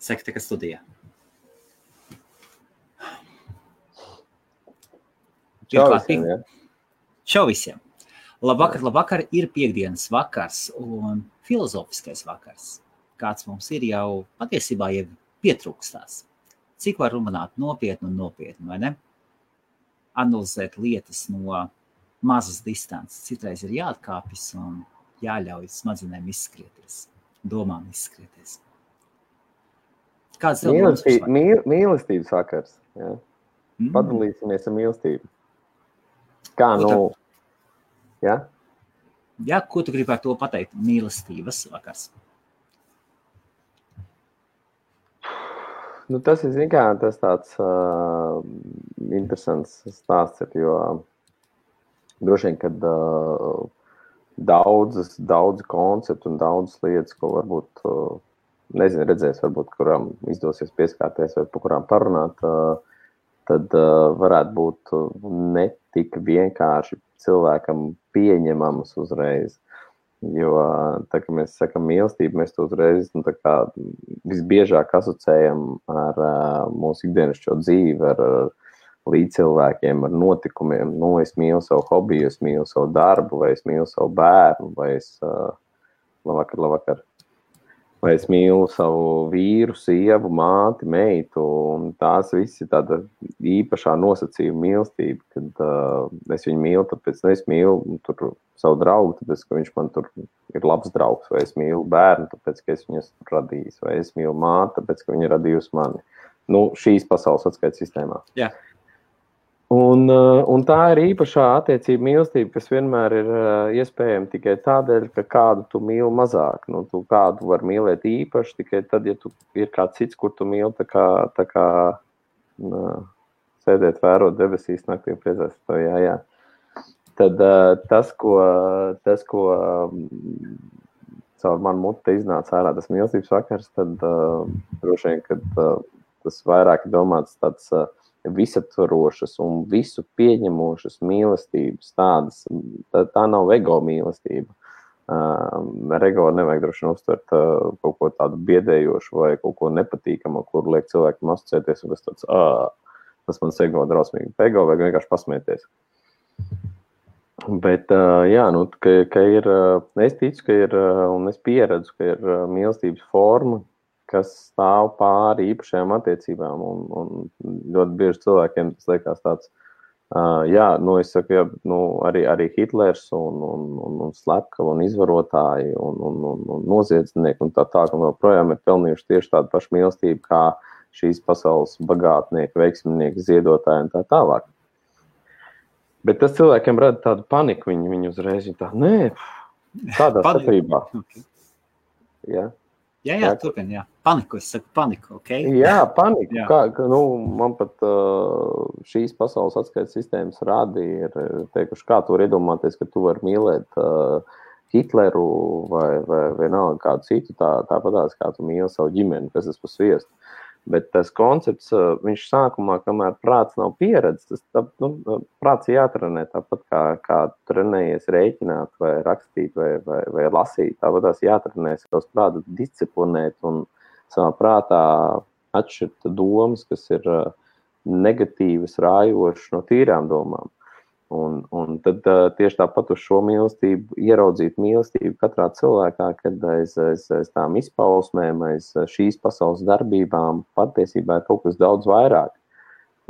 Sekta, ka studijā. Čau visiem, ja? Čau visiem. Labvakar, ir piekdienas vakars un filozofiskais vakars. Kāds mums ir jau patiesībā jau pietrūkstās. Cik var runāt nopietni, vai ne? Analizēt lietas no mazas distances. Citreiz ir jāatkāpjas un jāļauj smadzenēm izskrieties, domām izskrieties. Kāds tev mīlestības vakars, ja? Padalīsimies ar mīlestību. Kā ja? Jā, ko tu gribi ar to pateikt? Mīlestības vakars. Tas ir, tas tāds interesants stāsts, jo droši vien, kad daudz konceptu un daudzas lietas, ko varbūt, redzēs, varbūt, kurām izdosies pieskārties vai par kurām parunāt, tad varētu būt ne tik vienkārši cilvēkam pieņemamas uzreiz. Jo, tā kā mēs sakam mīlestību, mēs to uzreiz visbiežāk asociējam ar mūsu ikdienišķo dzīvi, ar līdzcilvēkiem, ar notikumiem. Es mīlu savu hobiju, es mīlu savu darbu, vai es mīlu savu bērnu, vai es labvakar. Vai es mīlu savu vīru, sievu, māti, meitu, un tās visi tāda īpašā nosacījuma mīlestība, kad es viņu mīlu, tāpēc es mīlu savu draugu, tāpēc, ka viņš man tur ir labs draugs, vai es mīlu bērnu, tāpēc, ka es viņu esmu radījis, vai es mīlu māti, tāpēc, ka viņa ir radījusi mani. Šīs pasaules atskaites sistēmā. Jā. Un tā ir īpašā attiecība mīlestība, kas vienmēr ir iespējama tikai tādēļ, ka kādu tu mīli mazāk. Tu kādu var mīlēt īpaši tikai tad, ja tu ir kāds cits, kur tu mīli tā kā sēdēt, vērot debesīs naktī un priecāties to, jā. Tad tas, ko caur manu muti iznāca ārā tas mīlestības vakars, tad droši vien, kad tas vairāk ir domāts tāds visaptvarošas un visu pieņemošas mīlestības tādas, tā nav ego mīlestība. Ar ego nevajag droši vien uztvert kaut ko tādu biedējošu vai kaut ko nepatīkamu, kur liek cilvēkiem asociēties, un tas mans ego drausmīgi. Ego vajag vienkārši pasmieties. Bet, ka ir, es ticu, ka ir, un es pieredzu, ka ir mīlestības forma, kas stāv pāri īpašajām attiecībām, un ļoti bieži cilvēkiem tas liekas tāds, es saku, arī Hitlers un slepkavi un izvarotāji un noziedznieki un tā un vēl projām ir pelnījuši tieši tādu pašu mīlestību kā šīs pasaules bagātnieki, veiksminieki, ziedotāji un tā tālāk. Bet tas cilvēkiem rada tādu paniku, viņi uzreiz tādā sakrībā. Okay. Jā. Jā, turpin, jā. Paniku, es saku paniku, ok? Jā, paniku. Jā. Man pat šīs pasaules atskaites sistēmas rādi ir teikuši, kā tu var iedomāties, ka tu vari mīlēt Hitleru vai vienalga kādu citu, tāpatās, kā tu mīli savu ģimeni, kas tas pa sviestu. Bet tas koncepts, viņš sākumā, kamēr prāts nav pieredzes, prāts jātrenē tāpat kā trenējies rēķināt vai rakstīt vai lasīt. Tāpatās jātrenē savus prātus disciplinēt un savā prātā atšķirt domas, kas ir negatīvas, rājošas no tīrām domām. Un tad tieši tāpat uz šo mīlestību, ieraudzīt mīlestību katrā cilvēkā, kad aiz tām izpausmēm, aiz šīs pasaules darbībām patiesībā ir kaut kas daudz vairāk.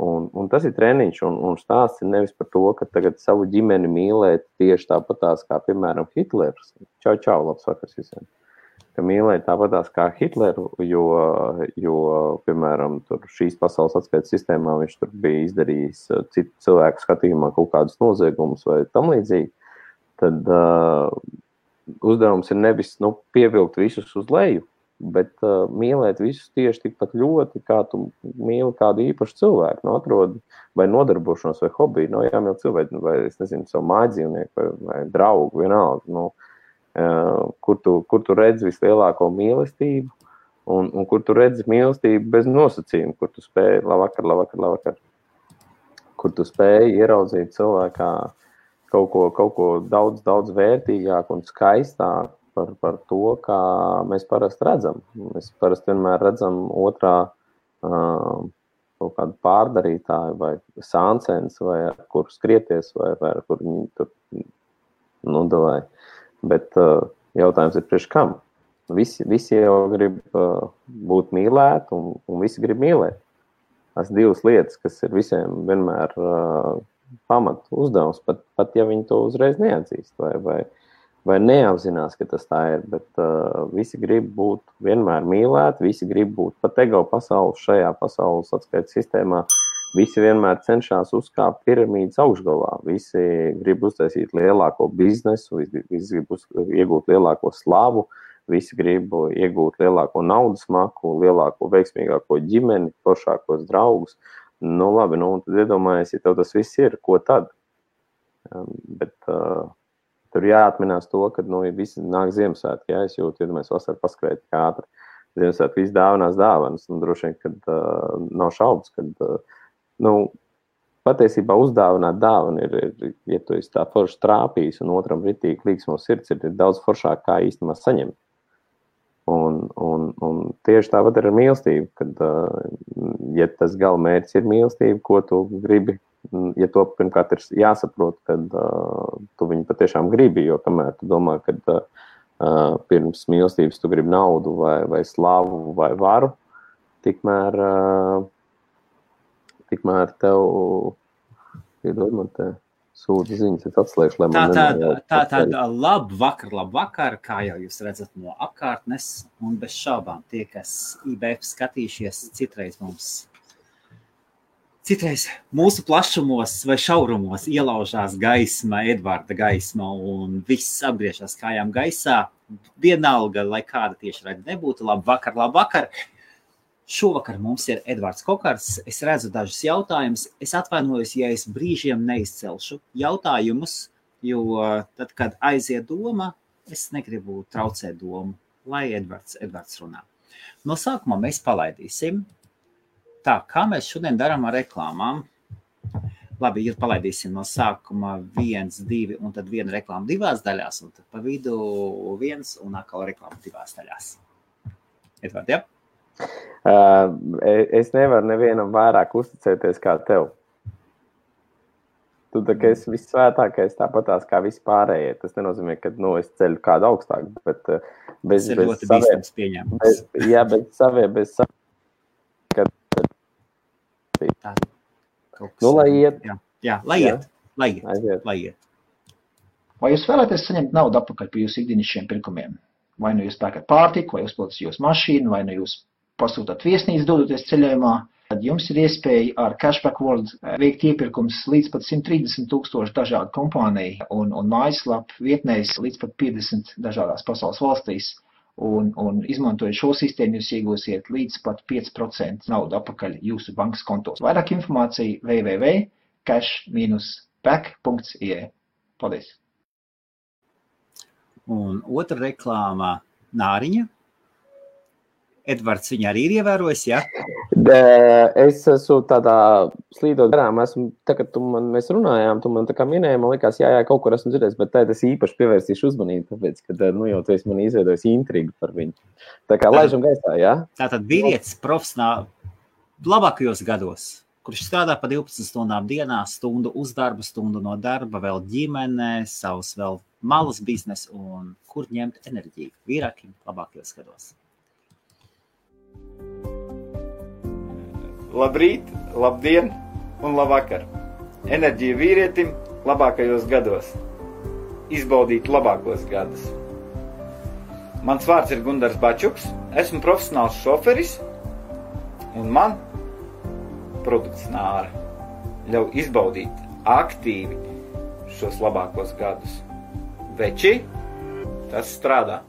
Un tas ir treniņš, un stāsts ir nevis par to, ka tagad savu ģimeni mīlēt tieši tāpatās kā, piemēram, Hitlers. Čau, labs vakars visiem. Ka mīlēt tāpatās kā Hitleru, jo piemēram, tur šīs pasaules atskaites sistēmā viņš tur bija izdarījis citu cilvēku skatījumā kaut kādus noziegumus vai tam līdzīgi, tad uzdevums ir nevis pievilkt visus uz leju, bet mīlēt visus tieši tikpat ļoti, kā tu mīli kādu īpašu cilvēku, atrodi vai nodarbošanos vai hobiju, jāmīl cilvēku, vai, es nezinu, savu mājdzīvnieku vai draugu, vienalga, kur tu redzi vislielāko mīlestību un kur tu redzi mīlestību bez nosacījuma, kur tu spēji labvakar, kur tu spēji ieraudzīt cilvēkā kaut ko daudz vērtīgāku un skaistāku, par to, kā mēs parasti redzam. Mēs parasti vienmēr redzam otrā kaut kādu pārdarītāju vai sāncens, vai ar kur skrieties, vai ar kur viņi tur nodavai. Bet jautājums ir priekš kam? Visi jau grib būt mīlēti, un visi grib mīlēt. Tas divas lietas, kas ir visiem vienmēr pamat uzdevums, pat ja viņi to uzreiz neatzīst vai neapzinās, ka tas tā ir, bet visi grib būt vienmēr mīlēti, visi grib būt pat ego pasaules šajā pasaules atskaites sistēmā, visi vienmēr cenšas uzkāpt piramīdas augšgalā, visi grib uztaisīt lielāko biznesu, visi grib iegūt lielāko slavu, visi grib iegūt lielāko naudas maku, lielāko veiksmīgāko ģimeni, foršākos draugus. Nu labi, tad iedomājies, ja tev tas viss ir, ko tad? Bet tur jāatminās to, ka visi nāk Ziemassvētki, ja es jūtu, ja mēs vasarā paskrēt kā ātri. Ziemassvētki visi dāvinās dāvanas, un droši vien, kad nav šaubas, kad patiesībā uzdāvināt dāvanu ir, ja tu esi tā forši trāpījis un otram ritīgi līgsmo sirds, ir daudz foršāk kā īstenībā saņemt. Un tieši tāpat ir ar mīlestību, kad, ja tas galamērķis ir mīlestība, ko tu gribi, ja to pirmkārt ir jāsaprot, kad tu viņu patiešām gribi, jo kamēr tu domā, kad pirms mīlestības tu gribi naudu vai slavu vai varu, tikmēr tev, iedod man te sūta ziņas, es atslēgšu, lai man Tātad labvakar, kā jau jūs redzat no apkārtnes, un bez šaubām tie, kas IBF skatījušies, citreiz mūsu plašumos vai šaurumos ielaužās gaisma, Edvarda gaisma, un viss apgriežās kājām gaisā, vienalga, lai kāda tieši redz nebūtu, labvakar. Šovakar mums ir Edvards Kokars. Es redzu dažus jautājumus. Es atvainojos, ja es brīžiem neizcelšu jautājumus, jo tad, kad aiziet doma, es negribu traucēt domu, lai Edvards runā. No sākumā mēs palaidīsim. Tā, kā mēs šodien darām ar reklāmām? Labi, ja palaidīsim no sākuma 1, 2 un tad viena reklāma 2 daļās, un tad pa vidu 1 un atkal reklāma 2 daļās. Edvard, ja? Es nevaru nevienam vairāk uzticēties kā tev. Tu tā kā esi vissvētākais, tāpatās kā visi pārējie. Tas nenozīmē, ka es ceļu kādu augstāk, bet bez lai iet. Jā, lai iet. Vai jūs vēlaties saņemt naudu atpakaļ par jūsu ikdienišķiem pirkumiem? Vai nu jūs pērkat pārtiku, vai uzpildat jūsu mašīnu, vai nu jūs pasūtat viesnīcu dodoties ceļojumā, tad jums ir iespēja ar Cashback World veikt iepirkums līdz pat 130,000 dažādu kompāniju un mājaslapu vietnēs līdz pat 50 dažādās pasaules valstīs. Un izmantojot šo sistēmu, jūs iegūsiet līdz pat 5% naudu atpakaļ jūsu bankas kontos. Vairāk informācija www.cash-back.ie. Paldies! Un otra reklāma Nāriņa. Edvards viņu arī ir ievērojis, ja? Es esmu tādā slīdot garām, tagad mēs runājām, tu man tā kā minēji, man likās, jā, kaut kur esmu dzirdējis, bet tad es īpaši pievērsīšu uzmanību, tāpēc, ka, jau tu esi man izveidojis intrigu par viņu. Tā kā laižam gaisā, jā? Tātad vīrietis profesionāli labākajos gados, kurš strādā pa 12 stundām dienā, stundu uz darba, stundu no darba, vēl ģimene, savus vēl malas biznes un kur ņemt enerģiju vīrākiem labākajos gados. Labrīt, labdien un labvakar. Enerģija vīrietim labākajos gados. Izbaudīt labākos gadus. Mans vārds ir Gundars Bačuks, esmu profesionāls šoferis un man produkts Nāra ļauj izbaudīt aktīvi šos labākos gadus. Veči, tas strādā.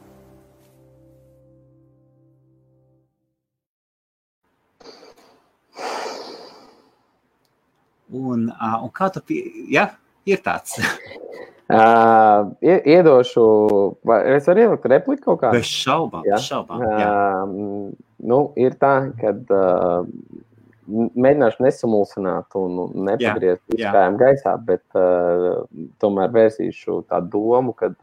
Un kā tu ir tāds? Iedošu, es varu ielikt repliku kaut kādu? Bez šaubām, jā. Ir tā, kad mēģināšu nesamulsināt un nepagriezt viskājām gaisā, bet tomēr vērsīšu tādu domu, kad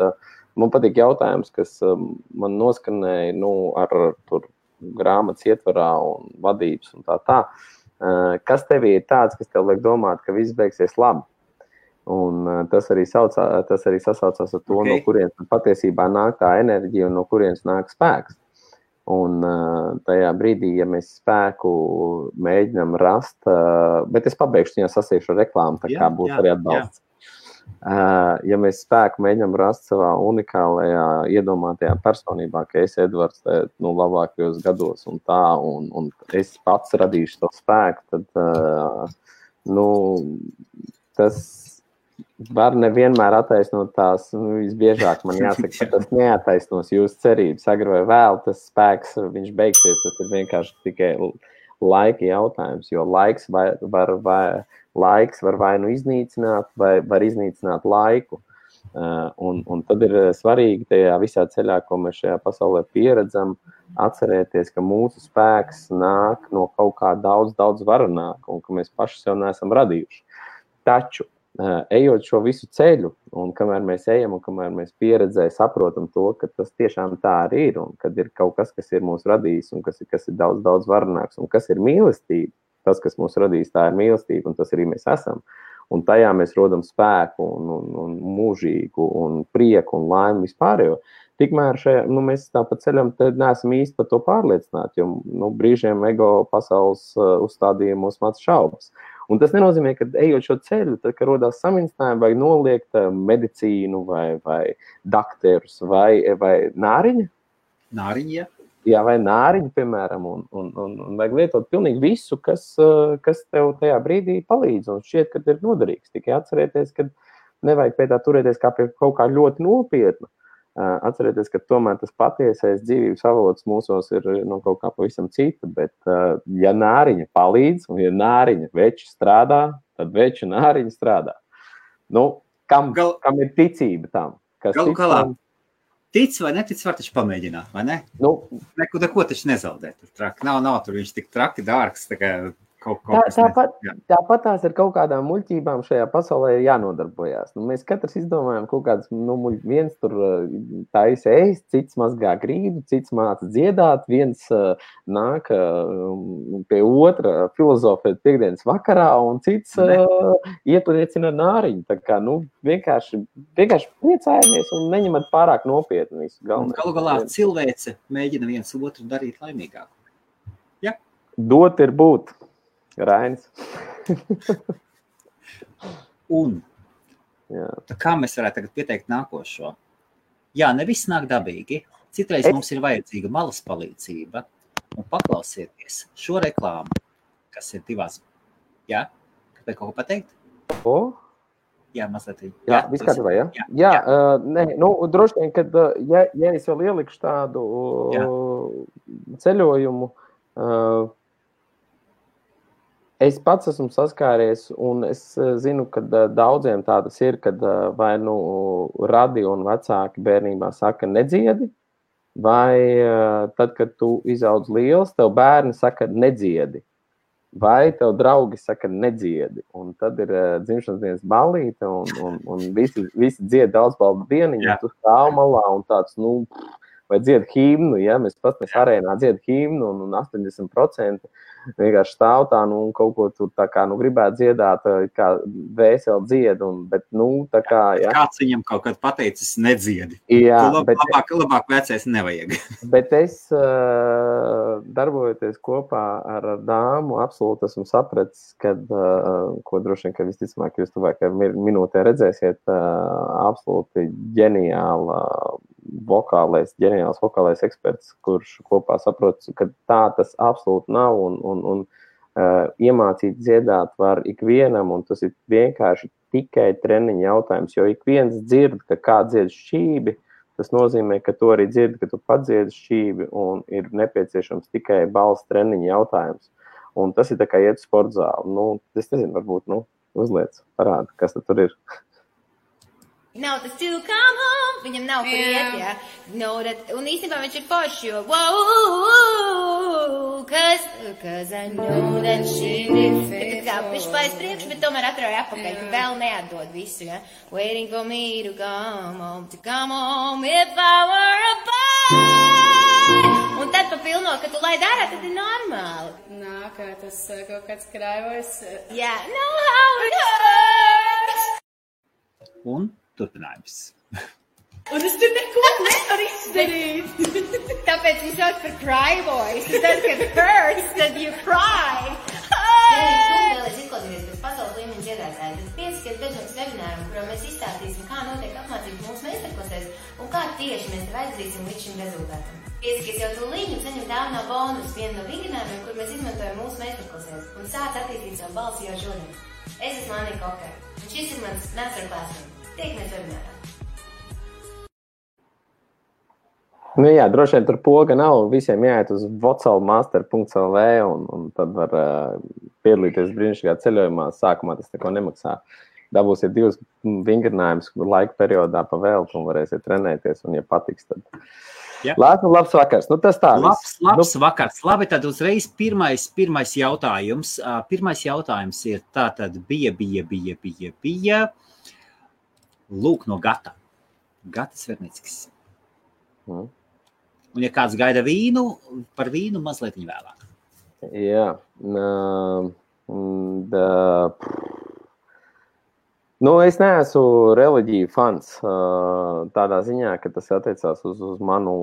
man patīk jautājums, kas man noskanēja, ar tur grāmatas ietvarā un vadības un tā. Kas tevī ir tāds, kas tev liek domāt, ka viss beigsies labi? Un tas arī sasaucās ar to, no kurienes patiesībā nāk tā enerģija un no kurienes nāk spēks. Un tajā brīdī, ja mēs spēku mēģinām rast, bet es pabeigšu, ja sasīšu reklāmu, tā kā būs arī atbalsts. Ja mēs spēku mēģinām rast savā unikālajā iedomātajā personībā, ka es Edvards labākajos gados un tā, un es pats radīšu to spēku, tad tas var nevienmēr attaisnot tās, visbiežāk man jāsaka, ka tas neattaisnos jūsu cerības. Agri vai vēl tas spēks, viņš beigsies, tas ir vienkārši tikai laika jautājums, jo laiks var vai nu iznīcināt, vai var iznīcināt laiku. Un tad ir svarīgi tajā visā ceļā, ko mēs šajā pasaulē pieredzam, atcerēties, ka mūsu spēks nāk no kaut kā daudz varenāk, un ka mēs paši sev neesam radījuši. Taču, ejot šo visu ceļu, un kamēr mēs ejam, un kamēr mēs pieredzē saprotam to, ka tas tiešām tā arī ir, un kad ir kaut kas ir mūs radījis, un kas ir daudz varenāks, un kas ir mīlestība, tas, kas mūs radījis, tā ir mīlestība, un tas arī mēs esam. Un tajā mēs rodam spēku, un mūžīgu, un prieku, un laimi vispārējo. Tikmēr mēs tāpat ceļam, tad neesam īsti par to pārliecināti, jo brīžiem ego pasaules uzstādījumos mats šaubas. Un tas nenozīmē, ka ejot šo ceļu, tad, kad rodās samincinājumi, vajag noliegt medicīnu vai dakterus vai nāriņa. Nāriņa, jā. Jā, vai nāriņu, piemēram, un vajag lietot pilnīgi visu, kas tev tajā brīdī palīdz, un šķiet, ka ir noderīgs. Tikai atcerēties, ka nevajag pie tā turēties kā pie kaut kā ļoti nopietna. Atcerēties, ka tomēr tas patiesais dzīvības avots mūsos ir kaut kā pavisam cita, bet ja nāriņa palīdz, un ja nāriņa veči strādā, tad veči nāriņa strādā. Kam ir ticība tam? Galu galā. Tic vai netic, var taču pamēģināt, vai ne? Neko taču nezaudēt. Nav tur viņš tik traki dārgs, tā kā kaut kas. Tāpat tās ar kaut kādām muļķībām šajā pasaulē ir jānodarbojās. Mēs katrs izdomājam kaut kādas muļķības. Viens tur taisa ēst, cits mazgā grīdu, cits māca dziedāt, viens nāk pie otra filozofēt piekdienas vakarā, un cits iepliecina nāriņu. Tā kā, vienkārši priecājamies un neņemat pārāk nopietni visu galvenais. Galu galā cilvēce mēģina viens otru darīt laimīgāku. Ja? Dot ir būt. Rainis. Un kā mēs varētu tagad pieteikt nākošo? Jā, ne viss nāk dabīgi. Citreiz mums ir vajadzīga malas palīdzība. Un paklausieties šo reklāmu, kas ir divās. Jā? Kāpēc kaut ko pateikt? Jā, mazliet. Jā, viss kārtībā, jā? Jā. Droši vien, kad, ja es vēl ielikšu tādu ceļojumu, es pats esmu saskāries, un es zinu, ka daudziem tādas ir, kad vai radio un vecāki bērnībā saka nedziedi, vai tad, kad tu izaudz liels, tev bērni saka nedziedi, vai tev draugi saka nedziedi. Un tad ir dzimšanas dienas ballīte, un visi dzied daudzbaldu dieniņu, tu stāv malā un tāds, vai dzied himnu, ja? Mēs arēnā dzied himnu, un 80% vienkārši stāv tā, un kaut ko tur tā kā, gribētu dziedāt, kā vēseli dzied, bet, tā kā, jā. Kāds viņam kaut kad pateicis nedziedi. Jā, labāk vecais nevajag. Bet es, darbojoties kopā ar dāmu, absolūti esmu sapratis, kad, ko droši vien, ka visticamāk jūs tuvākajā minūtē redzēsiet, absolūti ģeniāls vokālais eksperts, kurš kopā saprot, ka tā tas absolūti nav, un iemācīt dziedāt var ikvienam, un tas ir vienkārši tikai treniņa jautājums, jo ik viens dzird, ka kā dzied šķībi, tas nozīmē, ka tu arī dzird, ka tu padziedi šķībi, un ir nepieciešams tikai balss treniņa jautājums. Un tas ir tā kā iet sportzāli. Es nezinu, varbūt, uzliec, parāda, kas tur ir. Nav tas to come home, viņam nav kur iet, jā. Un īstenībā viņš ir forši, jo, wow, cause I know that she did fail. Tā kā viņš paies priekš, bet tomēr atrauja apakaļ, ka vēl neatdod visu, jā. Waiting for me to come home, if I were a boy. Un tad papilno, ka tu laid ārā, tad ir normāli. Nā, kā tas kaut kāds krājvojs. Jā, know how it hurts. Un turpinājums. Un es tur neko nevaru izdarīt. Tāpēc viņš sauc par cry voice. Tad, kad hurts, tad you cry. Ja tu vēlies izklausīties pēc pasaules līmeņa dziedātāja, tad piesakies dažādas webināram, kurā mēs izstāstīsim, kā notiek apmācības mūsu meistarklasēs un kā tieši mēs tev aizdarīsim līdz šim rezultātam. Piesakies jau tūlīt un saņem dāvinā bonus vienu no vingrinājumiem, kur mēs izmantojam mūsu meistarklasēs un sāc attīstīt savu balsi jau šodien. Es esmu Annika Okara un šis ir mans masterclass. Tiekamies webinārā. Nu jā, droši vien tur poga nav, visiem jāiet uz vocalmaster.lv un tad var piedalīties brīnišķīgā ceļojumā. Sākumā tas neko nemaksā. Dabūsiet 2 vingrinājumus laika periodā pa veltu un varēsiet trenēties, un ja patiks, tad... Ja. Labs vakars. Nu, tas tā. Labs vakars. Labi, tad uzreiz pirmais jautājums. Pirmais jautājums ir tātad bija. Lūk no Gata. Gata Svernickis. Un ja kāds gaida vīnu, par vīnu mazliet vēlāk. Jā. Nu, es neesmu reliģiju fans tādā ziņā, ka tas attiecās uz manu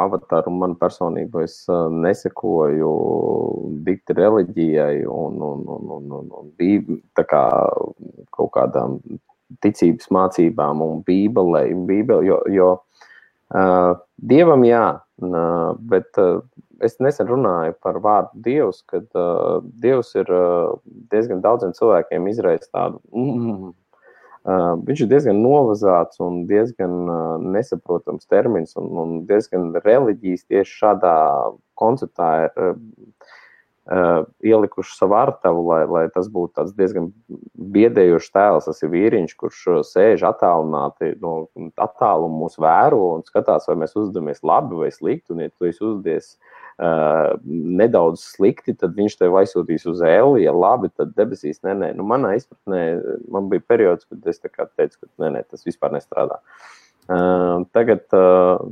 avataru un manu personību. Es nesekoju dikti reliģijai un tā kā kaut kādām ticības mācībām un bībelei, jo Dievam jā, bet es nesen runāju par vārdu Dievs, kad Dievs ir diezgan daudziem cilvēkiem izraisa tādu, viņš ir diezgan novazāts un diezgan nesaprotams termins un diezgan reliģijas tieši šādā konceptā ir ielikuši savu artavu, lai tas būtu tāds diezgan biedējošs tēls. Tas ir vīriņš, kurš sēž attālināti no attālumu mūs vēro un skatās, vai mēs uzvedamies labi vai slikti. Un ja tu esi uzvedies nedaudz slikti, tad viņš tev aizsūtīs uz elli, ja labi, tad debesīs nē. Nu, manā izpratnē, man bija periods, kad es tā kā teicu, ka nē, tas vispār nestrādā. Tagad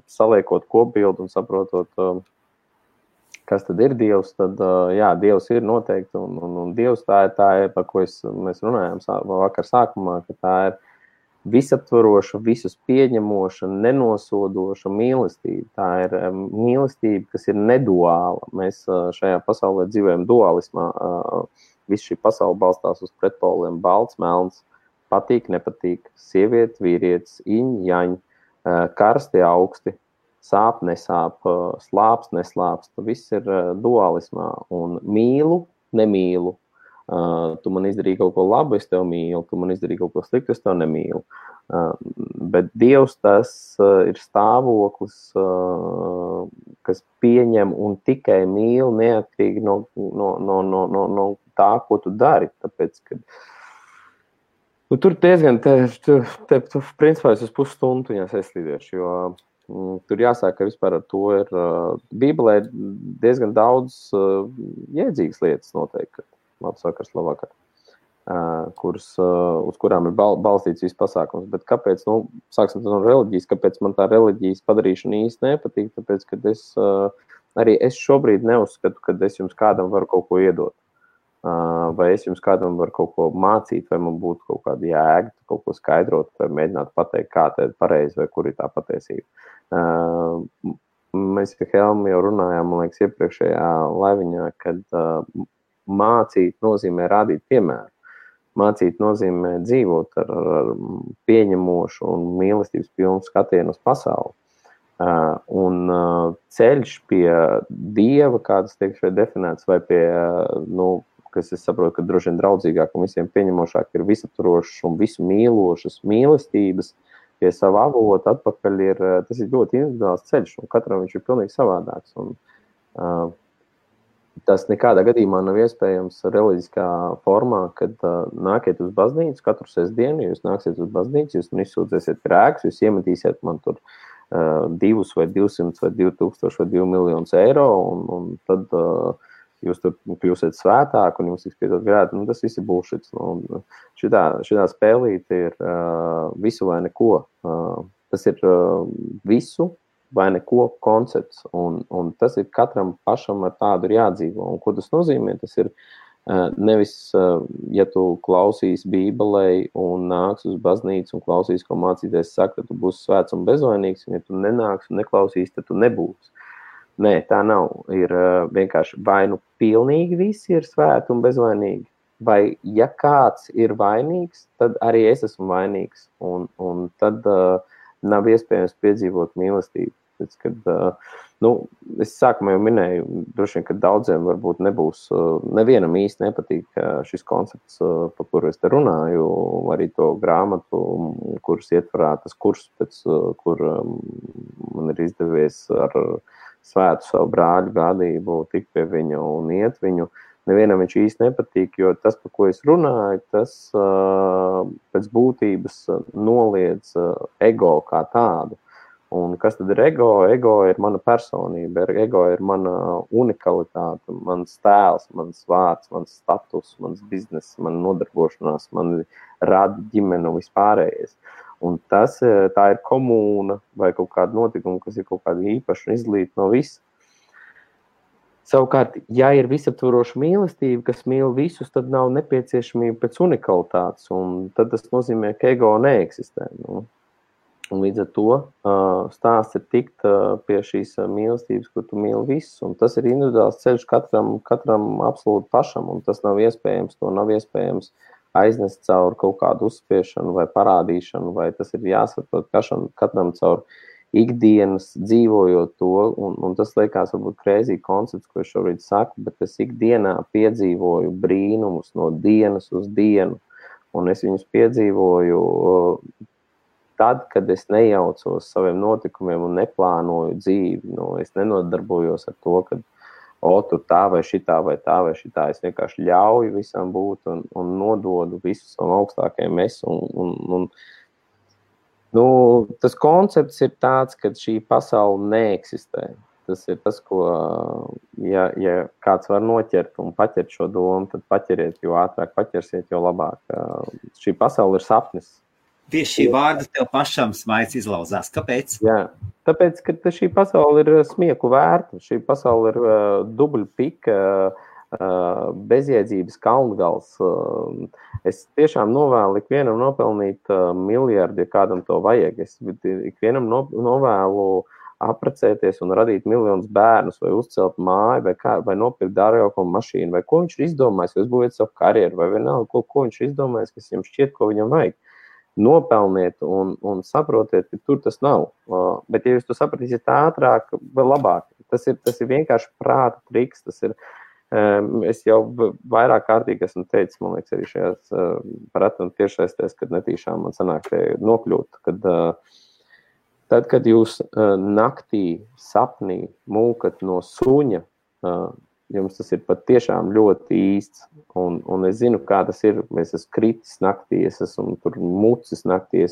saliekot kopbildu un saprotot, kas tad ir Dievs, tad jā, Dievs ir noteikti, un Dievs tā ir, par ko mēs runājām vakar sākumā, ka tā ir visaptvaroša, visus pieņemoša, nenosodoša mīlestība. Tā ir mīlestība, kas ir neduāla. Mēs šajā pasaulē dzīvojam dualismā. Viss šī pasaule balstās uz pretpoliem, balts, melns, patīk, nepatīk, sieviete, vīrietis, iņ, jaņ, karsti, augsti, sāp, nesāp, slāps, neslāps. Viss ir dualismā. Un mīlu, nemīlu. Tu man izdarīji kaut ko labu, es tev mīlu. Tu man izdarīji kaut ko sliktu, es tev nemīlu. Bet Dievs tas ir stāvoklis, kas pieņem un tikai mīl neatkarīgi no tā, ko tu dari. Tāpēc, ka tur diezgan, principā es uz pusstundu viņās aizslīdiešu, jo tur jāsāk, ka vispār ar to ir Bībelē diezgan daudz jēdzīgas lietas noteikti. Labs vakars, labvakar, uz kurām ir balstīts viss pasākums. Bet kāpēc, sāksim no reliģijas, kāpēc man tā reliģijas padarīšana īsti nepatīk? Tāpēc, ka arī es šobrīd neuzskatu, ka es jums kādam varu kaut ko iedot. Vai es jums kādam varu kaut ko mācīt, vai man būtu kaut kāda jēga, kaut ko skaidrot, vai mēģināt pateikt, kā tā ir pareizi, vai kur ir tā patiesība. Mēs ar Helmu jau runājām, man liekas, iepriekšējā laiviņā, kad mācīt nozīmē rādīt piemēru. Mācīt nozīmē dzīvot ar pieņemošu un mīlestības pilnu skatienu uz pasauli. Un ceļš pie Dieva, kādas tiek šeit definēts, vai pie, kas es saprotu, ka droši vien draudzīgāk un visiem pieņemošāk ir visaptvarošas un visu mīlošas mīlestības, pie sava avota atpakaļ tas ir ļoti individuāls ceļš, un katram viņš ir pilnīgi savādāks. Un, Tas nekādā gadījumā nav iespējams reliģiskā formā, kad nākiet uz baznīcu katru sestdienu, jūs nāksiet uz baznīcu, jūs izsūdzēsiet grēkus, jūs iemetīsiet man tur 2 vai 200 vai 2000 vai 2 miljonus eiro, un tad jūs tur kļūsiet svētāk un jums tiks piedot grēki. Nu, tas viss ir bullshits. Nu, šitā spēlīte ir visu vai neko. Tas ir visu vai neko koncepts, un tas ir katram pašam ar tādu ir jādzīvo. Un ko tas nozīmē? Tas ir nevis, ja tu klausīs Bībelei un nāks uz baznīcu un klausīs, ko mācīties saka, tad tu būsi svēts un bezvainīgs, un ja tu nenāks un neklausīs, tad tu nebūsi. Nē, tā nav. Ir vienkārši vai nu pilnīgi visi ir svēti un bezvainīgi, vai ja kāds ir vainīgs, tad arī es esmu vainīgs, un tad nav iespējams piedzīvot mīlestību. Tāpēc, kad, es sākumā jau minēju, droši vien, ka daudziem varbūt nebūs, nevienam īsti nepatīk šis koncepts, par kuru es te runāju, arī to grāmatu, kuras ietvarā tas kurs, pēc kur man ir izdevies ar svētu savu brāļu gādību tikt pie viņu un iet viņu. Nevienam viņš īsti nepatīk, jo tas, par ko es runāju, tas pēc būtības noliedz ego kā tādu. Un kas tad ir ego? Ego ir mana personība, ego ir mana unikalitāte, mans tēls, mans vārds, mans status, mans bizness, mana nodarbošanās, man rada ģimene un vispārējais. Un tā ir komūna vai kaut kāda notikuma, kas ir kaut kāda īpaša un izlīta no visa. Savukārt, ja ir visaptvaroša mīlestība, kas mīl visus, tad nav nepieciešamība pēc unikalitātes, un tad tas nozīmē, ka ego neeksistē. Nu. Un līdz ar to stāsts ir tikt pie šīs mīlestības, kur tu mīli visus, un tas ir individuāls ceļš katram absolūti pašam, un tas nav iespējams, to nav iespējams aiznest caur kaut kādu uzspiešanu vai parādīšanu, vai tas ir jāsaprot katram caur ikdienas dzīvojot to, un tas liekas varbūt crazy koncepts, ko es šobrīd saku, bet es ikdienā piedzīvoju brīnumus no dienas uz dienu, un es viņus piedzīvoju tad, kad es nejaucos saviem notikumiem un neplānoju dzīvi. Es nenodarbojos ar to, ka tur tā vai šitā vai tā vai šitā. Es vienkārši ļauju visam būt un nododu visu savam augstākajam es tas koncepts ir tāds, ka šī pasaule neeksistē. Tas ir tas, ko, ja kāds var noķert un paķert šo domu, tad paķeriet, jo ātrāk paķersiet, jo labāk. Šī pasaule ir sapnis. Tieši šī vārda tev pašam smaids izlauzās. Kāpēc? Jā, tāpēc, ka šī pasaule ir smieku vērta. Šī pasaule ir dubļpika, bezjēdzības kalngals. Es tiešām novēlu ikvienam nopelnīt miljardu, ja kādam to vajag. Es ikvienam novēlu apprecēties un radīt miljonus bērnus, vai uzcelt māju, vai nopirkt dārgāko mašīnu, vai ko viņš ir izdomājis, vai uzbūvēt savu karjeru, vai vienalga, ko viņš ir izdomājis, kas viņam šķiet, ko viņam vajag. Nopelniet un saprotiet, ka tur tas nav. Bet, ja jūs to sapratīsiet ātrāk, vēl labāk. Tas ir vienkārši prāta triks, tas ir. Es jau vairāk kārtīgi esmu teicis, man liekas, arī šajās paratu un tiešsaistēs, kad netīšām man sanāk te nokļūt, tad, kad jūs naktī sapnī mūkat no suņa, jums tas ir pat tiešām ļoti īsts, un es zinu, kā tas ir, es esmu kritis naktī, es esmu tur mucis naktī,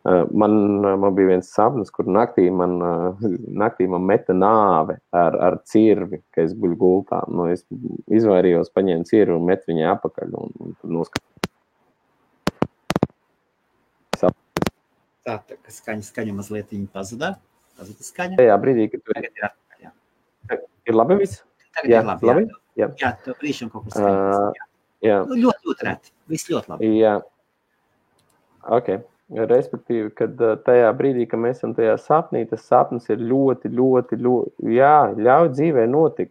man bija viens sapnis, kur naktī man meta nāve ar cirvi, ka es guļu gultā. Es izvairījos, paņēmu cirvi un metu viņai apakaļ. Un noskatījos. Tā ka skaņa mazliet viņa pazudā. Pazuda skaņa. Tajā brīdī, kad tu... Tagad ir atpakaļ, jā. Ir labi viss? Tagad ir labi, jā. Jā, tev brīšam kaut kur skaņas. Jā. Ļoti reti. Viss ļoti labi. Jā. Ok. Respektīvi, kad tajā brīdī, kad mēs esam tajā sapnī, tas sapnis ir ļoti, ļauj dzīvē notikt.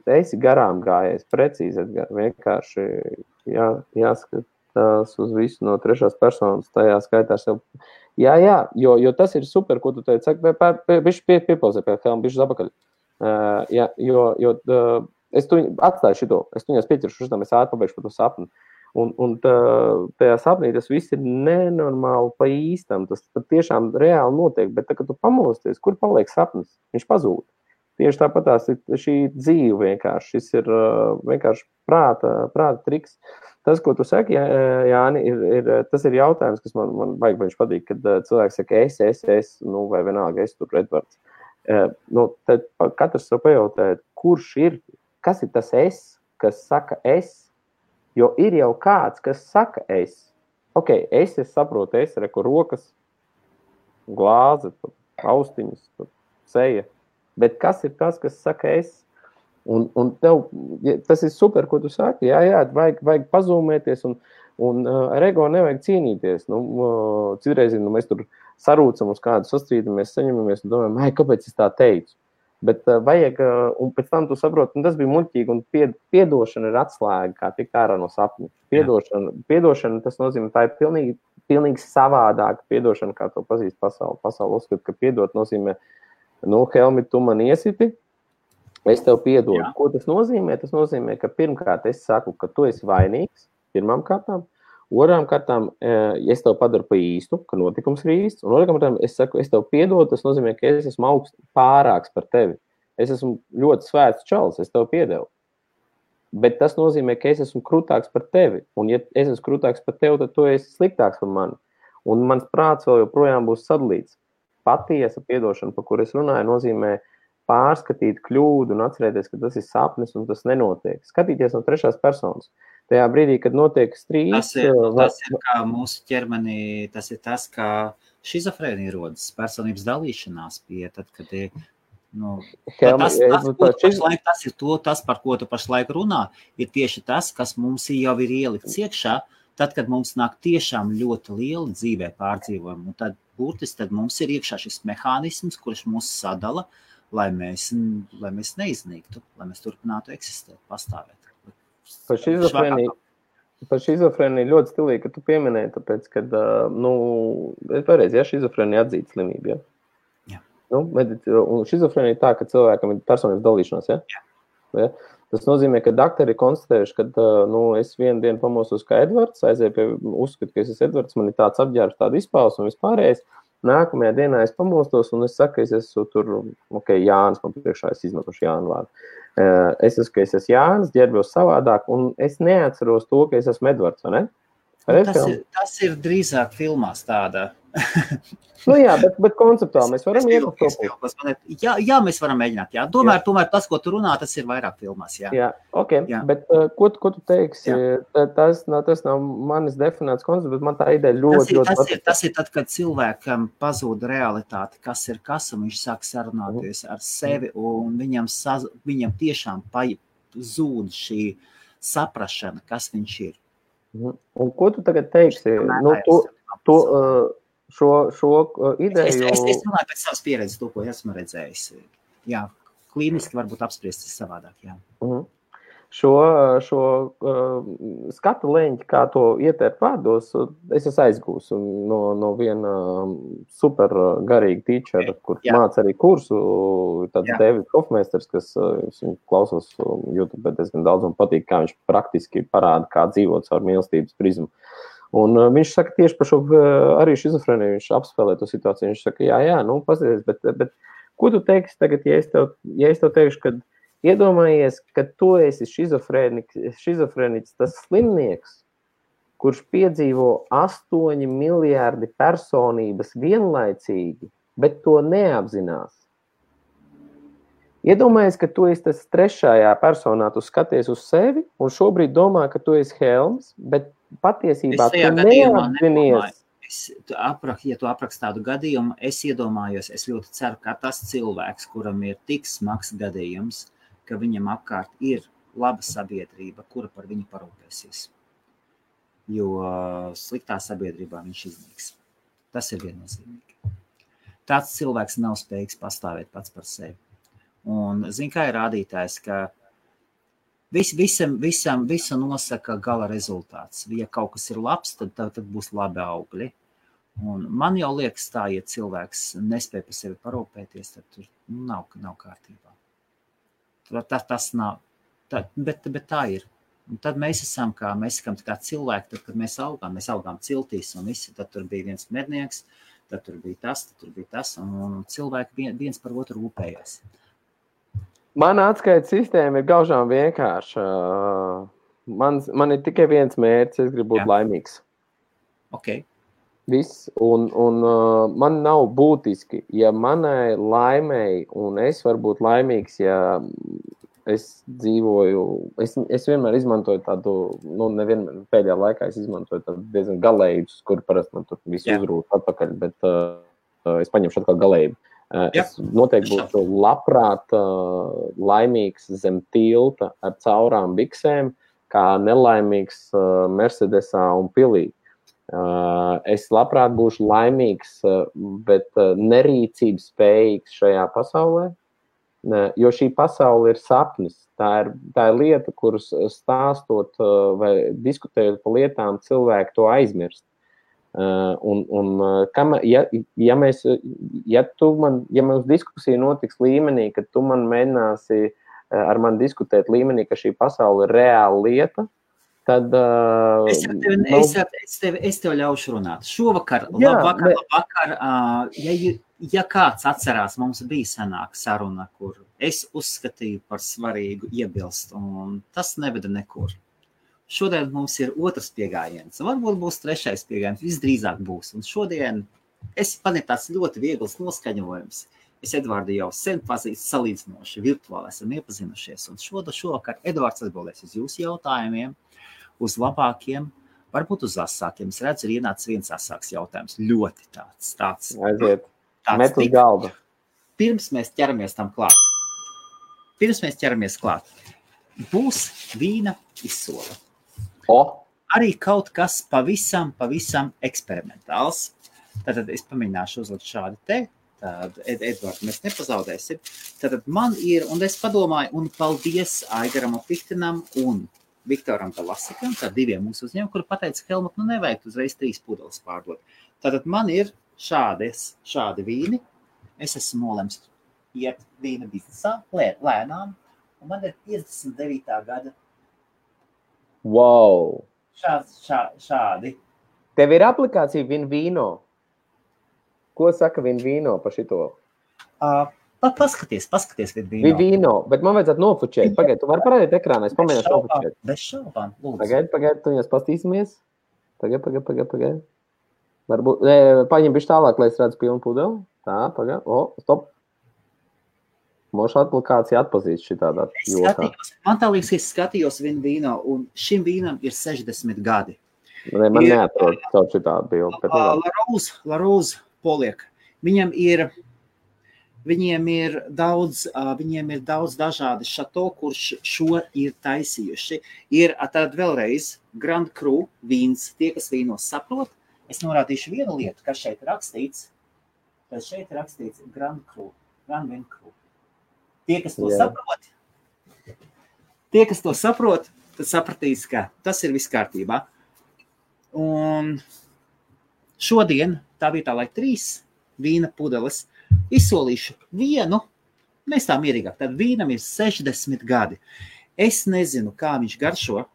Esi garām gājies, precīzi, vienkārši jāskatās uz visu no trešās personas, tajā skaitā sev. Jā, jo tas ir super, ko tu teici, bišķi piepauzē pie helma, bišķi zapakaļ. Jo es tu atstāju šito, es tuņās pieķeršu šitam, es ātri pabeigšu par to sapni. Un tajā sapnī tas viss ir nenormāli pa īstam, tas tiešām reāli notiek, bet tā, kad tu pamosties, kur paliek sapnis? Viņš pazūd. tieši tāpatās šī dzīve vienkārši. Šis ir vienkārši prāta triks. Tas, ko tu saki, Jāni, tas ir jautājums, kas man baigi patīk, kad cilvēks saka es, nu, vai vienalga es tur Edvards. Nu, tad katrs sev pajautāt, kas ir tas es, kas saka es, jo ir jau kāds, kas saka es. Ok, es saprotu, reku rokas, glāze, austiņas, seja. Bet kas ir tas, kas saka es? Un tev, tas ir super, ko tu saki. Jā, vajag pazūmēties un ar ego nevajag cīnīties. Nu, citreiz, mēs tur sarūcam uz kādu sastrīdamies, saņemamies un domājam, kāpēc es tā teicu? Bet vajag, un pēc tam tu saproti, un tas bija muļķīgi, un piedošana ir atslēga, kā tikt ārā no sapņa. Piedošana, tas nozīmē, tā ir pilnīgi savādāka piedošana, kā to pazīst pasauli. Pasauli uzskat, ka piedot nozīmē, Helmi, tu man iesiti, es tev piedodu. Jā. Ko tas nozīmē? Tas nozīmē, ka pirmkārt es saku, ka tu esi vainīgs, pirmām kārtām. Otrām kārtām, es tev padaru pa īstu, ka notikums ir īsts. Un otrām kārtām, es saku, es tev piedodu, tas nozīmē, ka es esmu pārāks par tevi. Es esmu ļoti svēts čalis, es tev piedevu. Bet tas nozīmē, ka es esmu krūtāks par tevi. Un ja es esmu krūtāks par tevi, tad tu esi sliktāks par mani. Un mans prāts vēl joprojām būs sadalīts. Patiesa piedošana, par kur es runāju, nozīmē pārskatīt kļūdu un atcerēties, ka tas ir sapnis un tas nenotiek. Skatīties no trešās personas. Tajā brīdī, kad notiek strīds... Tas ir kā mūsu ķermenī, tas ir tas, kā šizofrēnija rodas, personības dalīšanās pie, tad, kad ir, tas, par ko tu pašlaik runā, ir tieši tas, kas mums jau ir ielikts iekšā, tad, kad mums nāk tiešām ļoti liela dzīvē pārdzīvojumi, un tad burtiski tad mums ir iekšā šis mehānisms, kurš mūs sadala, lai mēs neiznīktu, lai mēs turpinātu eksistēt, pastāvēt. Par šizofrēniju ļoti stilīgi, ka tu pieminēji, tāpēc, kad, pareizi, šizofrēnija atzīta slimība, Jā. Un šizofrēnija ir tā, ka cilvēkam ir personības dalīšanās, ja? Tas nozīmē, ka doktori ir konstatējuši, ka, es vienu dienu pamostos kā Edvards, uzskatu, ka es esmu Edvards, man ir tāds apģērbs, tāda izpausme un vispārējais. Nākamajā dienā es pamostos un es saku, ka es esmu tur, Jānis, man priekšā es izmetuši Jānu vārdu. Es esmu Jānis, ģērbjos savādāk, un es neatceros to, ka es esmu Edvards, vai ne? Tas ir drīzāk filmās tāda. Bet konceptuāli mēs varam iet uz to. Jā, mēs varam mēģināt, jā. Tomēr tas, ko tu runā, tas ir vairāk filmās, jā. Jā, jā. Bet ko tu teiksi? Tas nav manis definēts koncepts, bet man tā ideja ļoti... Tas ir tad, kad cilvēkam pazūd realitāte, kas ir kas, un viņš sāk sarunāties ar sevi, un viņam tiešām zūd šī saprašana, kas viņš ir. Un ko tu tagad teiksi? Šo ideju... Es runāju pēc savas pieredzes, to, ko esmu redzējis. Jā, klīniski varbūt apspriestis savādāk, jā. Šo skatu leņķi, kā to ietērt vārdos, es esmu aizgūs no viena super garīga teachera, kur māca arī kursu, tāds Davids Hofmeisters, kas klausos YouTube diezgan daudz un patīk, kā viņš praktiski parāda, kā dzīvot caur mīlestības prizmu. Un viņš saka tieši par šo arī šizofrēniju, viņš apspēlē to situāciju, viņš saka, jā, paskaties, bet ko tu teiksi tagad, ja es tev teikšu, kad iedomājies, ka tu esi šizofrēniķis, tas slimnieks, kurš piedzīvo 8 miljārdi personības vienlaicīgi, bet to neapzinās. Iedomājies, ka tu esi tas trešajā personā, tu skaties uz sevi un šobrīd domā, ka tu esi Helms, bet patiesībā tu neapzinies. Ja tu aprakst tādu gadījumu, es iedomājos, es ļoti ceru, ka tas cilvēks, kuram ir tik smags gadījums, ka viņam apkārt ir laba sabiedrība, kura par viņu parūpēsies. Jo sliktā sabiedrībā viņš iznīks. Tas ir viennozīmīgi. Tāds cilvēks nav spējīgs pastāvēt pats par sevi. Un, kā ir rādītājs, ka visu nosaka gala rezultāts. Ja kaut kas ir labs, tad būs labi augļi. Un man jau liekas tā, ja cilvēks nespēj par sevi parūpēties, tad tur nav kārtībā. Tas nav, bet tā ir. Un tad mēs esam kā cilvēki, tad, kad mēs augām ciltīs un visi, tad tur bija viens mednieks, tad tur bija tas, un cilvēki viens par otru rūpējās. Mana atskaites sistēma ir gaužām vienkārša. Man ir tikai viens mērķis, es gribu būt laimīgs. Ok. Viss, un man nav būtiski, ja manai laimei, un es varu būt laimīgs, ja es dzīvoju, es vienmēr izmantoju tādu, nevienmēr pēdējā laikā es izmantoju tādu diezgan galējus, kur parasti man tur visu uzrūt atpakaļ, bet es paņemšu atkal galēju. Es noteikti būtu labprāt laimīgs zem tilta ar caurām biksēm, kā nelaimīgs Mercedesā un pilī. Es labprāt būšu laimīgs, bet nerīcības spējīgs šajā pasaulē, jo šī pasaule ir sapnis. Tā ir lieta, kuras stāstot vai diskutējot par lietām, cilvēki to aizmirst. Ja mums diskusija notiks līmenī, ka tu man mēģināsi ar mani diskutēt līmenī, ka šī pasaule ir reāla lieta, tad... Es tev ļaušu runāt. Šovakar, labvakar, ja kāds atcerās, mums bija senāka saruna, kur es uzskatīju par svarīgu iebilst, un tas neveda nekur. Šodien mums ir otrs piegājiens, varbūt būs trešais piegājiens, visdrīzāk būs. Un šodien man ir tāds ļoti viegls noskaņojums. Es Edvardu jau sen pazīstu salīdzinoši virtuāli, esam iepazinušies, un šovakar Edvards atbildēs uz jūsu jautājumiem, uz labākiem, varbūt uz asākiem. Es redzu, ir ienācis viens asāks jautājums. Ļoti tāds. Aiziet. Met uz galdu. Pirms mēs ķeramies klāt. Būs vīna izsole. Arī kaut kas pavisam eksperimentāls. Tātad es pamēģināšu uzlikt šādi te. Tad, Edvards, mēs nepazaudēsim. Tātad man ir, un es padomāju, un paldies Aigaram Opiktinam un Viktoram Talasikam, tā diviem mūsu uzņēmumiem, kuri pateica, Helmut, nevajag uzreiz 3 pudeles pārdot. Tātad man ir šādi vīni. Es esmu nolemts iet vīna biznesā, lēnām, un man ir 59. gada. Wow! Šādi. Tev ir aplikācija Vinvino. Ko saka Vinvino par šito? Paskaties Vinvino. Vinvino, bet man vajadzētu nofučēt. Pagaid, tu vari parādīt ekrānā, es pamēģināšu nofučēt. Bez šaubām, lūdzu. Pagaid, tu viņas pastīsimies. Pagaid. Varbūt, paņem bišķi tālāk, lai es redzu pilnu pudeli. Tā, pagaid. Stop. Mošu aplikācija atpazīst šitādā jokā. Man tā liekas, es skatījos Vinvino, un šim vīnam ir 60 gadi. Man neatrod caur šitādu bildi. La Rose poliek. Viņiem ir daudz dažādi šato, kurš šo ir taisījuši. Ir tad vēlreiz Grand Cru vīns. Tie, kas vīnos saprot, es norādīšu vienu lietu, kas šeit rakstīts. Tad šeit rakstīts Grand Vin Cru. Tie, kas to saprot, tad sapratīs, ka tas ir viss kārtībā. Un šodien tā vietā, lai 3 vīna pudeles, izsolīšu vienu, mēs tā mierīgāk. Tad vīnam ir 60 gadi. Es nezinu, kā viņš garšo.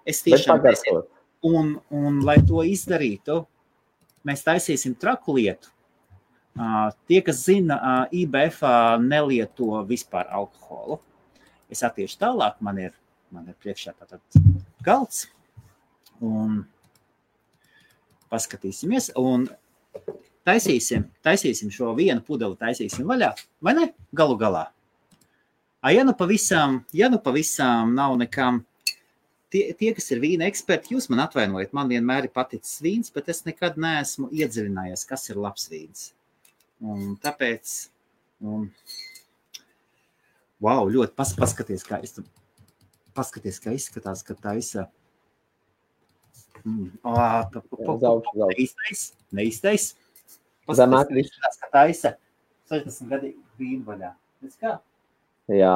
Es tiešām nezinu. Un lai to izdarītu, mēs taisīsim traku lietu. Tie, kas zina, IBF nelieto vispār alkoholu. Es attiešu tālāk, man ir priekšā tātad galds. Un paskatīsimies. Un taisīsim šo vienu pudeli, taisīsim vaļā. Vai ne? Galu galā. Ja nu pavisam nav nekam, tie, kas ir vīna eksperti, jūs man atvainojat, man vienmēr ir paticis vīns, bet es nekad neesmu iedziļinājies, kas ir labs vīns. Un tāpēc, wow, ļoti paskaties, kā izskatās, ka taisa. Neiztais. Paskaties, ka taisa 60 gadīgi vīnu vaļā. Redz kā? Jā.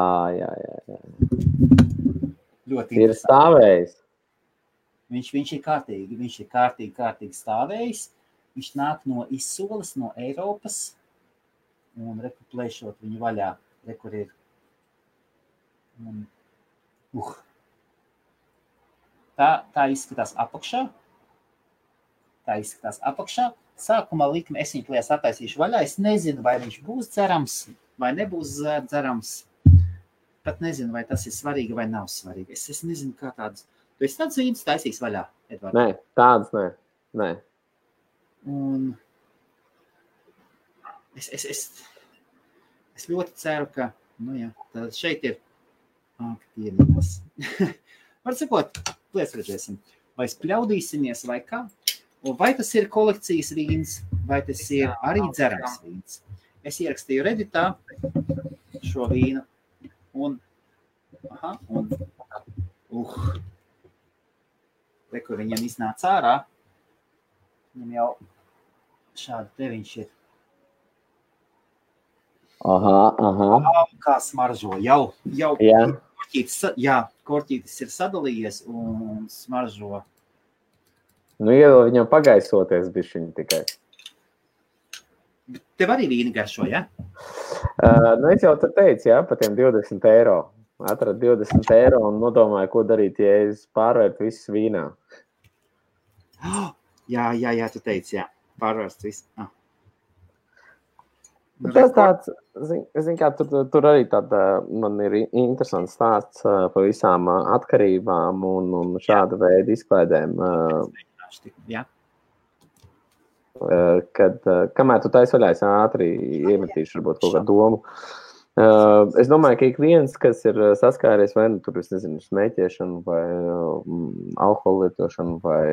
Ļoti ir stāvējis. Viņš ir kārtīgi stāvējis. Viņš nāk no izsoles, no Eiropas, un plēšot viņu vaļā, kur ir. Tā izskatās apakšā. Sākumā likme es viņu plēs attaisīšu vaļā. Es nezinu, vai viņš būs cerams. vai nebūs dzerams. Pat nezinu, vai tas ir svarīgi vai nav svarīgi. Es nezinu, kā tāds. Tu esi tāds vīns taisīgs vaļā, Edvards? Nē, tāds nē. Un es ļoti ceru, ka, tad šeit ir aktīvības. Var sakot, redzēsim, vai spļaudīsimies vai kā, un vai tas ir kolekcijas vīns, vai tas ir arī dzerams vīns. Es ierakstīju Redditā šo vīnu, un kur viņam iznāca ārā, viņam jau šādi te viņš ir. Kā smaržo, jau korķītis ir sadalījies un smaržo. Iedod viņam pagaisoties bišķiņi tikai. Tev arī vīni garšo, ja? Es jau te teicu, par tiem 20 €. Atradu 20 € un nodomāju, ko darīt, ja es pārvērtu visus vīnā. Jā, tu teici, pārvērst visu. Tas tāds, zin kā, tur arī tāda, man ir interesants stāsts par visām atkarībām un šāda veida izklaidēm. Jā. Kad, kamēr tu taisi vaļā, es ātri iemetīšu varbūt kaut kādu domu. Es domāju, ka ik viens, kas ir saskāries vai tur, es nezinu, smēķēšanu vai alkohola lietošanu vai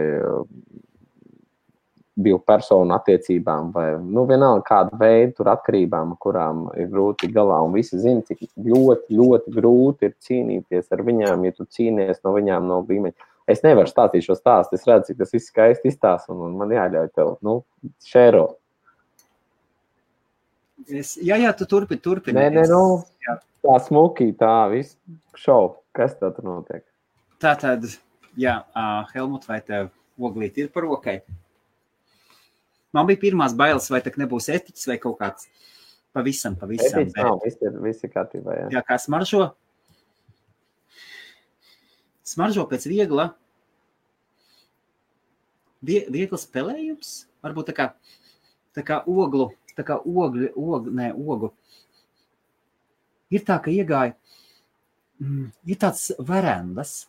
divu personu attiecībām vai, vienalga kādu veidu tur atkarībām, kurām ir grūti galā un visi zina, cik ļoti, ļoti grūti ir cīnīties ar viņām, ja tu cīnies no viņām no līmeņa. Es nevaru stāstīt šo stāstu, es redzu, cik tas viss skaisti izstāsta un man jāļauj tev, šēro. Jā, tu turpini. Nē, tā smuki, tā viss šau, kas tā tur notiek? Tātad, Helmut, vai tev oglīt ir par rokai? Man bija pirmās bailes, vai tak nebūs etiķis vai kaut kāds pavisam. Etiķis nav, viss ir kārtībā, jā. Jā, kā smaržo? Smaržo pēc viegla spēlējums? Varbūt tā kā oglu. Ir tā, ka iegāja, ir tāds verandas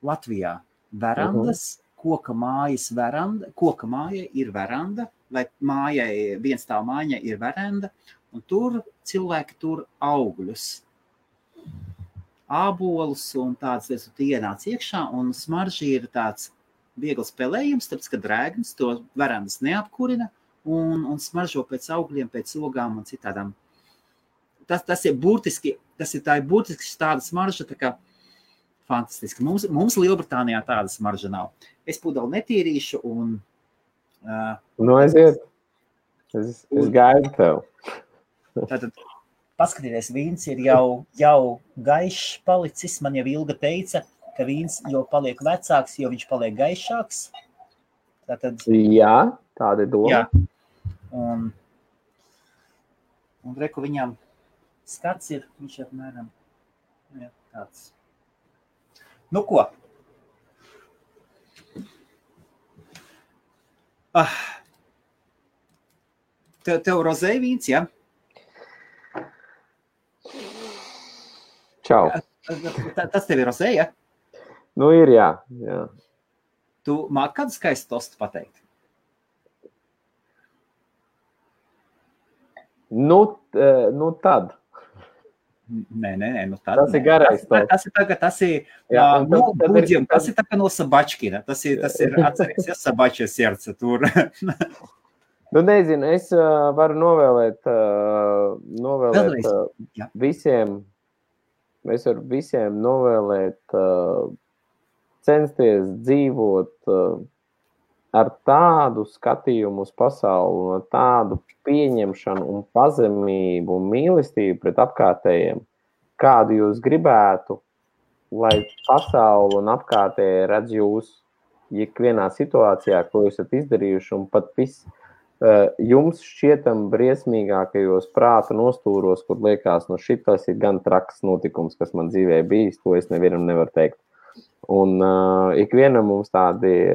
Latvijā. Verandas, koka māja ir veranda, vai viens tā māja ir veranda, un tur cilvēki tur augļus, ābolus un tāds, tu ienāc iekšā, un smaržī ir tāds viegls spēlējums, tāpēc, ka drēgnis to verandas neapkurina, un smaržo pēc augļiem, pēc ogām un citādām. Tas ir burtiski tāda smarža, tā kā fantastiski. Mums Lielbritānijā tāda smarža nav. Es pudeli netīrīšu un... aiziet. Es gaidu tev. Tātad, paskatieties, vīns ir jau gaišs palicis. Man jau Ilga teica, ka vīns jau paliek vecāks, jo viņš paliek gaišāks. Tātad... Jā, tāda ir doma. Jā. Un reku viņam skats ir, viņš apmēram tāds. Ko? Tev rozē vīns, ja? Čau. Tas tev ir rozē, ja? Ir, jā. Tu māki kādu skaistu tostu pateikt? Tad. Nē, tad. Tas ir garais tosts. Tas ir budžiem, tas ir tā kā no Sabačkina. Tas ir atceries, ja Sabača serce tur. Nezinu, es varu novēlēt visiem, es varu visiem novēlēt censties dzīvot ar tādu skatījumu uz pasauli, ar tādu pieņemšanu un pazemību un mīlestību pret apkārtējiem, kādu jūs gribētu, lai pasauli un apkārtēji redz jūs ikvienā situācijā, ko jūs esat izdarījuši, un pat jums šķietam briesmīgākajos prāta nostūros, kur liekas, šitas ir gan traks notikums, kas man dzīvē bijis, to es nevienam nevaru teikt. Un ikvienam mums tādi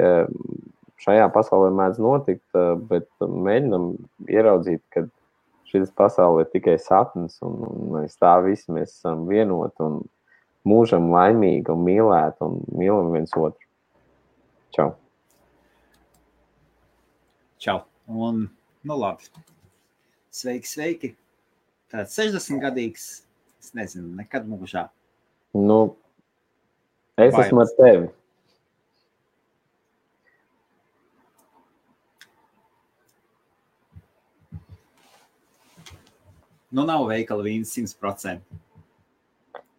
šajā pasaulē mēdz notikt, bet mēģinam ieraudzīt, ka šis pasaule ir tikai sapnis, un mēs tā visi mēs esam vienoti un mūžam laimīgi un mīlēti un mīlam viens otru. Čau. Čau. Un, nu labi. Sveiki. Tāds 60-gadīgs, es nezinu, nekad mūžā. Nu, es esmu ar tevi. Nu, nav veikala vīns 100%.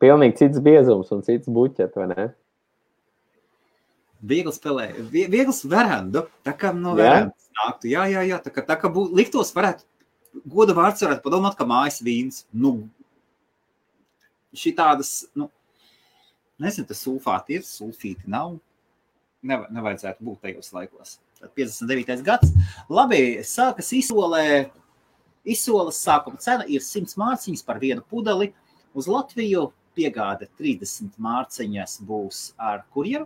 Pilnīgi cits biezums un cits buķet, vai ne? Viegls verandu, tā kā no verandas nāktu. Jā, tā kā liktos varētu, goda vārds varētu padomāt, ka mājas vīns. Nu, šitādas, nezinu, tas sulfāti ir, sulfīti nav. Nevajadzētu būt tajos laikos. 59. gads. Labi, sākas izsoles sākuma cena ir 100 mārciņas par vienu pudeli. Uz Latviju piegāde 30 mārciņas būs ar kurjeru.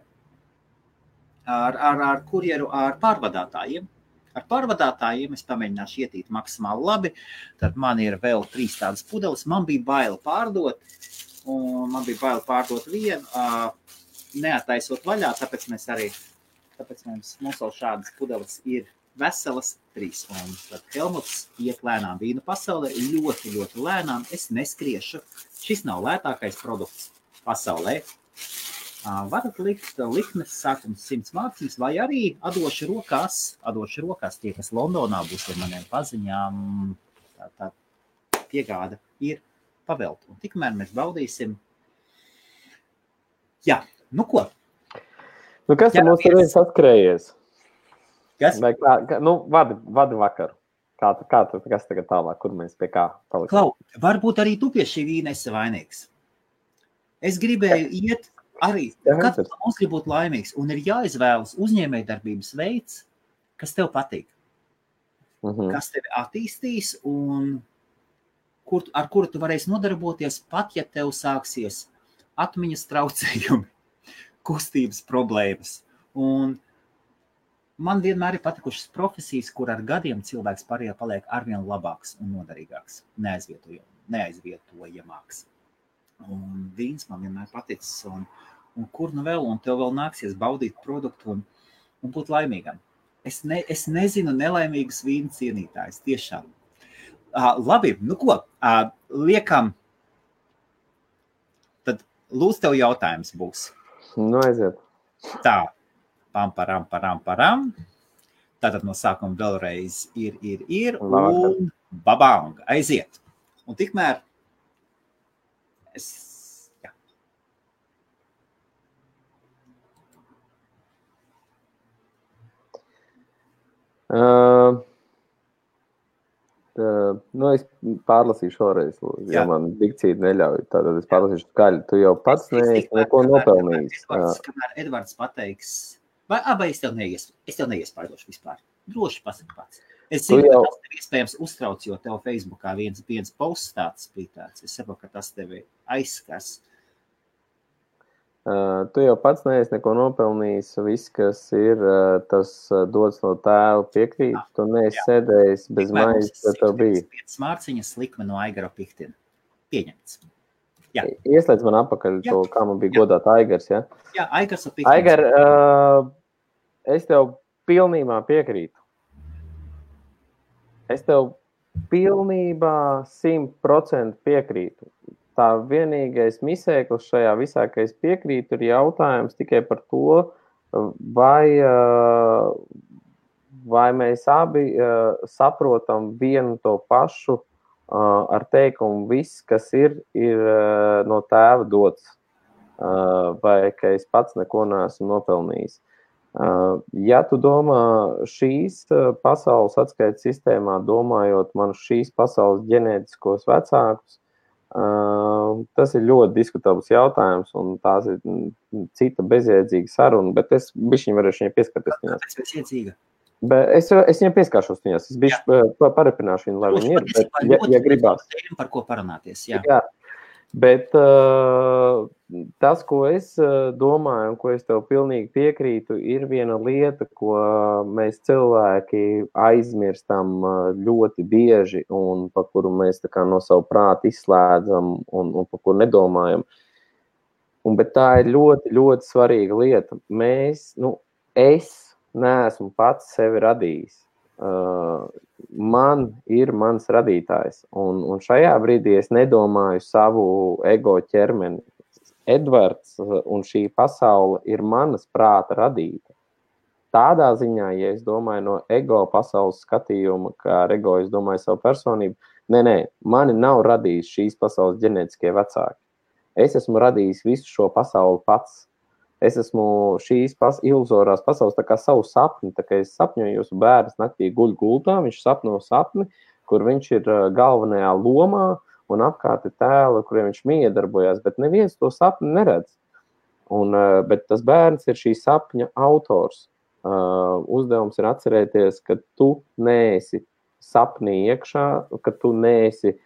Ar kurjeru, ar pārvadātājiem. Ar pārvadātājiem es pamēģināšu ietīt maksimāli labi. Tad man ir vēl 3 tādas pudeles. Man bija baila pārdot. Un man bija baila pārdot vienu, neataisot vaļā, tāpēc mums vēl šādas pudeles ir veselas 3. Un tad Helmuts iet lēnām vīnu pasaulē, ļoti, ļoti lēnām. Es neskriešu. Šis nav lētākais produkts pasaulē. Varat likt likmes sākums 100 mārciņas, vai arī atdošu rokās tie, kas Londonā būs ar maniem paziņām. Tā piegāda ir pavelta. Un tikmēr mēs baudīsim. Jā, nu ko? Nu, kas ir mums reiz atkrējies? Kas? Vai vadi vakaru. Kas tagad tālāk, kur mēs pie kā paliksim? Klau, varbūt arī tu pie šī vīna esi vainīgs. Es gribēju iet arī, katrs no mums grib būt laimīgs, un ir jāizvēlas uzņēmējdarbības veids, kas tev patīk. Kas tevi attīstīs, un ar kuru tu varēsi nodarboties, pat ja tev sāksies atmiņas traucējumi, kustības problēmas. Un man vienmēr ir patikušas profesijas, kur ar gadiem cilvēks paliek arvien labāks un noderīgāks, neaizvietojamāks. Un vīns man vienmēr paticis, un kur nu vēl, un tev vēl nāksies baudīt produktu un būt laimīgam. Es nezinu nelaimīgus vīnu cienītājus, tiešām. Labi, nu ko, liekam, tad lūdzu tev jautājums būs. Nu, aiziet. Tā, param. Tātad no sākuma vēlreiz ir, un babang, aiziet. Un tikmēr jā. Es pārlasīšu šoreiz, jo man dikcija neļauj. Tātad es pārlasīšu skaļi. Tu jau pats neesi neko nopelnījis. Kamēr Edvards pateiks, vai es tev neiespaidošu vispār. Droši pasaki pats. Es zinu, ka tas tev iespējams uztrauc, jo tev Facebookā viens posts tāds bija tāds. Es saprotu, ka tas tevi aizskars. Tu jau pats neesi neko nopelnījis. Viss, kas ir, tas dots no tēva piekrīt. Tu neesi sēdējis bez maizes, ka tev bija. 5 mārciņas likme no Aigara Piktina. Pieņemts. Jā. Ieslēdz man apakaļ to, kā man bija godāt Aigars, ja? Jā, Aigars un Piktins. Aigar, es tev pilnībā piekrītu. Es tev pilnībā 100% piekrītu. Tā vienīgais misēklis šajā visā, ka es piekrītu, ir jautājums tikai par to, vai mēs abi saprotam vienu to pašu ar teikumu viss, kas ir no tēva dots, vai ka es pats neko neesmu nopelnījis. Ja tu domā šīs pasaules atskaites sistēmā, domājot man šīs pasaules ģenētiskos vecākus, tas ir ļoti diskutabls jautājums, un tās ir cita bezjēdzīga saruna, bet es bišķiņ varēšu viņai pieskarties viņās. Kāpēc bezjēdzīga? Es viņai pieskāršos viņās, es bišķi parepināšu viņu, lai viņi ir, ja gribās. Par ko parunāties, jā. Jā, bet tas, ko es domāju un ko es tev pilnīgi piekrītu, ir viena lieta, ko mēs cilvēki aizmirstam ļoti bieži un par kuru mēs tā kā no savu prātu izslēdzam un par kuru nedomājam. Bet tā ir ļoti, ļoti svarīga lieta. Es neesmu pats sevi radījis. Man ir mans radītājs. Un šajā brīdī es nedomāju savu ego ķermeni. Edvards un šī pasaule ir manas prāta radīta. Tādā ziņā, ja es domāju no ego pasaules skatījuma, kā ar ego es domāju savu personību, mani nav radījis šīs pasaules ģenētiskie vecāki. Es esmu radījis visu šo pasauli pats. Es esmu šīs iluzorās pasaules tā kā savu sapni, tā kā es sapņoju, jūsu bērns naktī guļ gultā, viņš sapno sapni, kur viņš ir galvenajā lomā, un apkārt ir tēli, kuriem viņš miedarbojās, bet neviens to sapni neredz. Bet tas bērns ir šī sapņa autors. Uzdevums ir atcerēties, ka tu neesi sapnī iekšā, ka tu neesi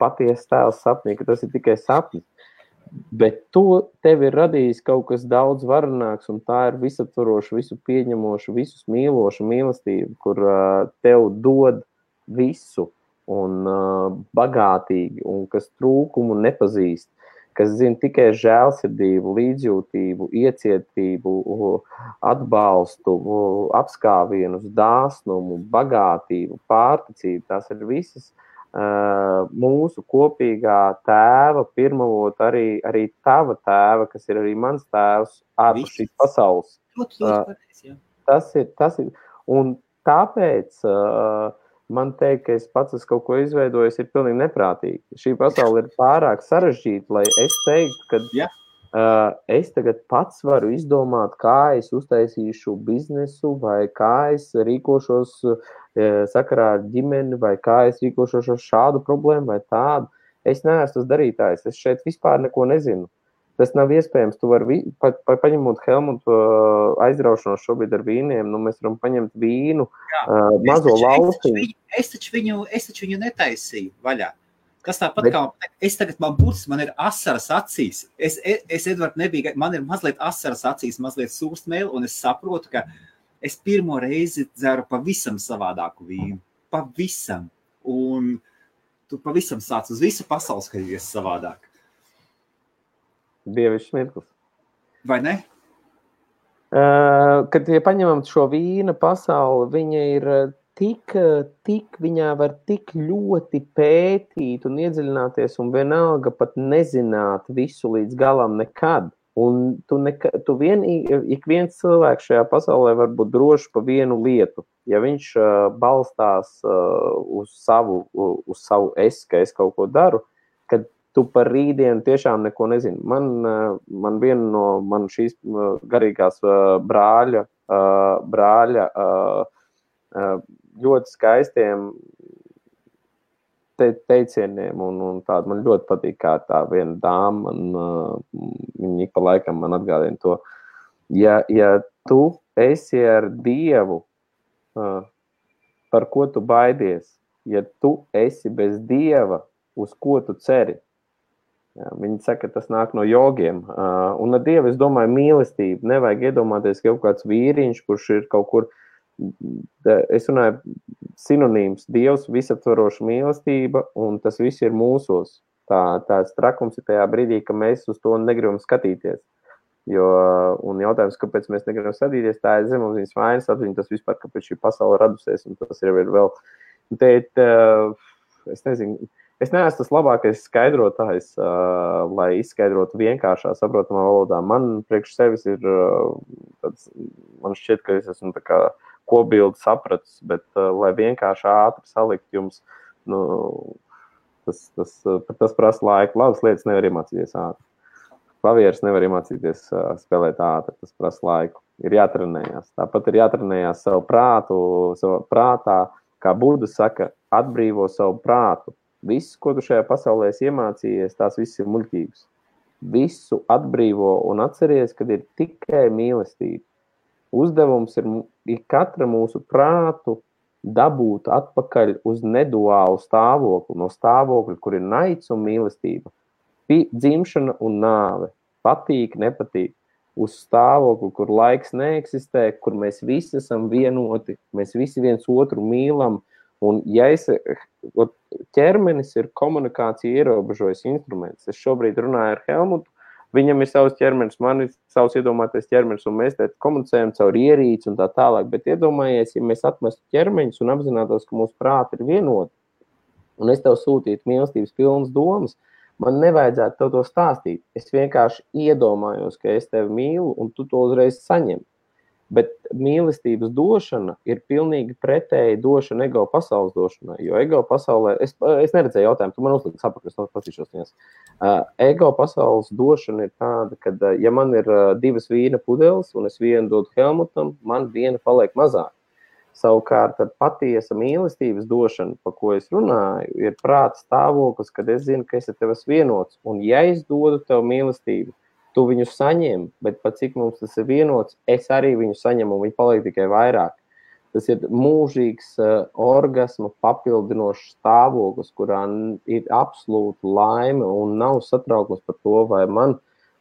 patiesa tēls sapnī, ka tas ir tikai sapnis. Bet tev ir radījis kaut kas daudz varenāks, un tā ir visaptvaroša, visu pieņemoša, visus mīloša mīlestība, kur tev dod visu un bagātīgi, un kas trūkumu nepazīst, kas zina tikai žēlsirdību, līdzjūtību, iecietību, atbalstu, apskāvienus, dāsnumu, bagātību, pārticību. Tās ir visas mūsu kopīgā tēva, pirmavot arī tava tēva, kas ir arī mans tēvs, ārpus šīs pasaules. Tas ir. Un tāpēc man teikt, ka es pats esmu kaut ko izveidojis, ir pilnīgi neprātīgi. Šī pasaule ir pārāk sarežģīta, lai es teiktu, ka es tagad pats varu izdomāt, kā es uztaisīšu biznesu, vai kā es rīkošos sakarā ar ģimeni, vai kā es rīkošos ar šādu problēmu vai tādu. Es neesmu tas darītājs, es šeit vispār neko nezinu. Tas nav iespējams. Tu vari, paņemot Helmutu aizraušanos šobrīd ar vīniem, mēs varam paņemt vīnu, mazo lauciņu. Es taču viņu netaisīju vaļā. Tas tāpat kā, man ir asaras acīs. Es Edvard, man ir mazliet asaras acīs, mazliet sūstmēli, un es saprotu, ka es pirmo reizi dzeru pavisam savādāku vīnu. Pavisam. Un tu pavisam sāc uz visu pasauli skatīties savādāk. Dievišķs mirklis. Vai ne? Kad ja paņemam šo vīna pasauli, viņa ir viņā var tik ļoti pētīt un iedziļināties un vienalga pat nezināt visu līdz galam nekad. Un ik viens cilvēks šajā pasaulē var būt drošs pa vienu lietu. Ja viņš balstās uz savu es, ka es kaut ko daru, kad tu par rītdienu tiešām neko nezini. Man viena no šīs garīgās brāļa ļoti skaistiem teicieniem un tādu. Man ļoti patīk, kā tā viena dāma, viņa ik pa laikam man atgādina to. Ja tu esi ar Dievu, par ko tu baidies? Ja tu esi bez Dieva, uz ko tu ceri? Viņi saka, ka tas nāk no jogiem. Un ar Dievu, es domāju, mīlestību. Nevajag iedomāties, ka kaut kāds vīriņš, kurš ir kaut kur, es runāju, sinonīms, Dievs, visaptvaroša mīlestība, un tas viss ir mūsos. Tāds trakums ir tajā brīdī, ka mēs uz to negribam skatīties. Un jautājums, kāpēc mēs negribam skatīties, tā ir zemapziņas vainas atziņa, tas vispār, kāpēc šī pasaule radusies, un tas ir vēl. Es nezinu, es neesmu tas labākais skaidrotājs, lai izskaidrotu vienkāršā, saprotamā valodā. Man priekš sevis ir man šķiet, ka es esmu tā kā kopbildi sapratis, bet lai vienkārši ātri salikt jums, tas prasa laiku. Labas lietas nevar iemācīties ātri. Klavieres nevar iemācīties spēlēt ātri, tas prasa laiku. Ir jātrenējās. Tāpat ir jātrenējās savu prātā, kā Buda saka, atbrīvo savu prātu. Viss, ko tu šajā pasaulē iemācījies, tās viss ir muļķības. Visu atbrīvo un atceries, kad ir tikai mīlestība. Uzdevums ir katra mūsu prātu dabūt atpakaļ uz neduālu stāvokli, no stāvokļa, kur ir naids un mīlestība, dzimšana un nāve. patīk, nepatīk, uz stāvokli, kur laiks neeksistē, kur mēs visi esam vienoti, mēs visi viens otru mīlam, un ja ķermenis ir komunikācija ierobežojas instruments. Es šobrīd runāju ar Helmutu, viņam ir savs ķermenis, man ir savs iedomātais ķermenis, un mēs te komunicējam caur ierīci un tā tālāk, bet iedomājies, ja mēs atmestu ķermeņus un apzinātos, ka mūsu prāti ir vienoti, un es tev sūtītu mīlestības pilnas domas, man nevajadzētu tev to stāstīt. Es vienkārši iedomājos, ka es tevi mīlu, un tu to uzreiz saņem. Bet mīlestības došana ir pilnīgi pretēji došana ego pasaules došanai, jo ego pasaulē, es neredzēju jautājumu, tu man uzliks apakaļ, es patīšos viņas. Ego pasaules došana ir tāda, ka ja man ir 2 vīna pudeles un es vienu dodu Helmutam, man viena paliek mazāk. Savukārt patiesa mīlestības došana, pa ko es runāju, ir prāta stāvoklis, kad es zinu, ka es ar tevi esmu vienots, un ja es dodu tev mīlestību, tu viņu saņem, bet pat cik mums tas ir vienots, es arī viņu saņemu, un viņi paliek tikai vairāk. Tas ir mūžīgs orgasma papildinošs stāvoklis, kurā ir absolūta laime un nav satraukums par to, vai man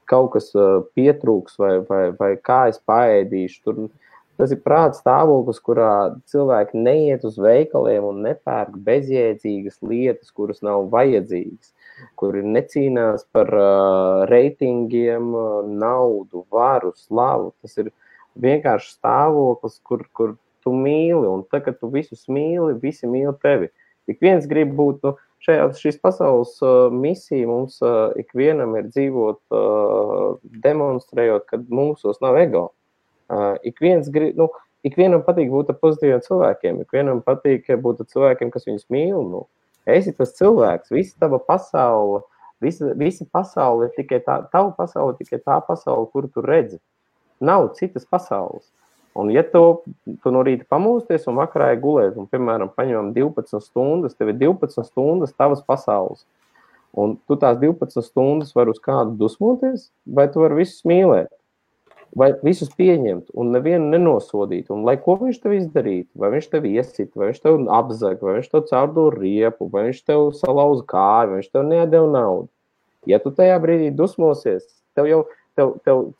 kaut kas pietrūks, vai kā es paēdīšu. Tas ir prāta stāvoklis, kurā cilvēki neiet uz veikaliem un nepērk bezjēdzīgas lietas, kuras nav vajadzīgas, kuri necīnās par reitingiem, naudu, varu, slavu. Tas ir vienkārši stāvoklis, kur tu mīli, un tā, kad tu visus mīli, visi mīli tevi. Ik viens grib būt, šīs pasaules misija mums ikvienam ir dzīvot, demonstrējot, kad mūsos nav ego. Ikvienam patīk būt ar pozitīviem cilvēkiem, ikvienam patīk būt ar cilvēkiem, kas viņus mīl, Esi tas cilvēks, visa tava pasaule, visa pasaule ir tikai tava pasaule ir tikai tā pasaule, kuru tu redzi. Nav citas pasaules. Un ja tu no rīta pamūsties un vakarā gulēt, un, piemēram, paņemam 12 stundas, tev ir 12 stundas tavas pasaules. Un tu tās 12 stundas var uz kādu dusmoties, vai tu vari visus mīlēt, vai visus pieņemt un nevienu nenosodīt. Un lai ko viņš tev izdarītu, vai viņš tev iesit, vai viņš tev apzag, vai viņš tev caurdo riepu, vai viņš tev salauza kāju, vai viņš tev nedeva naudu. Ja tu tajā brīdī dusmosies, tev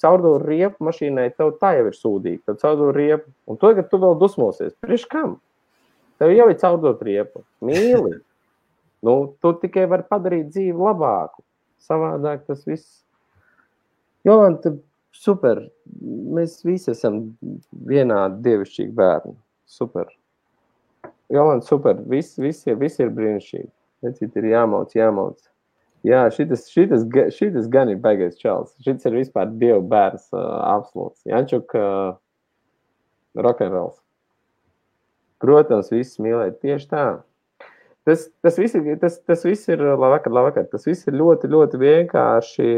caurdo riepu mašīnai, tev tā jau ir sūdīgi, tev caurdo riepu. Un to, kad tu vēl dusmosies, priekš kam? Tev jau ir caurdot riepu. Mīli. Tu tikai vari padarīt dzīvi labāku. Savādāk tas viss. Jolanta, super. Mēs visi esam vienādi dievišķīgi bērni. Super. Jolanta, super. Visi ir brīnišķīgi. Necīt ir jāmauc. Jā, šitas gan ir baigais čals. Šitas ir vispār dievu bērns absolūts. Jančuk, rock'n'rolls. Protams, viss mīlēt tieši tā. Tas viss ir labvakar. Tas viss ir ļoti, ļoti vienkārši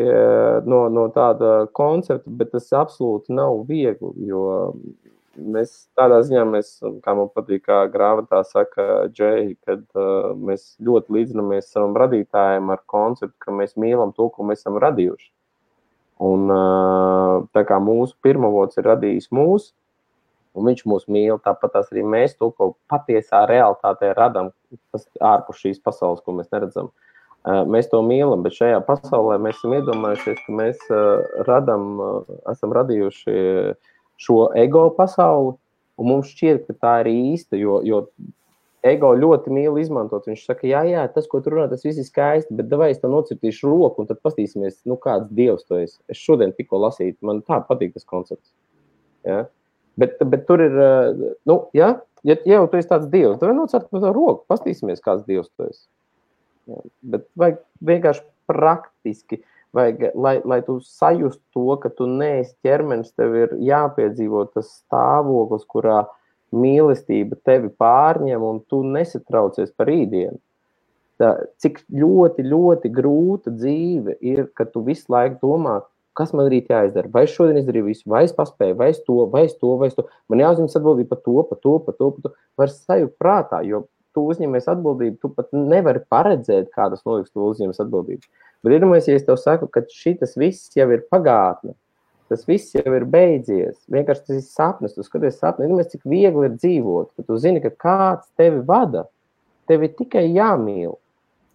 no tāda koncepta, bet tas absolūti nav viegli, jo mēs tādā ziņā, kā man patīk, kā grāmatā saka Džei, kad mēs ļoti līdzinamies savam radītājiem ar konceptu, ka mēs mīlam to, ko mēs esam radījuši. Un tā kā mūsu pirmavots ir radījis mūs, un viņš mūs mīl, tāpat tās arī mēs to, ko patiesā realitātē radam, tas ārpus šīs pasaules, ko mēs neredzam. Mēs to mīlam, bet šajā pasaulē mēs esam iedomājušies, ka mēs esam radījuši šo ego pasauli, un mums šķiet, ka tā ir īsta, jo ego ļoti mīl izmantot. Viņš saka, jā, tas, ko tu runā, tas viss ir skaisti, bet davai es tev nocirtīšu roku, un tad pastīsimies, kāds dievs tu esi. Es šodien tikko lasīju, man tā patīk tas koncepts. Ja? Bet tur ir, ja jau tu esi tāds dievs, tad nocert par to roku, pastīsimies, kāds dievs tu esi. Ja, bet vajag vienkārši praktiski, lai tu sajust to, ka tu neesi ķermenis, tev ir jāpiedzīvo tas stāvoklis, kurā mīlestība tevi pārņem un tu nesatraucies par rītdienu. Cik ļoti, ļoti grūta dzīve ir, ka tu visu laiku domā, kas man rīt jāizdara, vai es šodien izdarīju visu, vai es paspēju, vai es to. Man jāuzņemas atbildība par to. Var sajūt prātā, jo tu uzņemies atbildību, tu pat nevari paredzēt, kādas notiks, tu uzņemies atbildību. Bet iedomājies, ja es tev saku, ka šitas viss jau ir pagātne, tas viss jau ir beidzies, vienkārši tas ir sapnis, tu skaties sapni, iedomājies, cik viegli ir dzīvot, ka tu zini, ka kāds tevi vada, tevi tikai jāmīl.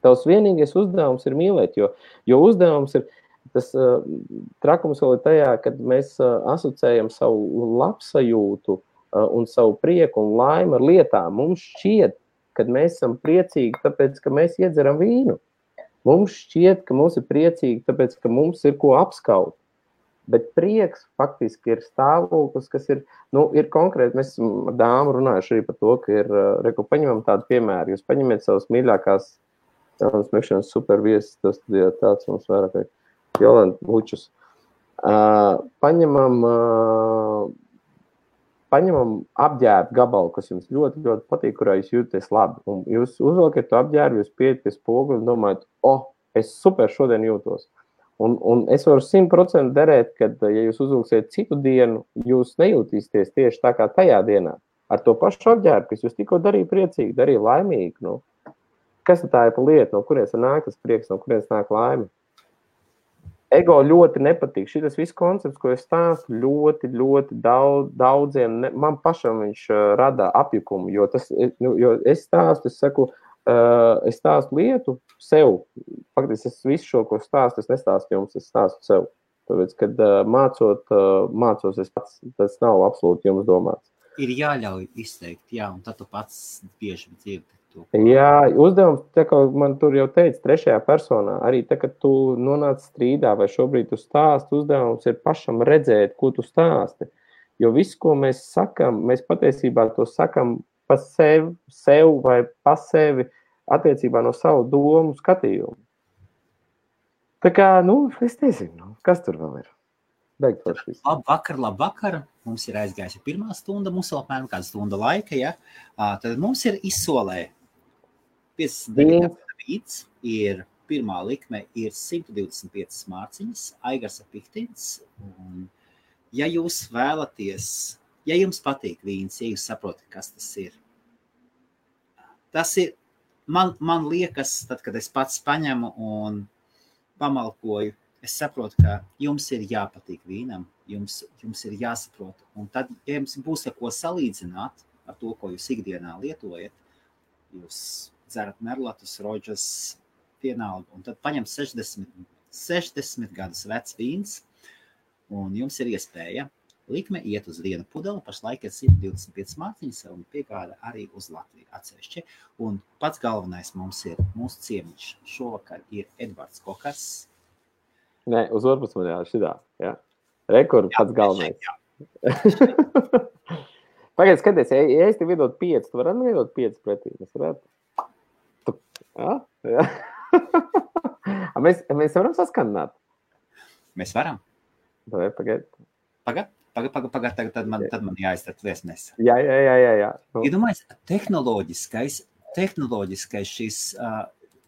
Tavs vienīgais uzdevums ir mīlēt, jo uzdevums ir, tas trakums vēl ir tajā, kad mēs asociējam savu labsajūtu un savu prieku un laimi ar lietām. Mums šķiet, kad mēs esam priecīgi, tāpēc, ka mēs iedzeram vīnu. Mums šķiet, ka mums ir priecīgi, tāpēc, ka mums ir ko apskaut. Bet prieks faktiski ir stāvoklis, kas ir, ir konkrēti. Mēs ar dāmu runājuši arī par to, ka ir, paņemam tādu piemēru. Jūs paņemiet savas mīļākās smekšanas superviesis, tas studijā tāds mums vairāk vai Jolanta Vučus. Paņemam apģērbu gabalu, kas jums ļoti, ļoti patīk, kurā jūs jūties labi. Un jūs uzvelkat to apģērbu, jūs pieiet pie spoguļa un domājat, es super šodien jūtos. Un es varu 100% derēt, kad, ja jūs uzvilksiet citu dienu, jūs nejūtīsieties tieši tā kā tajā dienā. Ar to pašu apģērbu, kas jūs tikko darīja priecīgi, darīja laimīgi. Kas tā ir pa lieta, no kurienes nāk tas prieks, no kurienes nāk laime? Ego ļoti nepatīk. Šitas viss koncepts, ko es stāstu, ļoti, ļoti daudziem, man pašam viņš rada apjukumu, jo es stāstu, es stāstu lietu sev. Faktiski es visu šo, ko stāstu, es nestāstu jums, es stāstu sev. Tāpēc, kad mācos es pats, tas nav absolūti jums domāts. Ir jāļauj izteikt, un tad tu pats bieži dzirdi. Jā, uzdevums, tā kā man tur jau teica, trešajā personā, arī tā, kad tu nonāc strīdā vai šobrīd tu stāsti, uzdevums ir pašam redzēt, ko tu stāsti. Jo viss, ko mēs sakam, mēs patiesībā to sakam pa sev vai pa sevi attiecībā no savu domu skatījumu. Tā kā, es nezinu, kas tur vēl ir. Labvakar. Mums ir aizgājusi pirmā stunda, mums vēl apmēram kāda stunda laika, ja? Tad mums ir izsolē 59 vīds, ir pirmā likme, ir 125 mārciņas, Aigarsa Pihtins, un ja jūs vēlaties, ja jums patīk vīns, ja jūs saprotat, kas tas ir, man liekas, tad, kad es pats paņemu un pamalkoju, es saprotu, ka jums ir jāpatīk vīnam, jums ir jāsaprot. Un tad, ja jums būs ar ko salīdzināt ar to, ko jūs ikdienā lietojat, jūs dzerat merlatus, roģas, vienalga, un tad paņem 60 gadus vecs vīns, un jums ir iespēja likme iet uz vienu pudeli, pašlaik ir 125 mārciņas, un piegāda arī uz Latviju atsevišķi. Un pats galvenais mums ir mūsu ciemiņš. Šovakar ir Edvards Kokars. Nē, uz orpus man šitā, jā. Rekord pats galvenais. Pagaid, skaties, ja es tev iedot 5, tu varētu man iedot 5 pretī? Mēs varētu? Jā. Mēs varam saskanāt? Mēs varam. Pagaid. Pagaid, tad man jāiztart viesmēs. Jā. Iedomājies, tehnoloģiskais šis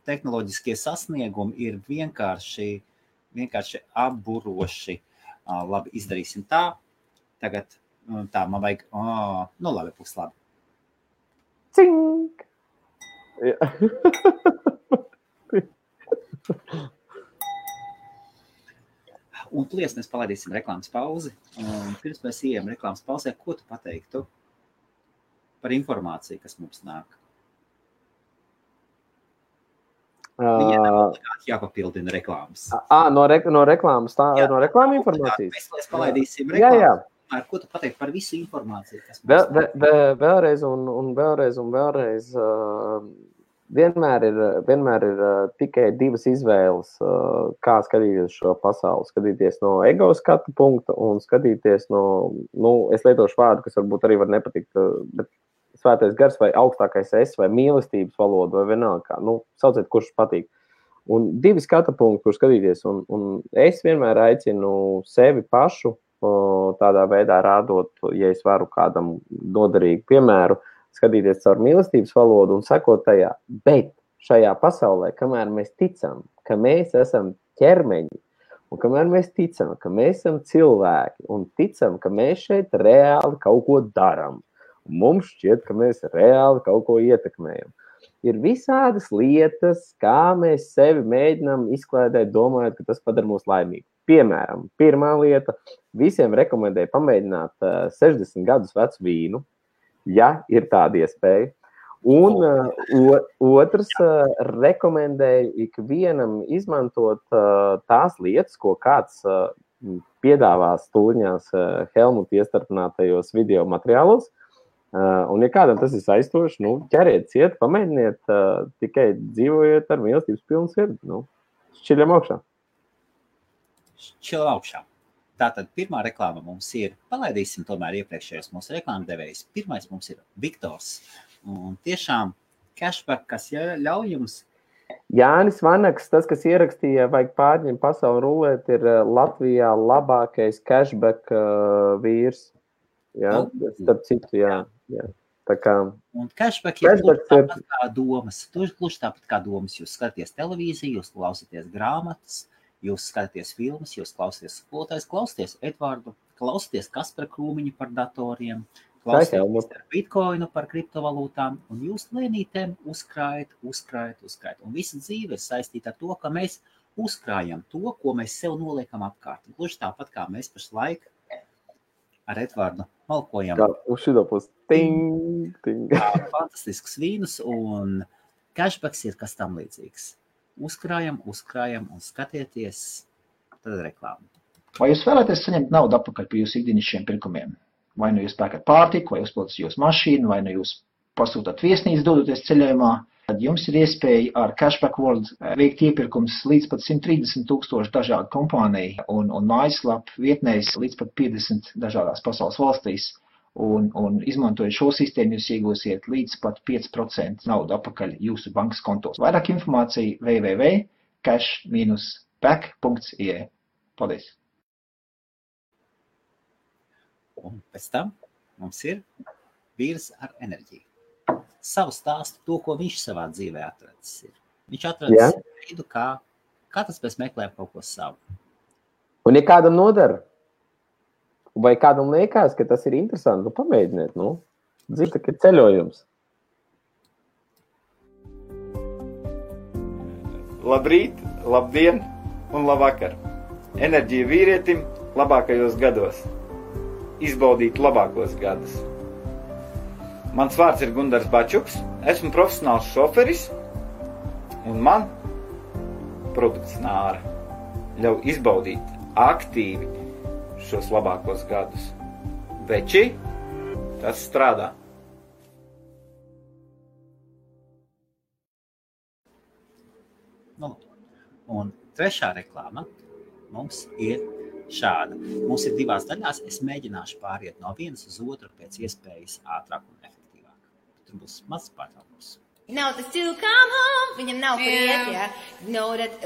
tehnoloģiskie sasniegumi ir vienkārši apburoši. Labi, izdarīsim tā. Tagad tā, man vajag, labi, būs labi. Cink! Un plies mēs palaidīsim reklāmas pauzi. Un pirms mēs ejam reklāmas pauzē, ko tu pateiktu par informāciju, kas mums nāk? Viņai jāpapildina reklāmas. No reklāmas, no reklāma informācijas? Mēs palaidīsim reklāmas. Jā. Ko tu pateiktu par visu informāciju, kas mums vēlreiz vienmēr ir tikai divas izvēles, kā skatīties šo pasauli. Skatīties no ego skatu punkta un skatīties no, es lietošu vārdu, kas varbūt arī var nepatikt, bet svētais gars vai augstākais es vai mīlestības valoda vai vienalga, sauciet, kurš patīk. Un divi skatu punkti, kur skatīties, un es vienmēr aicinu sevi pašu tādā veidā rādot, ja es varu kādam noderīgu piemēru, skatīties caur mīlestības valodu un sekot tajā. Bet šajā pasaulē, kamēr mēs ticam, ka mēs esam ķermeņi, un kamēr mēs ticam, ka mēs esam cilvēki, un ticam, ka mēs šeit reāli kaut ko daram, un mums šķiet, ka mēs reāli kaut ko ietekmējam, ir visādas lietas, kā mēs sevi mēģinām izklēdēt, domājot, ka tas padara mūs laimīgi. Piemēram, pirmā lieta, visiem rekomendēju pamēģināt 60 gadus vecu vīnu, ja ir tāda iespēja. Un otrs rekomendēju ikvienam izmantot tās lietas, ko kāds piedāvā stūļņās Helmuta iestarpinātajos video materiālos. Un, ja kādam tas ir saistoši, ķeriet ciet, pamēģiniet, tikai dzīvojiet ar mīlestības pilnu sirdi. Šķiļam augšā. Šķiļam augšā. Tātad pirmā reklāma mums ir, palaidīsim tomēr iepriekšējos mūsu reklāmdevējus. Pirmais mums ir Viktors. Un tiešām cashback, kas ļauj jums. Jānis Vanaks, tas, kas ierakstīja, vajag pārņemt pasauli rulēt, ir Latvijā labākais cashback vīrs. Jā, starp citu, jā. Tā kā... Un cashback ir tāpat kā domas. Gluži tāpat kā domas. Jūs skatāties televīziju, jūs klausāties grāmatas, jūs skatāties filmas, jūs klausāties skolotājs, klausāties Edvardu, klausāties Kaspara Krūmiņu par datoriem, klausāties par bitcoinu, par kriptovalūtām, un jūs lēnītēm uzkrājat. Un visa dzīve ir saistīta ar to, ka mēs uzkrājam to, ko mēs sev noliekam apkārt. Gluži tāpat kā mēs pašlaik ar Edvardu malkojam. Uz šito pusi. Ting. Fantastisks vīnus, un cashbacks ir kas tam līdzīgs. Uzkrājam un skatieties, tad reklāmu. Vai jūs vēlaties saņemt naudu atpakaļ par jūsu ikdienišķiem pirkumiem? Vai nu jūs pērkat pārtiku, vai uzpildat jūsu mašīnu, vai nu jūs pasūtat viesnīcu, dodoties ceļojumā, tad jums ir iespēja ar Cashback World veikt iepirkums līdz pat 130,000 dažādu kompāniju un mājaslapu vietnēs līdz pat 50 dažādās pasaules valstīs. Un izmantojot šo sistēmu, jūs iegūsiet līdz pat 5% naudu atpakaļ jūsu bankas kontos. Vairāk informācija www.cash-back.ie. Paldies! Un pēc tam mums ir vīrs ar enerģiju. Savu stāstu, to, ko viņš savā dzīvē atracis ir. Viņš atracis veidu, kā tas mēs meklējam kaut ko savu. Un ja kādam nodara, vai kādam liekas, ka tas ir interesanti, pamēģiniet, dzīve ir ceļojums. Labrīt, labdien un labvakar. Enerģija vīrietim labākajos gados. Izbaudīt labākos gadus. Mans vārds ir Gundars Bačuks, esmu profesionāls šoferis, un man produkts Nāra ļauj izbaudīt aktīvi šos labākos gadus. Veči, tas strādā. Un trešā reklāma mums ir šāda. Mums ir divās daļās. Es mēģināšu pāriet no vienas uz otru pēc iespējas ātrāk un efektīvāk. Tur būs mazs pārtraukums. Nav tas to come home, viņam nav priet, jā.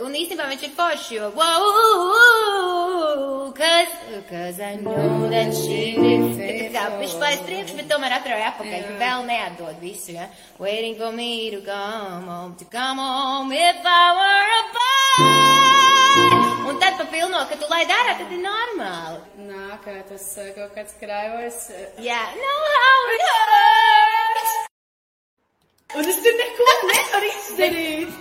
Un īstenībā viņš ir forši, jo wow, cause I know that she did. Viņš paies priekš, bet tomēr atrauja apakaļ, vēl neatdod visu, jā. Waiting for me to come home if I were a boy. Un tad papilno, ka tu laid ārā, tad ir normāli. Nā, kā tas kaut kāds kraivars. Jā, know how it hurts. Un es tur neko nevaru izdarīt.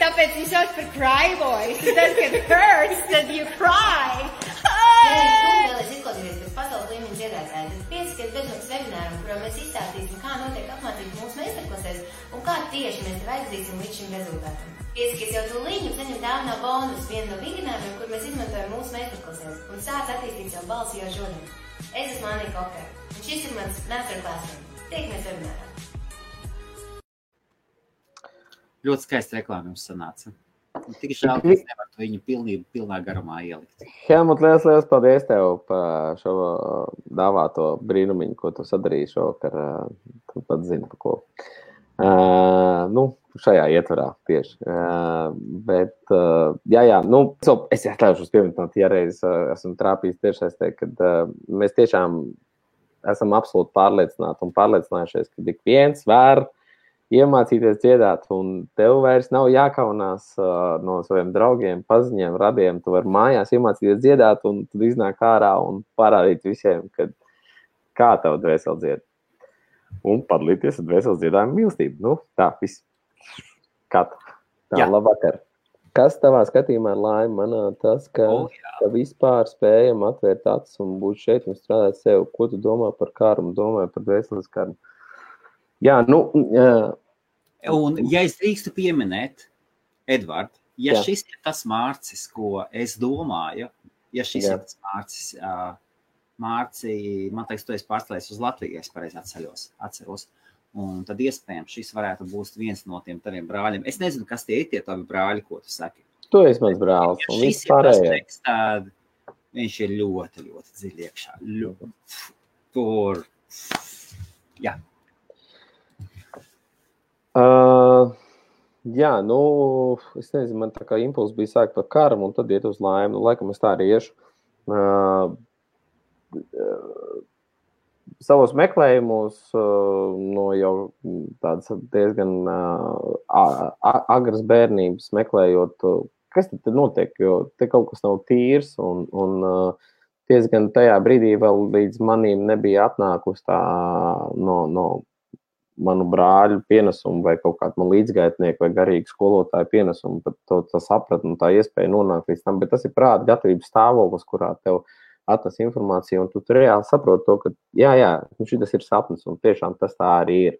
Tāpēc viņš sauc par cry boys. Tad, kad hurts, tad you cry. Ja tu vēlies izklausīties pēc pasaules līmeņa dziedātāja, tad piesakies bezmaksas webināram, kurā mēs izstāstīsim, kā notiek apmācības mūsu meistarklasēs un kā tieši mēs tev aizvedīsim līdz šim rezultātam. Piesakies jau tūlīt un saņem dāvinā bonus, vienu no vingrinājumiem, kur mēs izmantojam mūsu meistarklasēs un sāc attīstīt savu balsi jau šodien. Es esmu Anija Kokara, un šis ir mans masterclass. Tiekamies webinārā. Ļoti skaisti reklāma jums sanāca. Tik žēl, ka es nevaru viņu pilnā garumā ielikt. Helmut, liels paldies tev par šo dāvāto brīnumiņu, ko tu sadarīji šovakar. Tu pat zini, pa ko. Šajā ietvarā tieši. Es atļaušos pieminēt, ja reiz esmu trāpījis tiešsaistē, kad mēs tiešām esam absolūti pārliecināti un pārliecinājušies, ka ik viens var iemācīties dziedāt, un tev vairs nav jākaunās no saviem draugiem, paziņiem, radiem. Tu vari mājās iemācīties dziedāt, un tad iznāk ārā un parādīt visiem, kā tev dvēseli dzied. Un padalīties ar dvēseles dziedājumu mīlestību. Tā, viss. Labvakar. Kas tavā skatījumā ir laime? Manā tas, ka vispār spējam atvērt acis un būt šeit un strādāt sev. Ko tu domā par karmu? Domāju par dvēseles karmu. Jā, Un, ja es drīkstu pieminēt, Edvard, šis ir tas Mārcis, ko es domāju, ja šis ir tas Mārcis, Mārci, man teiks, tu esi pārstājies uz Latviju, es pareizi atceros. Un tad iespējams šis varētu būt viens no tiem taviem brāļiem. Es nezinu, kas tie ir tie tavi brāļi, ko tu saki. Tu esi mans brālis. Ja šis ir tas teksts, tad viņš ir ļoti, ļoti dziļi iekšā. Tur, jā. Jā, es nezinu, man tā kā impulss bija sākt par karmu un tad iet uz laimi. Laikam es tā arī iešu. Savos meklējumos jau tādas diezgan agras bērnības meklējot, kas tad notiek, jo te kaut kas nav tīrs un diezgan tajā brīdī vēl līdz manīm nebija atnākusi tā no manu brāļu pienesumu vai kaut kādu man līdzgaitnieku vai garīgu skolotāju pienesumu, pat to sapratni un tā iespēja nonākt līdz tam, bet tas ir prāta gatavības stāvoklis, kurā tev atnes informāciju, un tu reāli saproti to, ka šitas ir sapnis, un tiešām tas tā arī ir.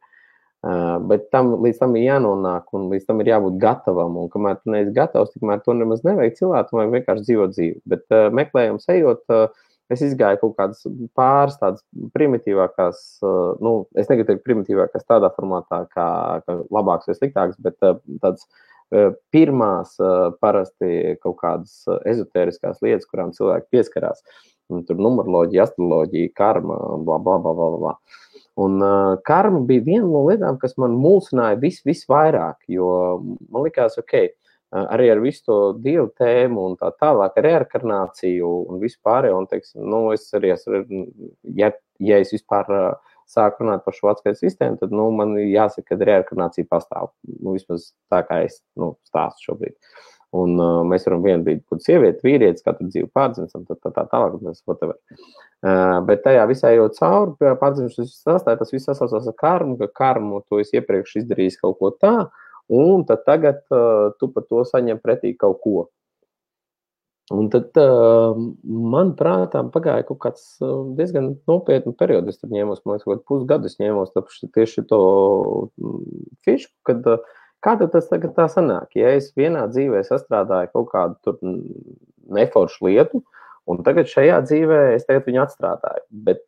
Bet līdz tam ir jānonāk, un līdz tam ir jābūt gatavam, un kamēr tu neesi gatavs, tikmēr to nemaz nevajag cilvēku, vajag vienkārši dzīvot dzīvi. Bet meklējums ejot, es izgāju kaut kādas pāris tādas primitīvākās, es negribu teikt primitīvākās tādā formātā, kā labāks vai sliktāks, bet tāds pirmās parasti kaut kādas ezotēriskās lietas, kurām cilvēki pieskarās. Tur numeroloģija, astroloģija, karma, bla, bla, bla, bla, bla. Un karma bija viena no lietām, kas man mulsināja visvairāk, jo man likās, arī ar visu to dievu tēmu un tā tālāk, reinkarnāciju un visu pārējo, un teiksim, es arī ja es vispār sāku runāt par šo atskaites sistēmu, tad, man jāsaka, ka reinkarnācija pastāv, vismaz tā kā es, stāstu šobrīd. Un mēs varam vienu brīdi būt sievieti, vīrietis, katru dzīvi pārdzimstam, tā tālāk, whatever. Bet tajā visā jau cauri pārdzimšanas sastāja, tas viss sasaucās ar karmu, ka karmu tu esi iepriekš izdarījis kaut ko tā, un tad tagad tu par to saņem pretī kaut ko. Un tad man prātā pagāja kaut kāds diezgan nopietnu periodu, es tad ņēmos, man liekas, pusgadu es ņēmos tieši to fišku, kad kā tad tas tagad tā sanāk? Ja es vienā dzīvē sastrādāju kaut kādu tur neforšu lietu, un tagad šajā dzīvē es tagad viņu atstrādāju. Bet,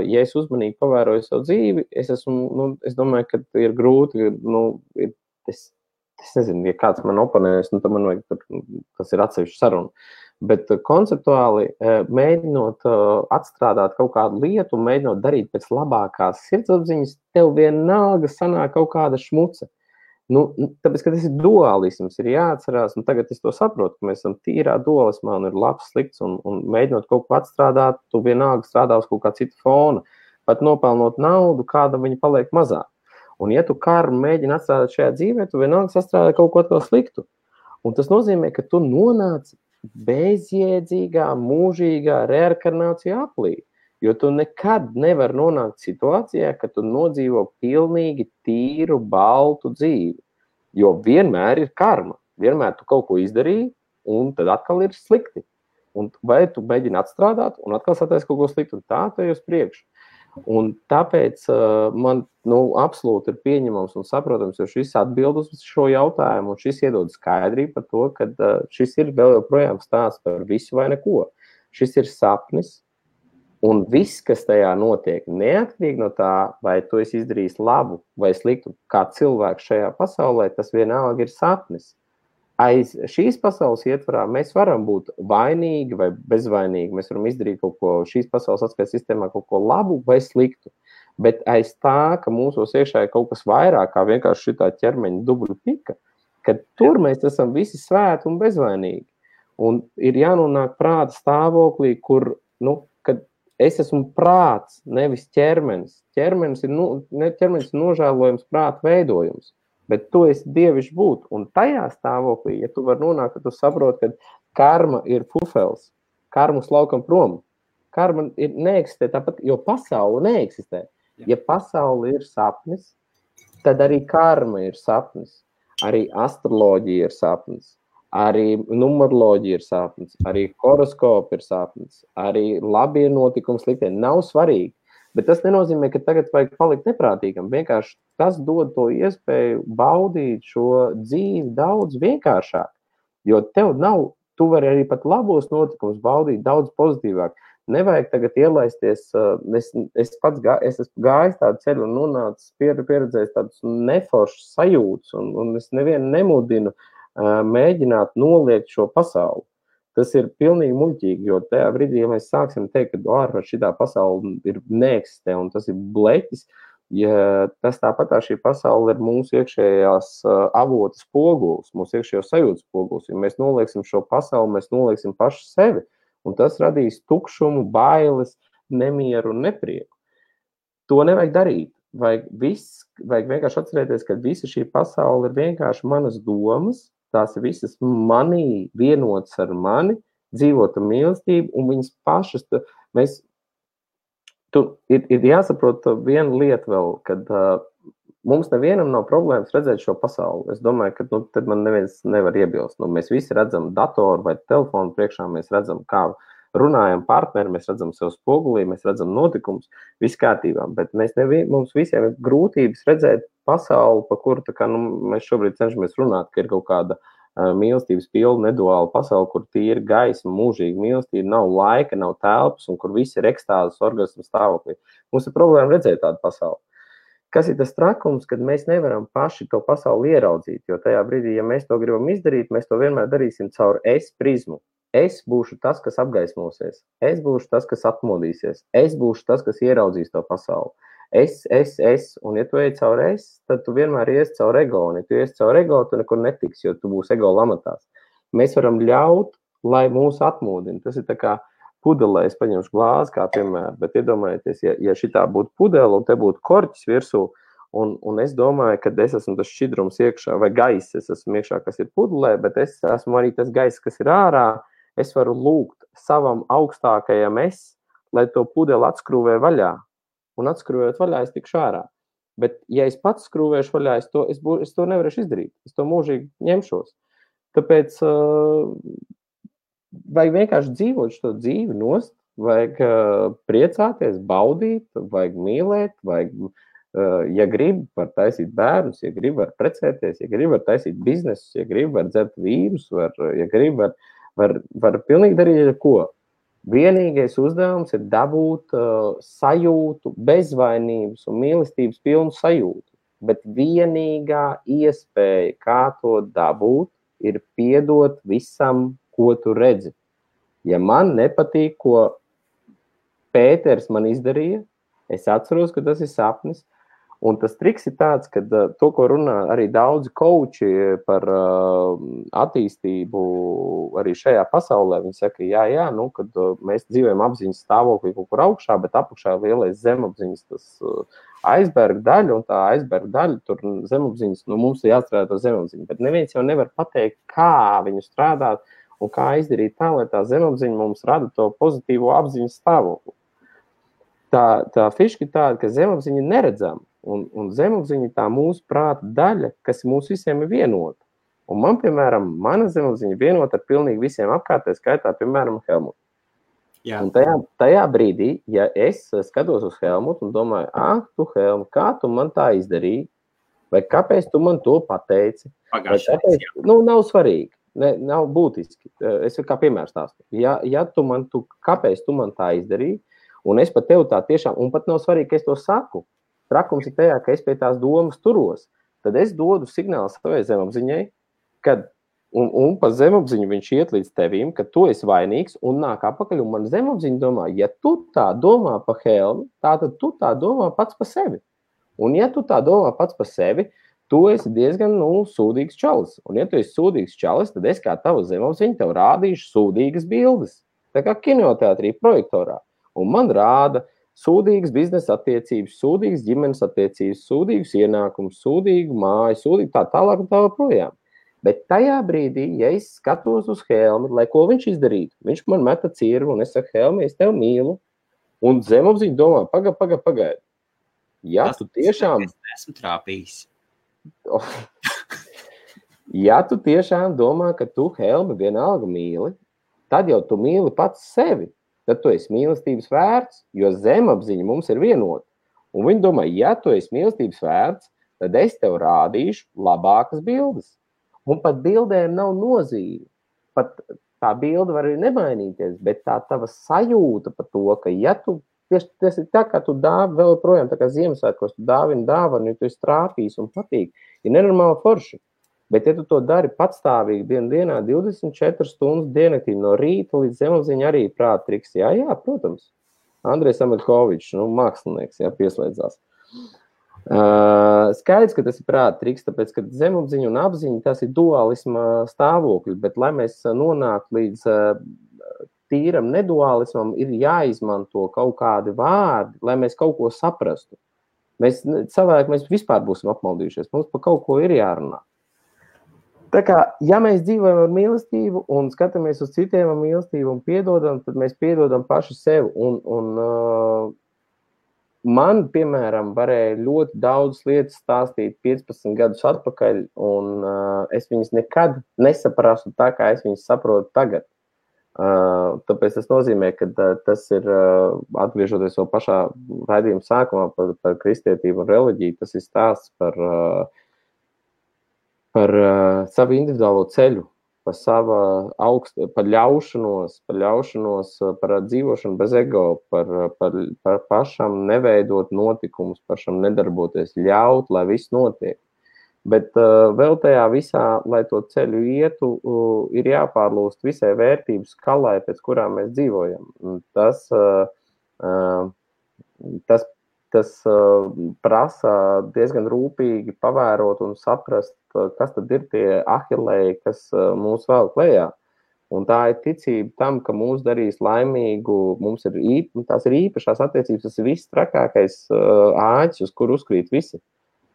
ja es uzmanīgi pavēroju savu dzīvi, es domāju, ka ir grūti, es nezinu, ja kāds man oponēs, tad man vajag, tas ir atsevišķi saruna. Bet konceptuāli mēģinot atstrādāt kaut kādu lietu un mēģinot darīt pēc labākās sirdsapziņas, tev vienalga sanāk kaut kāda šmuce. Tāpēc, ka tas ir dualisms, ir jāatcerās, un tagad es to saprotu, ka mēs esam tīrā dualismā un ir labs, slikts, un mēģinot kaut ko atstrādāt, tu vienalga strādā uz kaut kā cita fona, pat nopelnot naudu, kāda viņa paliek mazāk. Un ja tu karmu mēģini atstrādāt šajā dzīvē, tu vienalga sastrādā kaut ko atkal sliktu. Un tas nozīmē, ka tu nonāc bezjēdzīgā, mūžīgā reinkarnācija aplī. Jo tu nekad nevar nonākt situācijā, ka tu nodzīvo pilnīgi tīru, baltu dzīvi. Jo vienmēr ir karma. Vienmēr tu kaut ko izdarīji, un tad atkal ir slikti. Un vai tu mēģini atstrādāt, un atkal sataisi kaut ko slikti, un tā tu ej uz priekšu. Un tāpēc man absolūti ir pieņemams un saprotams, jo šis atbild uz šo jautājumu, un šis iedod skaidrību par to, ka šis ir vēl joprojām stāsts par visu vai neko. Šis ir sapnis. Un viss, kas tajā notiek, neatkarīgi no tā, vai tu esi izdarījis labu vai sliktu, kā cilvēks šajā pasaulē, tas vienalga ir sapnis. Aiz šīs pasaules ietvarā mēs varam būt vainīgi vai bezvainīgi, mēs varam izdarīt kaut ko šīs pasaules atskaites sistēmā, kaut ko labu vai sliktu. Bet aiz tā, ka mūsos iekšā ir kaut kas vairāk, kā vienkārši šitā ķermeņa dubļu pika, kad tur mēs esam visi svēti un bezvainīgi. Un ir jānonāk prāta stāvoklī, kur, kad es esmu prāts, nevis ķermenis. Ķermenis ir nožēlojums prāta veidojums, bet tu esi dievišķi būt. Un tajā stāvoklī, ja tu vari nonākt, tad tu saproti, ka karma ir pufels, karmas laukam prom. Karma neeksistē tāpat, jo pasaule neeksistē. Ja pasaule ir sapnis, tad arī karma ir sapnis, arī astroloģija ir sapnis. Arī numeroloģija ir sapnis, arī horoskopi ir sapnis, arī labie notikumi, sliktie. Nav svarīgi. Bet tas nenozīmē, ka tagad vajag palikt neprātīgam. Vienkārši tas dod to iespēju baudīt šo dzīvi daudz vienkāršāk. Jo tev nav, tu vari arī pat labos notikumus baudīt daudz pozitīvāk. Nevajag tagad ielaisties, es esmu gājis tādu ceļu un nonācis pieredzējis tādus neforšus sajūtas, un es nevienu nemudinu mēģināt noliegt šo pasauli. Tas ir pilnīgi muļķīgi, jo tajā brīdī, ja mēs sāksim teikt, ka ārpus šitā pasaule ir neeksistē un tas ir bleķis, ja tas tāpat šī pasaule ir mūsu iekšējās avotas spogulis, mūsu iekšējo sajūtas spogulis. Ja mēs nolieksim šo pasauli, mēs nolieksim paši sevi, un tas radīs tukšumu, bailes, nemieru un neprieku. To nevajag darīt. Vajag vienkārši atcerēties, ka visa šī pasaule ir vienkārši manas domas, tās ir visas manī vienotas ar mani, dzīvota mīlestība, un viņas pašas, ir jāsaprot viena lieta vēl, kad mums nevienam nav problēmas redzēt šo pasauli. Es domāju, ka tad man neviens nevar iebilst. Mēs visi redzam datoru vai telefonu priekšā, mēs redzam, kā runājam partneri, mēs redzam sev spogulī, mēs redzam notikumus, viss kārtībā, bet mums visiem ir grūtības redzēt pasauli, pa kuru mēs šobrīd cenšamies runāt, ka ir kaut kāda mīlestības pilna neduāla pasaule, kur tīri gaisma, mūžīga mīlestība, nav laika, nav telpas un kur viss ir ekstāzes orgasmu stāvoklī. Mums ir problēma redzēt tādu pasauli. Kas ir tas trakums, kad mēs nevaram paši to pasauli ieraudzīt, jo tajā brīdī, ja mēs to gribam izdarīt, mēs to vienmēr darīsim caur es prizmu. Es būšu tas, kas apgaismosies. Es būšu tas, kas atmodīsies. Es būšu tas, kas ieraudzīs to pasauli. Es. Un ja tu ej caur es, tad tu vienmēr ies caur ego. Un ja tu ies caur ego, tu nekur netiks, jo tu būsi ego lamatās. Mēs varam ļaut, lai mūs atmodina. Tas ir tā kā pudelē, es paņemšu glāzi kā piemēram, bet iedomājieties, ja šitā būtu pudele un te būtu korķis virsū, un es domāju, ka es esmu tas šķidrums iekšā, vai gaiss es esmu iekšā, kas ir pudelē, bet es esmu arī tas gaiss, kas ir ārā. Es varu lūgt savam augstākajam lai to pudeli atskrūvē vaļā. Un atskrūvējot vaļā, es tikšu ārā. Bet, ja es pats skrūvēšu vaļā, es to nevarēšu izdarīt. Es to mūžīgi ņemšos. Tāpēc vajag vienkārši dzīvot šo dzīvi nost, vajag priecāties, baudīt, vajag mīlēt, ja grib, var taisīt bērnus, ja grib, var precēties, ja grib, var taisīt biznesus, ja grib, var dzert vīrus, ja grib, var pilnīgi darīt ko. Vienīgais uzdevums ir dabūt sajūtu, bezvainības un mīlestības pilnu sajūtu. Bet vienīgā iespēja, kā to dabūt, ir piedot visam, ko tu redzi. Ja man nepatīk, ko Pēters man izdarīja, es atceros, ka tas ir sapnis. Un tas triks ir tāds, ka to, ko runā arī daudzi kauči par attīstību arī šajā pasaulē, viņi saka, jā, kad mēs dzīvojam apziņas stāvoklī kaut kur augšā, bet apakšā lielais zemapziņas tas aizberga daļa, un tā aizberga daļa, tur zemapziņas, mums ir jāstrādā to zemapziņu, bet neviens jau nevar pateikt, kā viņu strādāt un kā izdarīt tā, lai tā zemapziņa mums rada to pozitīvo apziņas stāvokli. Tā fiška ir tāda, ka zemapziņa neredzama. Un zemapziņa tā mūsu prāta daļa, kas mūs visiem ir vienota. Un man, piemēram, mana zemapziņa vienota ar pilnīgi visiem apkārtē, skaitā, piemēram, Helmutu. Un tajā brīdī, ja es skatos uz Helmutu un domāju, tu Helmut, kā tu man tā izdarīji? Vai kāpēc tu man to pateici? Nav svarīgi, nav būtiski. Es kā piemērs stāstu. Kāpēc tu man tā izdarīji? Un es pat tev tā tiešām, un pat nav svarīgi, ka es to saku. Trakums ir tajā, ka es pie tās domas turos. Tad es dodu signālu savai zemapziņai, kad, un pa zemapziņu viņš iet līdz tevīm, ka tu esi vainīgs un nāk apakaļ, un man zemapziņa domā, ja tu tā domā pa Helmu, tātad tu tā domā pats pa sevi. Un ja tu tā domā pats pa sevi, tu esi diezgan, sūdīgs čalis. Un ja tu esi sūdīgs čalis, tad es kā tava zemapziņa tev rādīšu sūdīgas bildes. Tā kā kinoteātrī projektorā. Un man rāda sūdīgas biznesa attiecības, sūdīgas ģimenes attiecības, sūdīgas ienākumus, sūdīgu māju, sūdīgu tā tālāk un tā projām. Bet tajā brīdī, ja es skatos uz Helmi, lai ko viņš izdarītu, viņš man meta cirvi un es saku, Helmi, es tevi mīlu. Un zemapziņa domā, pagaidi. Ja tu tiešām... Es esmu trāpījis. Ja tu tiešām domā, ka tu Helmi vienalga mīli, tad jau tu mīli pats sevi. tad tu esi mīlestības vērts, jo zemapziņa mums ir vienota. Un viņi domā, ja tu esi mīlestības vērts, tad es tev rādīšu labākas bildes. Un pat bildēm nav nozīme. Pat tā bilde var arī nemainīties, bet tā tava sajūta par to, ka ja tu, tas ir tā, kā tu dāvi vēl projām, tā kā Ziemassvētkos, tu dāvini dāvanu, ja tu esi trāpījis un patīk, ir nenormāli forši. Bet ja tu to dari patstāvīgi dienā, 24 stundas diennaktī no rīta līdz zemapziņa arī prāta triks. Jā, protams. Andrejs Ameļkovičs, mākslinieks, pieslēdzās. Skaidrs, ka tas ir prāta triks, tāpēc, ka zemapziņa un apziņa tas ir dualisma stāvokļi, bet lai mēs nonāktu līdz tīram nedualismam, ir jāizmanto kaut kādi vārdi, lai mēs kaut ko saprastu. Mēs vispār būsim apmaldījušies, mums par kaut ko ir jārunā. Tā kā, ja mēs dzīvojam ar mīlestību un skatāmies uz citiem ar mīlestību un piedodam, tad mēs piedodam paši sev. Man, piemēram, varēja ļoti daudz lietas stāstīt 15 gadus atpakaļ, un es viņas nekad nesaprastu tā, kā es viņas saprotu tagad. Tāpēc tas nozīmē, ka tas ir, atgriežoties vēl pašā raidījuma sākumā par kristietību un reliģiju, tas ir stāsts par savu individuālo ceļu, par ļaušanos, par dzīvošanu bez ego, par pašam neveidot notikumus, pašam nedarboties, ļaut, lai viss notiek. Bet vēl tajā visā, lai to ceļu ietu, ir jāpārlūst visai vērtību skalai, pēc kurām mēs dzīvojam. Tas prasa diezgan rūpīgi pavērot un saprast, kas tad ir tie ahilēji, kas mūs vēl klējā. Un tā ir ticība tam, ka mūs darīs laimīgu, tās ir īpašās attiecības, tas ir viss trakākais āķis, uz kur uzkrīt visi.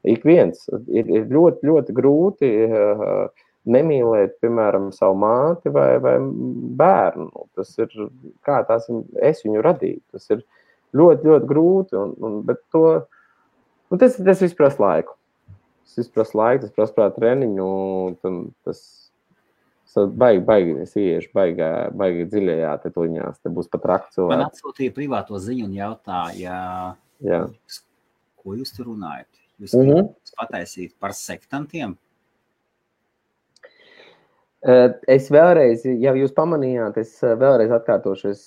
Ik viens. Ir ļoti, ļoti grūti nemīlēt, piemēram, savu māti vai bērnu. Tas ir, kā es viņu radīju. Tas ir ļoti, ļoti grūti, bet tas viss prasa laiku. Tas prasa treniņu, tas baigi, es iešu baigi dziļajā te tuļņās, te būs pat rakt cilvēki. Man atsūtīja privāto ziņu un jautāja, ko jūs tur runājat? Jūs pataisīt par sektantiem? Es vēlreiz, ja jūs pamanījāt, es vēlreiz atkārtošu,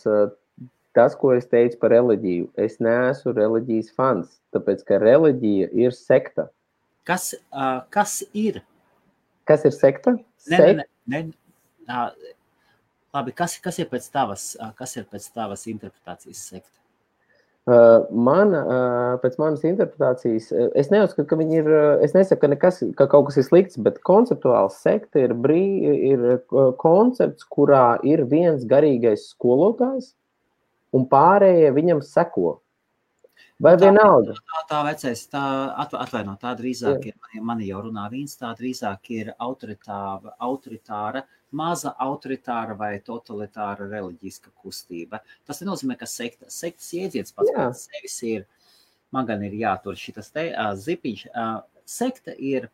tas, ko es teicu par reliģiju, es neesmu reliģijas fans, tāpēc, ka reliģija ir sekta. Kas ir? Kas ir sekta? Labi, kas ir pēc tavas interpretācijas sekta? Pēc manas interpretācijas, es neuzskatu, ka viņi ir, es nesaku, ka kaut kas ir slikts, bet konceptuāls sekta ir koncepts, kurā ir viens garīgais skolotājs un pārējie viņam seko. Vai vienalga? Tā vecais, atvaino, tā drīzāk ir, mani jau runā vīns, tā drīzāk ir autoritāra, maza autoritāra vai totalitāra reliģiska kustība. Tas nenozīmē, ka sektas jēdziens pats sevis ir, man gan ir jātur šitas te zipiņš. Sekta ir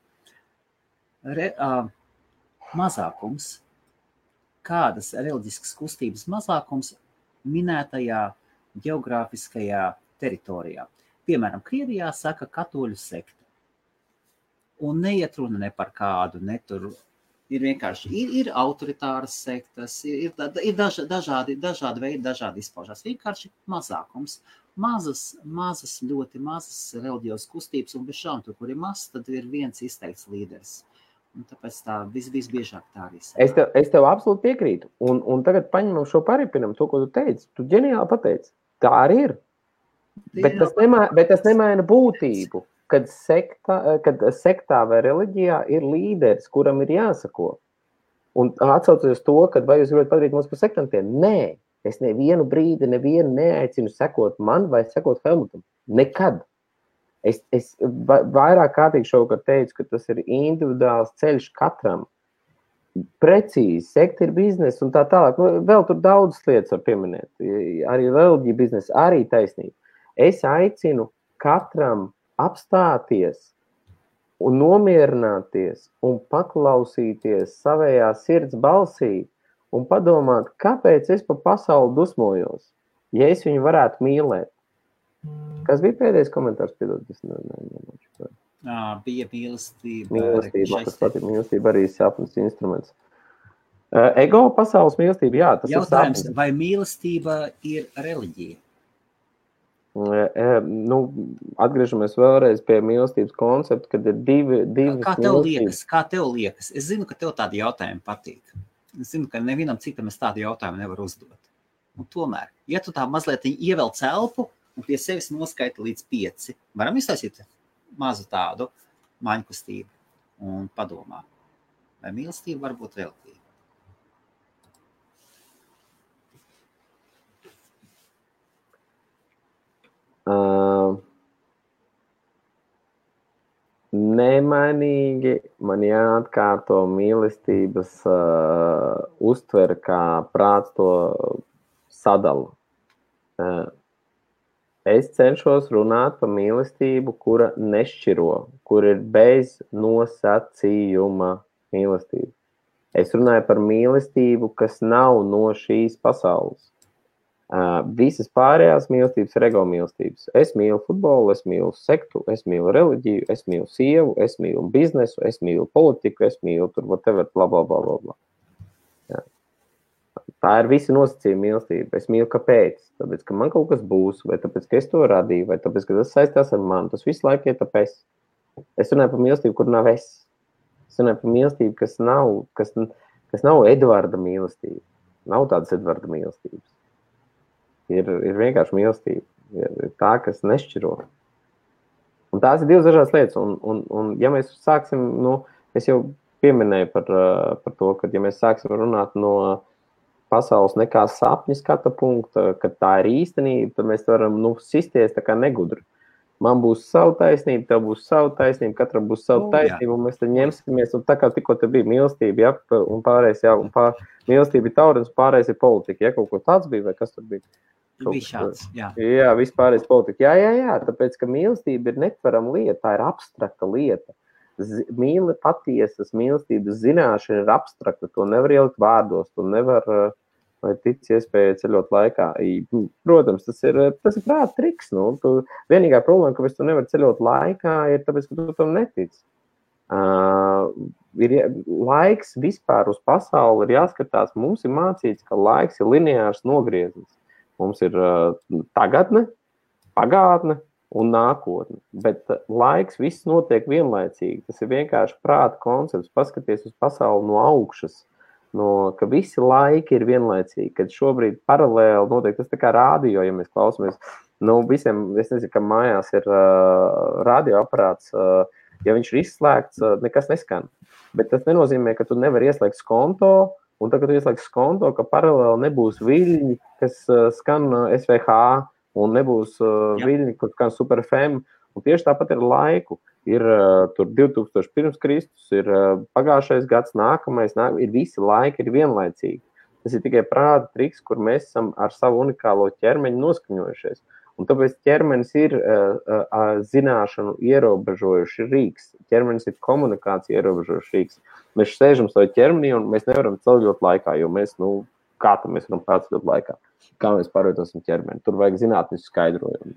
mazākums, kādas reliģiskas kustības mazākums minētajā geogrāfiskajā teritorijā. Piemēram, Krievijā saka katoļu sekta. Un neiet runa ne par kādu, ne tur ir vienkārši, ir autoritāras sektas, ir dažādi veidi, dažādi izpaužās. Vienkārši mazākums. Mazas, ļoti mazas reliģijos kustības, un bez šām tur, kur ir mazs, tad ir viens izteikts līderis. Un tāpēc tā visbiežāk tā arī saka. Es tev absolūti piekrītu. Un tagad paņemam šo paripinam, to, ko tu teici. Tu ģeniāli pateici. Tā arī ir. Bet tas nemaina būtību, kad sektā vai reliģijā ir līderis, kuram ir jāsako. Un atsaucoties to, kad vai jūs gribat padarīt mums par sektantiem? Nē, es nevienu brīdi neaicinu sekot man vai sekot Helmutam. Nekad. Es vairāk kārtīgi šovakar teicu, ka tas ir individuāls ceļš katram. Precīzi, sekta ir biznesa un tā tālāk. Vēl tur daudz lietas var pieminēt. Arī reliģija biznesa, arī taisnība. Es aicinu katram apstāties un nomierināties un paklausīties savējā sirds balsī un padomāt, kāpēc es pa pasauli dusmojos. Ja es viņu varētu mīlēt. Kas bija pēdējais komentārs? Piedod, Bija mīlestība. Mīlestība, kas patīk. Mīlestība arī sapnis instruments. Ego pasaules mīlestība, jā, tas jautājums, ir sapnis. Vai mīlestība ir reliģija? Atgriežamies vēlreiz pie mīlestības koncepta, kad ir divas Kā tev liekas? Es zinu, ka tev tādi jautājumi patīk. Es zinu, ka nevienam citam es tādu jautājumu nevaru uzdot. Un tomēr, ja tu tā mazliet ievelc elpu un pie sevis noskaita līdz 5, varam iztaisīt mazu tādu maņkustību un padomā, vai mīlestība var būt reliģija? Nemainīgi man jāatkārto mīlestības uztver, kā prāts to sadala. Es cenšos runāt par mīlestību, kura nešķiro, kur ir bez nosacījuma mīlestība. Es runāju par mīlestību, kas nav no šīs pasaules. Visas pārējās mīlestības ir ego mīlestības. Es mīlu futbolu, es mīlu sektu, es mīlu reliģiju, es mīlu sievu, es mīlu biznesu, es mīlu politiku, es mīlu tur whatever, bla, bla, bla, bla. Jā. Tā ir visi nosacījumi mīlestība. Es mīlu kāpēc? Tāpēc, ka man kaut kas būs, vai tāpēc, ka es to radīju, vai tāpēc, ka tas saistās ar mani. Tas visu laiku ir tāpēc. Es runāju par mīlestību, kur nav es. Es runāju par mīlestību, kas nav Edvarda mīlestība. Nav tādas Edvarda mīlestības. Ir vienkārši mīlestība. Ir tā, kas nešķiro. Un tās ir divas dažādas lietas. Un ja mēs sāksim, es jau pieminēju par to, ka ja mēs sāksim runāt no pasaules nekā sapņu skata punkta, kad tā ir īstenība, tad mēs varam sisties tā kā negudri. Man būs savu taisnību, tev būs savu taisnību, katram būs savu taisnību, un mēs tad ņemsimies, un tā kā tikko te bija mīlestība, un pārējais, mīlestība ir taurens, pārējais ir politika, kaut ko tāds bija, vai kas tur bija? Bija šāds, jā. Jā, vispārējais politika. Jā, tāpēc, ka mīlestība ir netverama lieta, tā ir abstrakta lieta. Patiesas mīlestības zināšana ir abstrakta, to nevar ielikt vārdos, to nevar, vai tic iespēja ceļot laikā. Protams, tas ir prāta triks. Vienīgā problēma, ka tu nevari ceļot laikā, ir tāpēc, ka tu tam netici. Laiks vispār uz pasauli ir jāskatās. Mums ir mācīts, ka laiks ir lineārs nogrieznis. Mums ir tagadne, pagātne un nākotne. Bet laiks viss notiek vienlaicīgi. Tas ir vienkārši prāta koncepts. Paskaties uz pasauli no augšas. Ka visi laiki ir vienlaicīgi. Kad šobrīd paralēli notiek, tas tā kā rādio, ja mēs klausamies. Visiem, es nezinu, ka mājās ir radioaparāts. Ja viņš ir izslēgts, nekas neskan. Bet tas nenozīmē, ka tu nevari ieslēgt skonto. Un tagad, kad tu ieslēgsi skonto, ka paralēli nebūs viļņi, kas skan SVH, un nebūs viļņi, kas skan Super FM. Un tieši tāpat ir laiku. Ir tur 2000 pirms Kristus, ir pagājušais gads, nākamais, ir visi laiki ir vienlaicīgi. Tas ir tikai prāta triks, kur mēs esam ar savu unikālo ķermeņu noskaņojušies. Un tāpēc ķermenis ir zināšanu ierobežojuši rīks. Ķermenis ir komunikācija ierobežojuši rīks. Mēs sēžam savā ķermenī un mēs nevaram ceļot laikā, jo mēs, kā tad mēs varam pārceļot laikā? Kā mēs pārvietosim ķermeni? Tur vajag zinātnisku skaidrojumu.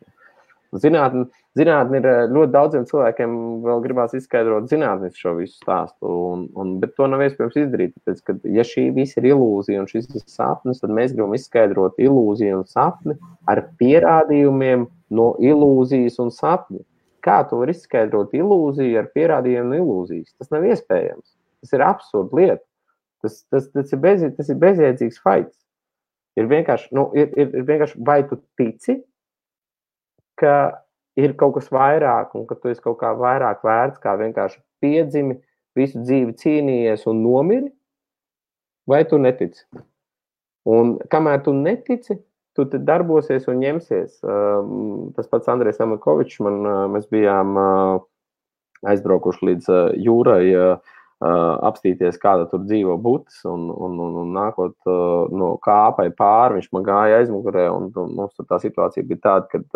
Zinātni ir ļoti daudziem cilvēkiem vēl gribās izskaidrot zinātnisku šo visu stāstu, bet to nav iespējams izdarīt. Tāpēc, ka ja šī visa ir ilūzija un šis ir sapnis, tad mēs gribam izskaidrot ilūziju un sapni ar pierādījumiem no ilūzijas un sapņa. Kā tu vari izskaidrot ilūziju ar pierādījumiem no ilūzijas? Tas nav iespējams. Tas ir absurda lieta. Tas ir bezjēdzīgs fights. Ir vienkārši vai tu tici, ka ir kaut kas vairāk un ka tu esi kaut kā vairāk vērts, kā vienkārši piedzimi, visu dzīvi cīnījies un nomiri, vai tu netici? Un kamēr tu netici, tu te darbosies un ņemsies. Tas pats Andrejs Amakovičs, mēs bijām aizbraukuši līdz jūrai, apstīties, kāda tur dzīvo butis, un nākot no kāpai pāri, viņš man gāja aizmugurē, un mums tur tā situācija bija tāda, kad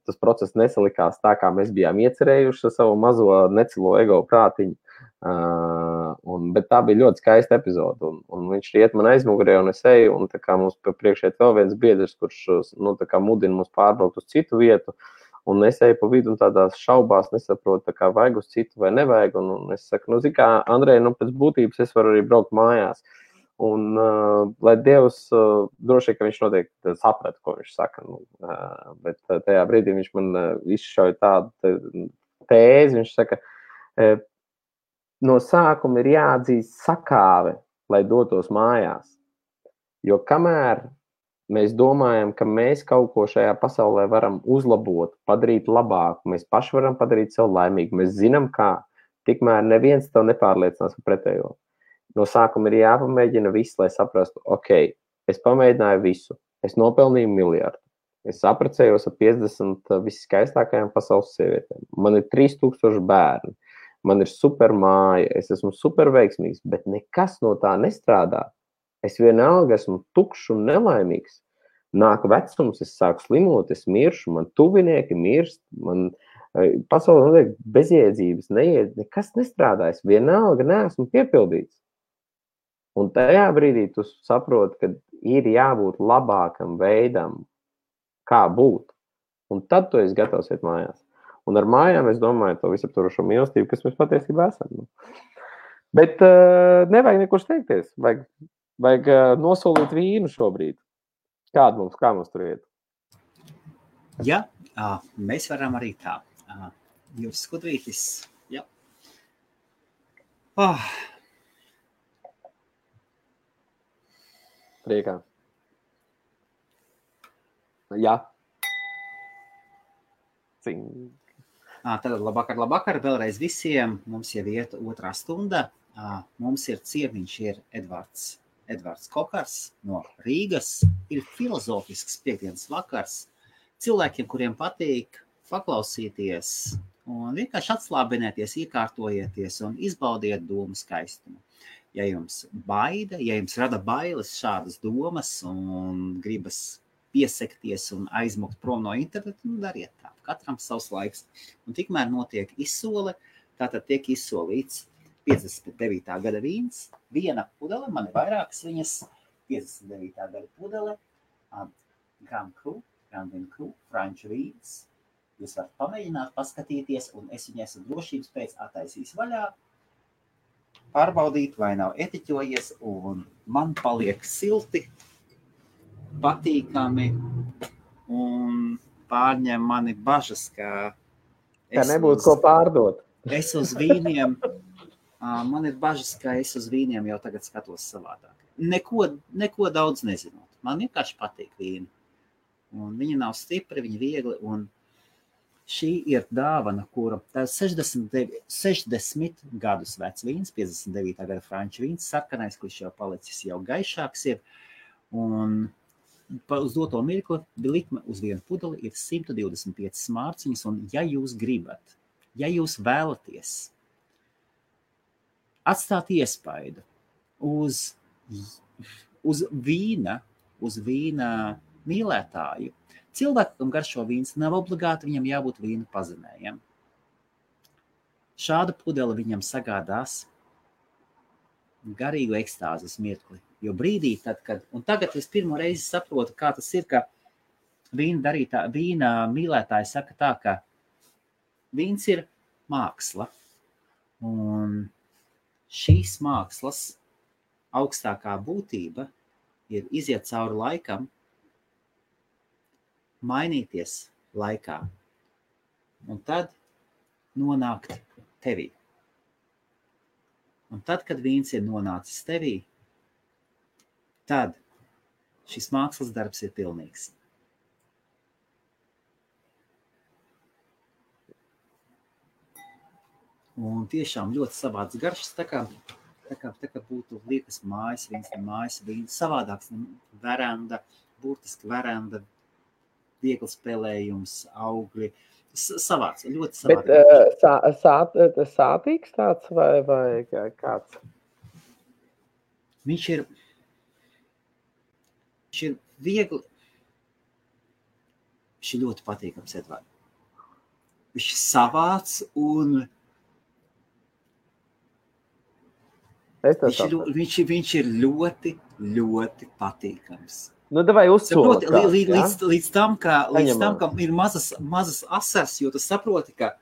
tas process nesalikās tā, kā mēs bijām iecerējuši ar savu mazo necilo ego prātiņu. Bet tā bija ļoti skaista epizode. Un viņš iet man aizmugurē, un es eju, un tā kā mums priekšē vēl viens biedrs, kurš tā kā mudina mums pārbraukt uz citu vietu. Un es eju pa vidu un tādās šaubās nesaprotu, tā kā vajag uz citu vai nevajag. Un es saku, zini kā, Andrej, pēc būtības es varu arī braukt mājās. Un, lai Dievs, droši, ka viņš noteikti saprata, ko viņš saka. Bet tajā brīdī viņš man izšauja tādu tēzi. Viņš saka, no sākuma ir jāatzīst sakāve, lai dotos mājās. Jo kamēr mēs domājam, ka mēs kaut ko šajā pasaulē varam uzlabot, padarīt labāku, mēs paši varam padarīt sev laimīgu, mēs zinām kā, tikmēr neviens tev nepārliecinās par pretējo. No sākuma ir jāpamēģina viss, lai saprastu, ok, es pamēģināju visu, es nopelnīju miljardu, es apprecējos ar 50 visskaistākajām pasaules sievietēm, man ir 3000 bērni, man ir super māja, es esmu super veiksmīgs, bet nekas no tā nestrādā. Es vienalga esmu tukšs un nelaimīgs. Nāk vecums, es sāku slimot, es miršu, man tuvinieki mirst, man pasaulē notiek bezjēdzības, nekas nestrādā, es vienalga neesmu piepildīts. Un tajā brīdī tu saproti, ka ir jābūt labākam veidam, kā būt. Un tad tu esi gatavs iet mājās. Un ar mājām es domāju to visaptvarošo mīlestību, kas mēs patiesībā esam. Bet nevajag nekur steigties. Vajag nosolīt vīnu šobrīd. Kā mums tur iet? Ja, mēs varam arī tā. Jūs skudrītis, jā. Priekā. Jā. Tad labvakar vēlreiz visiem. Mums jau iet 2. stunda. Mums ir ciemiņš, ir Edvards Kokars no Rīgas. Ir filozofisks piekdienas vakars. Cilvēkiem, kuriem patīk paklausīties un vienkārši atslābinēties, iekārtojieties un izbaudiet domu skaistumu. Ja jums baida, ja jums rada bailes šādas domas un gribas piesekties un aizmukt prom no interneta, dariet tā. Katram savs laiks. Un tikmēr notiek izsole, tātad tiek izsolīts 59. gada vīns, viena pudele, man ir vairākas viņas, 59. gada pudele, Grand Cru, franču vīns. Jūs varat pamēģināt, paskatīties, un es viņai esmu drošības pēc attaisījis vaļā, pārbaudīt, vai nav etiķojies, un man paliek silti, patīkami, un pārņem mani bažas, ka nebūtu ko pārdot. Es uz vīniem, man ir bažas, ka es uz vīniem jau tagad skatos savādāk. Neko daudz nezinot. Man vienkārši patīk vīni. Un viņi nav stipri, viņi viegli, un šī ir dāvana, kura tā 60 gadus vecs vīns, 59. gada franču vīns, sarkanais, kurš jau palicis jau gaišāks ir, un uz doto mirkli likme uz vienu pudeli ir 125 mārciņas, un ja jūs gribat, ja jūs vēlaties atstāt iespaidu uz vīna mīlētāju, cilvēkam garšo vīns, nav obligāti viņam jābūt vīna pazemējam. Šāda pudele viņam sagādās garīgu ekstāzes mirkli. Jo brīdī, un tagad es pirmo reizi saprotu, kā tas ir, ka vīna mīlētāji saka tā, ka vīns ir māksla. Un šīs mākslas augstākā būtība ir iziet cauri laikam, mainīties laikā un tad nonākt tevī. Un tad, kad vīns ir nonācis tevī, tad šis mākslas darbs ir pilnīgs. Un tiešām ļoti savāds garšas, tā kā būtu liekas mājas vīns, savādāks veranda, burtiski veranda, viegli spēlējums, augļi, savāds, ļoti savāds. Bet sātīgs tāds vai kāds? Viņš ir viegli, viņš ir ļoti patīkams, Edvard. Viņš ir savāds un Viņš ir ļoti, ļoti patīkams. Nu, davai uzsoli. Līdz tam, ka ir mazas asars, jo tu saproti, ka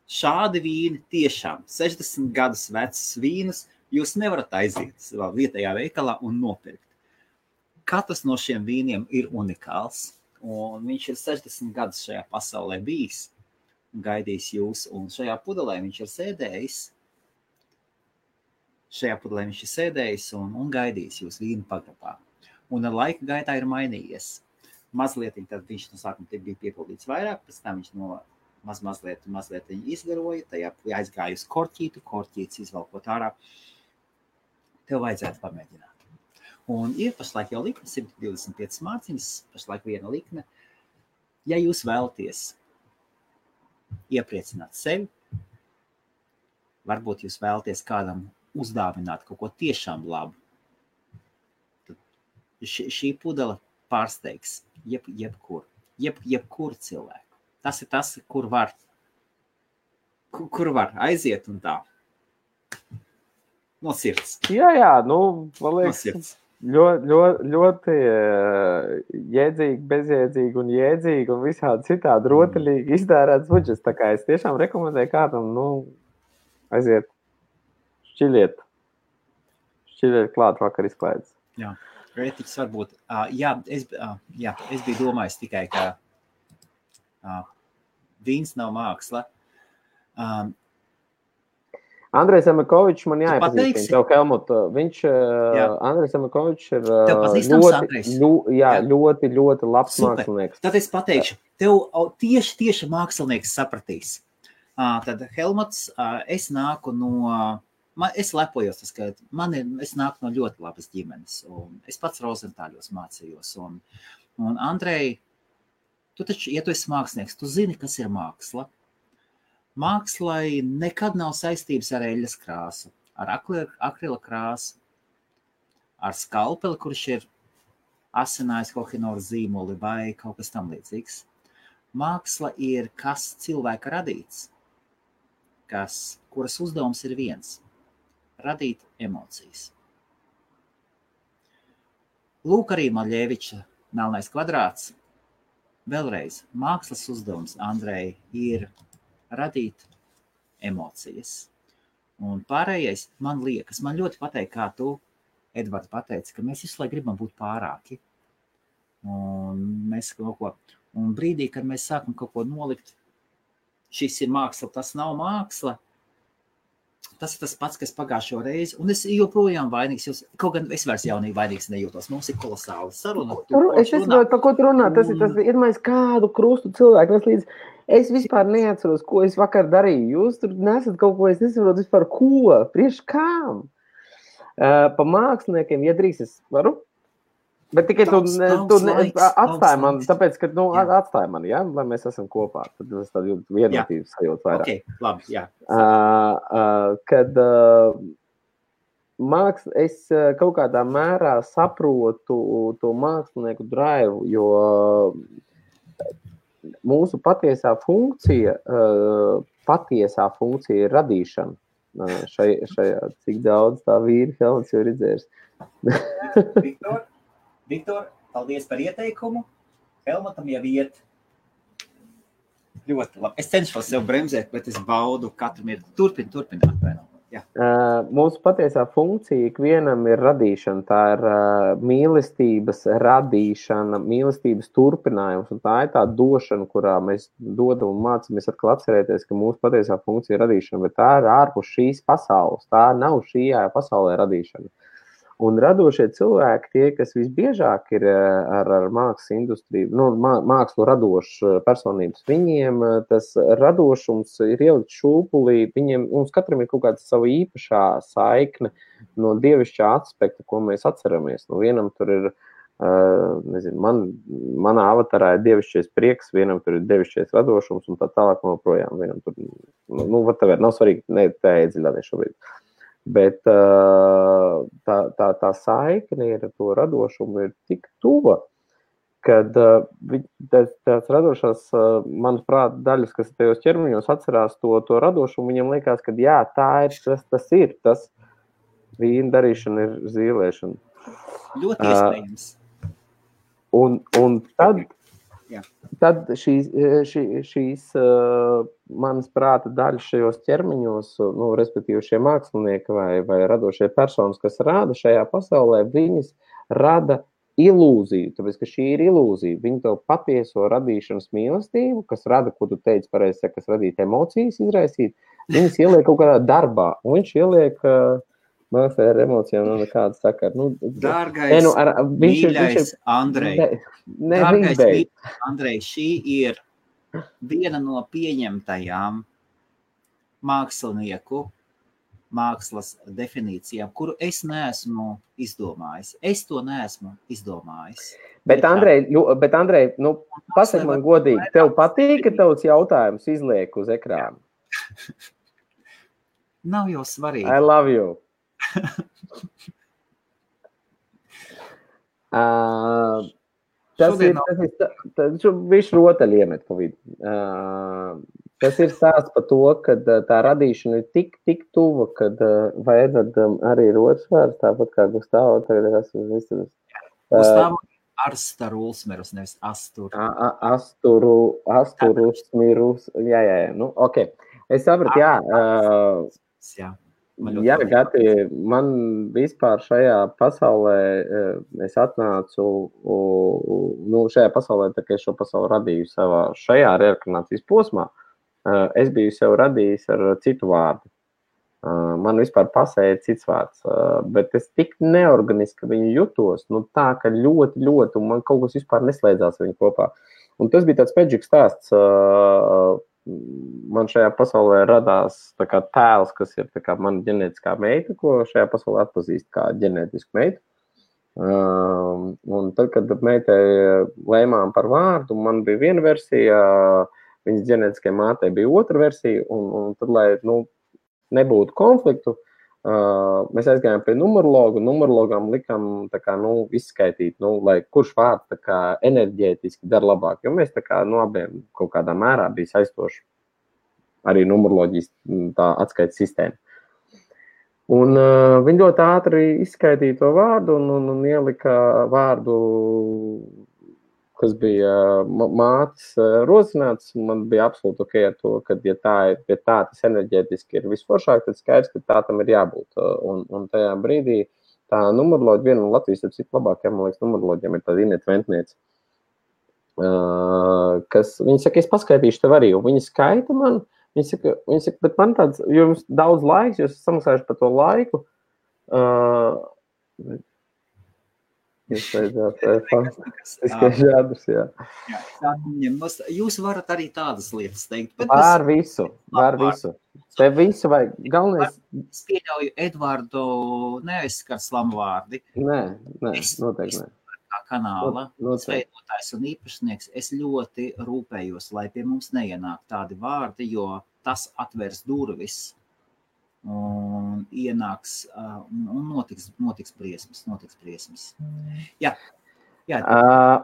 šādi vīni tiešām 60 gadus vecas vīnus jūs nevarat aiziet savā vietējā veikalā un nopirkt. Katrs no šiem vīniem ir unikāls, un viņš ir 60 gadus šajā pasaulē bijis un gaidījis jūs, un šajā pudelē viņš ir sēdējis un gaidījis jūs vīnu pagrabā. Un ar laika gaitā ir mainījies. Mazliet, tad viņš no sākuma bija piepildīts vairāk, pēc tam viņš no mazliet izgaroja, tajā aizgāja uz korķītes izvalkot ārā. Tev vajadzētu pamēģināt. Un ir pašlaik jau likme, 125 mārciņas, pašlaik viena likme. Ja jūs vēlaties iepriecināt sevi, varbūt jūs vēlaties kādam uzdāvināt kaut ko tiešām labu, tad šī pudele pārsteigs jebkuru cilvēku. Tas ir tas, kur var aiziet un tā. No sirds. Jā, man liekas, ļoti jēdzīgi, bezjēdzīgi un jēdzīgi un visādi citādi rotaļīgi iztērēts budžets. Tā kā es tiešām rekomendēju kādam, aiziet, šķiliet klāt vakar izklaides. Jā, rētiķis varbūt. Es biju domājis tikai, ka vīns nav māksla. Andrejs Emakovičs man jāiepazīstina tev, Helmut. Andrejs Emakovičs ir ļoti labs mākslinieks. Tad es pateikšu, tev tieši mākslinieks sapratīs. Tad Helmuts, es nāku es lepojos, ka es nāku no ļoti labas ģimenes. Un es pats Rozentāļos mācījos. Un Andrej, tu taču, ja tu esi mākslinieks, tu zini, kas ir māksla. Mākslai nekad nav saistības ar eļas krāsu, ar akrila krāsu, ar skalpeli, kurš ir asinājis kohinoru zīmoli vai kaut kas tam līdzīgs. Māksla ir kas cilvēka radīts, kuras uzdevums ir viens – radīt emocijas. Lūk arī Maļeviča Melnais kvadrāts. Vēlreiz, mākslas uzdevums, Andrej, ir radīt emocijas. Un pārējais, man ļoti patīk, kā tu, Edvards, pateici, ka mēs visu laiku gribam būt pārāki. Un brīdī, kad mēs sākam kaut ko nolikt, šis ir māksla, tas nav māksla, tas ir tas pats, kas pagājušo reizi, un es joprojām vainīgs, kaut gan es vairs jaunīgi vainīgs nejūtos. Mums ir kolosāla saruna. Es saprotu, par ko tu runā. Tas ir iedomājies kādu krustu cilvēku. Es vispār neatceros, ko es vakar darīju. Jūs tur nesat kaut ko, es nesaprotu vispār ko, priekš kām. Pa māksliniekiem, ja drīz es varu, bet tikai tu atstāji man, tāpēc, ka atstāji man, ja, lai mēs esam kopā. Tad es tādu vienotību sajūtu vairāk. Ok, labi, jā. Kad es kaut kādā mērā saprotu to mākslinieku drive, jo mūsu patiesā funkcija ir radīšana. Šajā, cik daudz tā vīri Helmuts jau redzējis. Viktor, paldies par ieteikumu. Helmutam jau iet ļoti labi. Es cenšos sev bremzēt, bet es baudu katru mirkli. Turpināt. Mūsu patiesā funkcija ikvienam ir radīšana. Tā ir mīlestības radīšana, mīlestības turpinājums. Un tā ir tā došana, kurā mēs dodam un mācamies atkal atcerēties, ka mūsu patiesā funkcija ir radīšana. Bet tā ir ārpus šīs pasaules. Tā nav šajā pasaulē radīšana. Un radošie cilvēki, tie, kas visbiežāk ir ar mākslas industriju, mākslu radošu personības, viņiem tas radošums ir ielikt šūpulī, mums katram ir kaut kāda sava īpašā saikne no dievišķā aspekta, ko mēs atceramies. Vienam tur ir, manā avatarā ir dievišķais prieks, vienam tur ir dievišķais radošums un tā tālāk joprojām. Vienam tur, nav svarīgi, tā iedziļināties šobrīd. Bet tā saikne ar to radošumu ir tik tuva, kad tās radošās, manuprāt, daļas, kas tajos ķermeņos atcerās to radošumu, viņam liekas, ka jā, tas ir tas, Vīna darīšana ir zīlēšana. Ļoti iespējams. Un tad šīs manas prāta daļas šajos ķermeņos, respektīvi šie mākslinieki vai radošie personas, kas rāda šajā pasaulē, viņas rada ilūziju, tāpēc, ka šī ir ilūzija. Viņi tev patieso radīšanas mīlestību, kas rada, ko tu teici pareizi, kas radīt emocijas, izraisīt, viņas ieliek kaut kādā darbā, un viņš ieliek mākstai ar emocijām nekāda sakara. Dārgais, mīļais Andrej, Andrej, šī ir viena no pieņemtajām mākslinieku mākslas definīcijām, kuru es neesmu izdomājis. Es to neesmu izdomājis. Bet Andrej, pasaka man godīgi, tev patīk, ka tavs jautājums izliek uz ekrānu? Nav jau svarīgi. I love you. Viņš rotaļ iemet pa vidu. Tas ir stāsts par to, ka tā radīšana ir tik tuva, kad vai Edvardam arī ir otrs vārds, tāpat kā Gustavo tagad esmu visur. Gustavo Arstaruls, nevis Astur. Asturus, mirus, jā, ok. Es sapratu, jā. Jā, Gati, man vispār šajā pasaulē, es atnācu, šajā pasaulē, tā kā es šo pasauli radīju savā šajā reinkarnācijas posmā, es biju sev radījis ar citu vārdu. Man vispār pasēja cits vārds, bet es tik neorganiski viņu jutos, tā, ka ļoti, un man kaut kas vispār neslēdzās viņu kopā. Un tas bija tāds peģiks stāsts. Man šajā pasaulē radās tā kā tēls, kas ir tā kā mana ģenētiskā meita, ko šajā pasaulē atpazīst kā ģenētisku meitu. Un tad, kad meitai lēmām par vārdu, man bija viena versija, viņas ģenētiskajai mātei bija otra versija, un tad, lai nebūtu konfliktu, mēs aizgājām pie numerologu, un numerologam likām tā kā, izskaitīt, lai kurš vārds tā kā enerģētiski dara labāk, jo mēs tā kā abiem kaut kādā mērā bija saistoši arī numeroloģijas tā atskaites sistēma. Un viņi ļoti ātri izskaitīja to vārdu un ielika vārdu, kas bija mātes rosināts, man bija absolūti ok ar to, ka ja tā tas enerģētiski ir visforšāk, tad skaidrs, ka tā tam ir jābūt. Un tajā brīdī tā numeroloģija, viena no Latvijas ir cik labākajām, man liekas, numeroloģiem ir tāda Ineta Ventniece, kas, viņa saka, es paskaitīšu tev arī, un viņa skaita man, viņa saka, bet man tāds, jo jums daudz laiks, jūs samaksājuši par to laiku, Jūs varat arī tādas lietas teikt. Var visu. Te visu vajag. Galvenais. Es pieļauju Edvardu neaizskar slamvārdi. Nē, noteikti ne. Kā kanāla veidotājs un īpašnieks, es ļoti rūpējos, lai pie mums neienāk tādi vārdi, jo tas atvērs durvis. Un ienāks un notiks briesmas. Jā.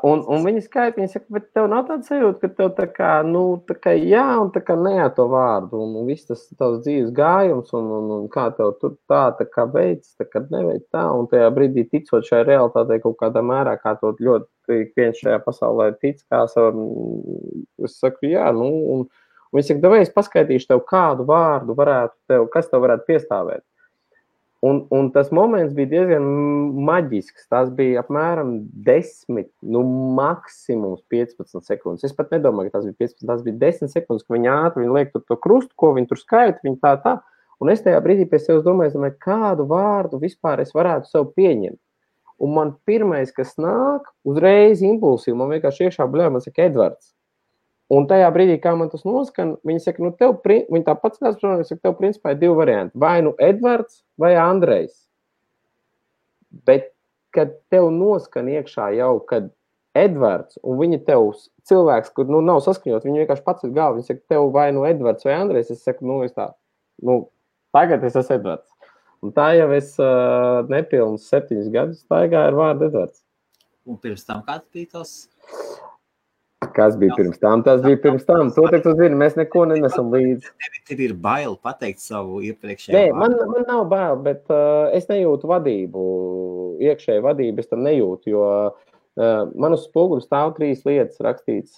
Un viņa skaita, viņa saka, bet tev nav tāds sajūta, ka tev tā kā jā un tā kā nē to vārdu, un viss tas tavs dzīves gājums, un kā tev tur tā kā veids, tā kā neveic tā, un tajā brīdī ticot šai realitātei kaut kādā mērā, kā to ļoti viens šajā pasaulē tic, kā es saku, jā, un viņi saka, davai es paskaitīšu tev, kādu vārdu kas tev varētu piestāvēt. Un tas moments bija diezgan maģisks. Tas bija apmēram 10, maksimums 15 sekundes. Es pat nedomāju, ka tas bija 15, tas bija 10 sekundes, ka viņi ātri liek to krustu, ko viņi tur skaita, viņi tā. Un es tajā brīdī pie sevis domāju, kādu vārdu vispār es varētu sev pieņemt. Un man pirmais, kas nāk, uzreiz impulsīvi, man vienkārši iekšā bļauj, man saka Edvards. Un tajā brīdī, kā man tas noskan, viņi saka, viņi tāpat skatās, saka, tev principā ir 2 varianti. Vai Edvards vai Andrejs. Bet, kad tev noskan iekšā jau, kad Edvards, un viņi tev cilvēks, kur nav saskaņot, viņi vienkārši pats ir galva, viņi saka, tev vai Edvards vai Andrejs, es saku, tagad es esmu Edvards. Un tā jau es nepilnus 7 gadus staigāju ar vārdu Edvards. Un pirms tam kāds bija tos? Kas bija pirms tam? Tas bija pirms tam. To tu zini, mēs neko nenesam līdzi. Tev ir bail pateikt savu iepriekšējo Nē, man nav bail, bet es nejūtu vadību, iekšēju vadību, es tam nejūtu, jo man uz spoguļa stāv 3 lietas rakstīts,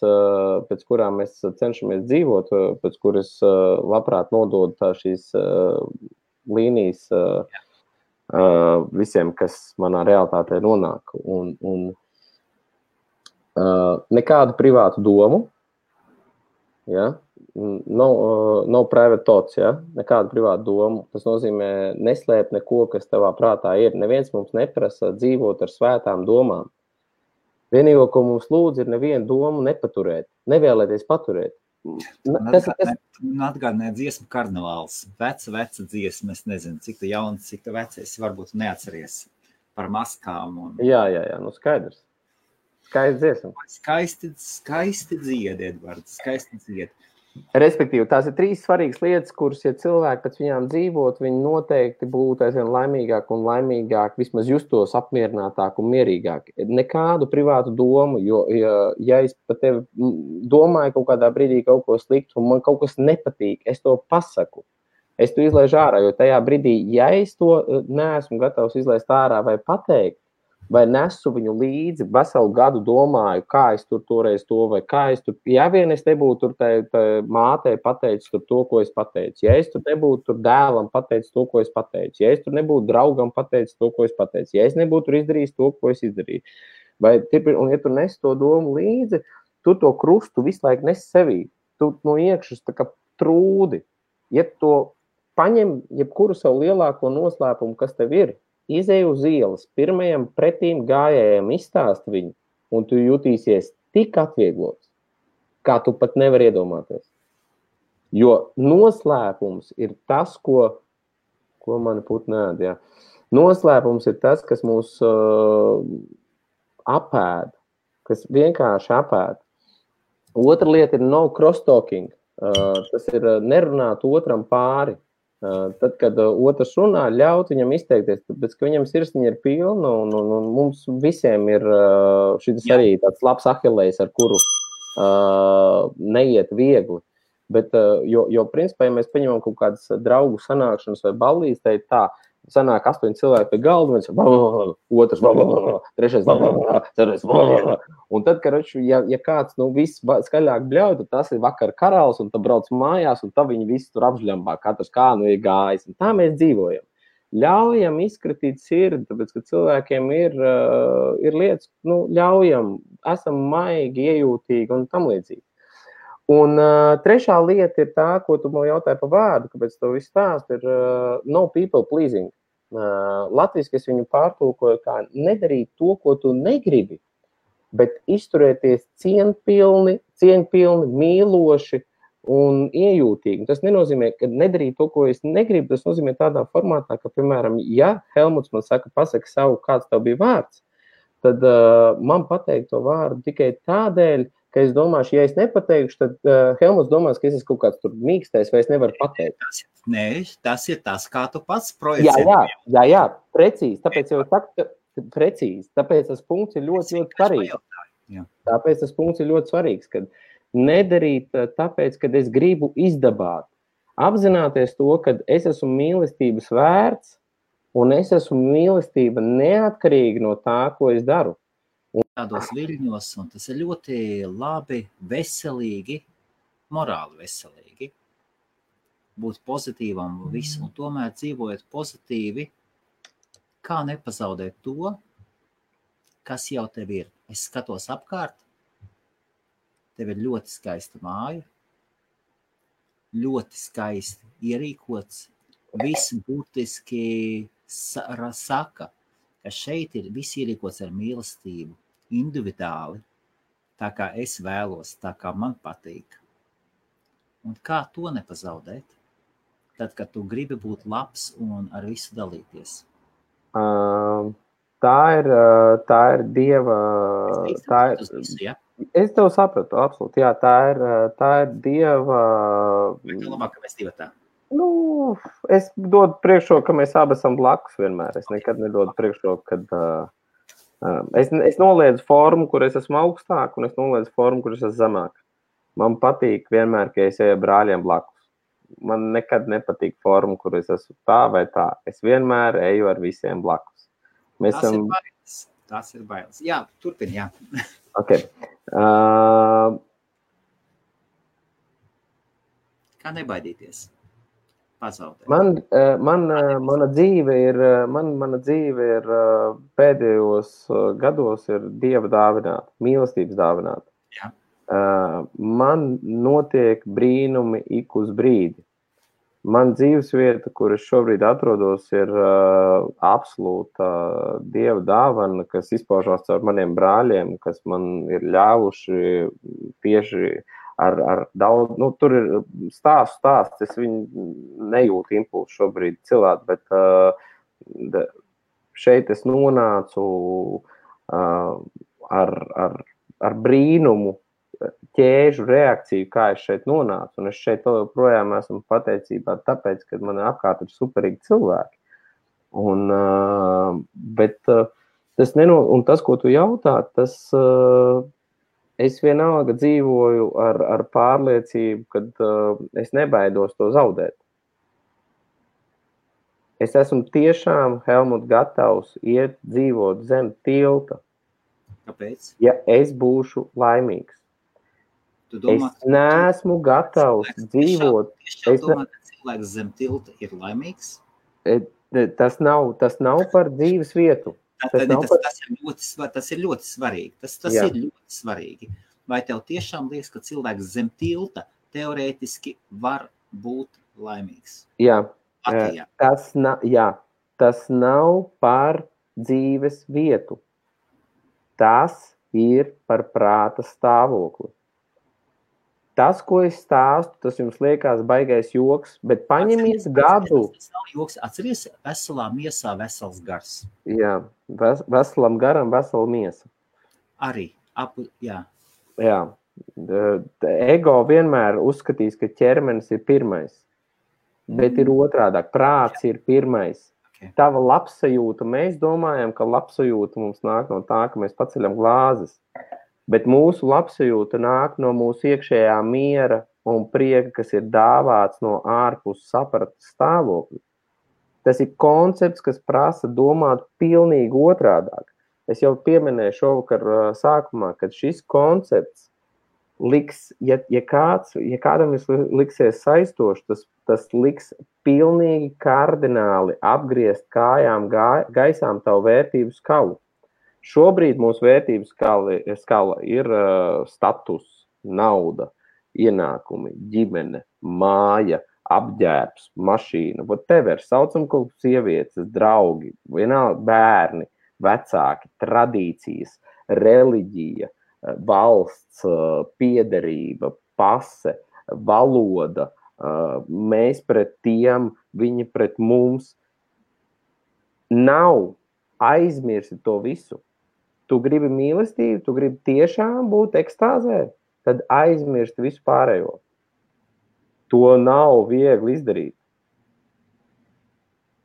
pēc kurām mēs cenšamies dzīvot, pēc kuras labprāt nododu šīs līnijas visiem, kas manā realitātē nonāk. Un nekādu privātu domu, ja? No private thoughts, ja? Nekādu privātu domu. Tas nozīmē neslēpt neko, kas tavā prātā ir. Neviens mums neprasa dzīvot ar svētām domām. Vienīgo, ko mums lūdz, ir nevienu domu nepaturēt, nevēlēties paturēt. Atgādināja dziesmu karnevāls. Veca dziesma, es nezinu, cik tu jauns, cik tu vecais, varbūt neatceries par maskām. Jā, nu skaidrs. Skaisti dziesma. Skaisti dzied, Edvards, skaisti dzied. Respektīvi, tās ir 3 svarīgas lietas, kuras, ja cilvēki pēc viņām dzīvot, viņi noteikti būtu aizvien laimīgāk un laimīgāk, vismaz justos apmierinātāk un mierīgāk. Nekādu privātu domu, jo, ja es par tevi domāju kaut kādā brīdī kaut ko sliktu un man kaut kas nepatīk, es to pasaku. Es to izlaižu ārā, jo tajā brīdī, ja es to neesmu gatavs izlaist ārā vai pateikt, vai nesu viņu līdzi, veselu gadu domāju, kā es tur toreiz to, vai kā es tur, ja vien es nebūtu tur tā mātei pateicis tur to, ko es pateicu, ja es tur nebūtu tur dēlam pateicis to, ko es pateicu, ja es tur nebūtu draugam pateicis to, ko es pateicu, ja es nebūtu tur izdarījis to, ko es izdarīju, vai, un ja tu nes to domu līdzi, tu to krustu visu laiku nes sevī, tu no iekšas tā kā trūdi, ja to paņem jebkuru savu lielāko noslēpumu, kas tev ir, izej uz ielas, pirmajam pretīm gājējiem izstāst viņu, un tu jutīsies tik atvieglots, kā tu pat nevar iedomāties. Jo noslēpums ir tas, ko mani putni ēd, jā. Noslēpums ir tas, kas mūs apēd, kas vienkārši apēd. Otra lieta ir no cross-talking. Tas ir nerunāt otram pāri. Tad, kad otrs runā, ļaut viņam izteikties, tāpēc, ka viņam sirsniņa ir pilna un mums visiem ir šis arī tāds labs ahilejs, ar kuru neiet viegli. Bet, jo principā, ja mēs paņemam kaut kādas draugu sanākšanas vai ballīs, tā ir tā, sanāk 8 cilvēki pie galda, viens otrs, trešais, ceturtais, un tad, ja kāds viss skaļāk bļauj, tad tas ir vakar karalis, un tad brauc mājās, un tad viņi visi tur apžļambā, katrs kā ir gājis, un tā mēs dzīvojam. Ļaujam izskatīt sirdi, tāpēc, ka cilvēkiem ir lietas, ļaujam, esam maigi, iejūtīgi un tam līdzīgi. Un trešā lieta ir tā, ko tu man jautāji par vārdu, kāpēc to viss stāst, ir no people pleasing. Latviski es viņu pārtulkoju kā nedarīt to, ko tu negribi, bet izturēties cieņpilni, mīloši un iejūtīgi. Tas nenozīmē, ka nedarīt to, ko es negribu, tas nozīmē tādā formātā, ka, piemēram, ja Helmuts man saka, pasaka savu, kāds tev bija vārds, tad man pateikt to vārdu tikai tādēļ, ka es domāšu, ja es nepateikšu, tad Helmuts domās, ka es esmu kaut kāds tur mīkstais, vai es nevaru pateikt. Nē, tas ir tas, kā tu pats projicē. Jā, precīzi. Tāpēc jau saku, precīzi. Tāpēc tas punkts ir ļoti svarīgs. Tāpēc tas punkts ir ļoti svarīgs, kad nedarīt tāpēc, kad es gribu izdabāt. Apzināties to, kad es esmu mīlestības vērts, un es esmu mīlestība neatkarīgi no tā, ko es daru. Tādos viļņos, un tas ir ļoti labi, veselīgi, morāli veselīgi, būt pozitīvam visu, un tomēr dzīvojot pozitīvi, kā nepazaudēt to, kas jau tev ir. Es skatos apkārt, tev ir ļoti skaista māja, ļoti skaisti ierīkots, viss būtiski saka, ka šeit ir viss ierīkots ar mīlestību, individuāli, tā kā es vēlos, tā kā man patīk. Un kā to nepazaudēt? Tad, kad tu gribi būt labs un ar visu dalīties. Tā ir Dieva... Es tev sapratu, absolūti. Jā, tā ir Dieva... Vai tev labāk, ka mēs divi tā? Es dodu priekšroku, ka mēs abi esam blakus vienmēr. Es nekad nedodu priekšroku, kad Es noliedzu formu, kur es esmu augstāk, un es noliedzu formu, kur es esmu zemāk. Man patīk vienmēr, ka es eju brāļiem blakus. Man nekad nepatīk forma, kur es esmu tā vai tā. Es vienmēr eju ar visiem blakus. Tas ir bailes. Jā, turpini, jā. Okay. Kā nebaidīties? Pazaudēt. Mana dzīve ir pēdējos gados ir Dieva dāvināta, mīlestības dāvināta. Jā. Man notiek brīnumi ik uz brīdi. Man dzīvesvieta, kur es šobrīd atrodos, ir absolūta Dieva dāvana, kas izpaužās caur maniem brāļiem, kas man ir ļāvuši tieši ar daudz, tur ir stāsts, es viņu nejūtu impulsu šobrīd cilvēku, bet šeit es nonācu ar brīnumu ķēžu reakciju, kā es šeit nonācu, un es šeit projām esmu pateicībā tāpēc, ka man apkārt ir superīgi cilvēki. Bet un tas, ko tu jautā, tas es vienalga dzīvoju ar pārliecību, kad es nebaidos to zaudēt. Es esmu tiešām, Helmut, gatavs iet dzīvot zem tilta. Kāpēc? Ja es būšu laimīgs. Es neesmu gatavs dzīvot. Es domāju, ka cilvēks zem tilta ir laimīgs? Tas nav par dzīves vietu. Tas ir ļoti svarīgi. Tas ir ļoti svarīgi. Vai tev tiešām liekas, ka cilvēks zem tilta teorētiski var būt laimīgs? Jā. Tas nav par dzīves vietu. Tas ir par prāta stāvokli. Tas, ko es stāstu, tas jums liekas baigais joks, bet paņemies gadu. Tas nav joks. Atceries, veselā miesā vesels gars. Jā, veselam garam vesela miesa. Arī. Jā. Jā. Ego vienmēr uzskatīs, ka ķermenis ir pirmais, bet ir otrādāk. Prāts ir pirmais. Okay. Tava labsajūta, mēs domājam, ka labsajūta mums nāk no tā, ka mēs paceļam glāzes. Bet mūsu labsajūta nāk no mūsu iekšējā miera un prieka, kas ir dāvāts no ārpus sapratas stāvokļa. Tas ir koncepts, kas prasa domāt pilnīgi otrādāk. Es jau pieminēju šovakar sākumā, kad šis koncepts liks, ja kādam liksies saistošs, tas liks pilnīgi kardināli apgriezt kājām gaisām tavu vērtību skalu. Šobrīd mūsu vērtības skala ir status, nauda, ienākumi, ģimene, māja, apģērbs, mašīna, whatever, saucam kaut sievietes, draugi, vienalga bērni, vecāki, tradīcijas, reliģija, valsts, piederība, pase, valoda, mēs pret tiem, viņi pret mums. Nav aizmirsti to visu. Tu gribi mīlestību, tu gribi tiešām būt ekstāzē, tad aizmirsti visu pārējo. To nav viegli izdarīt.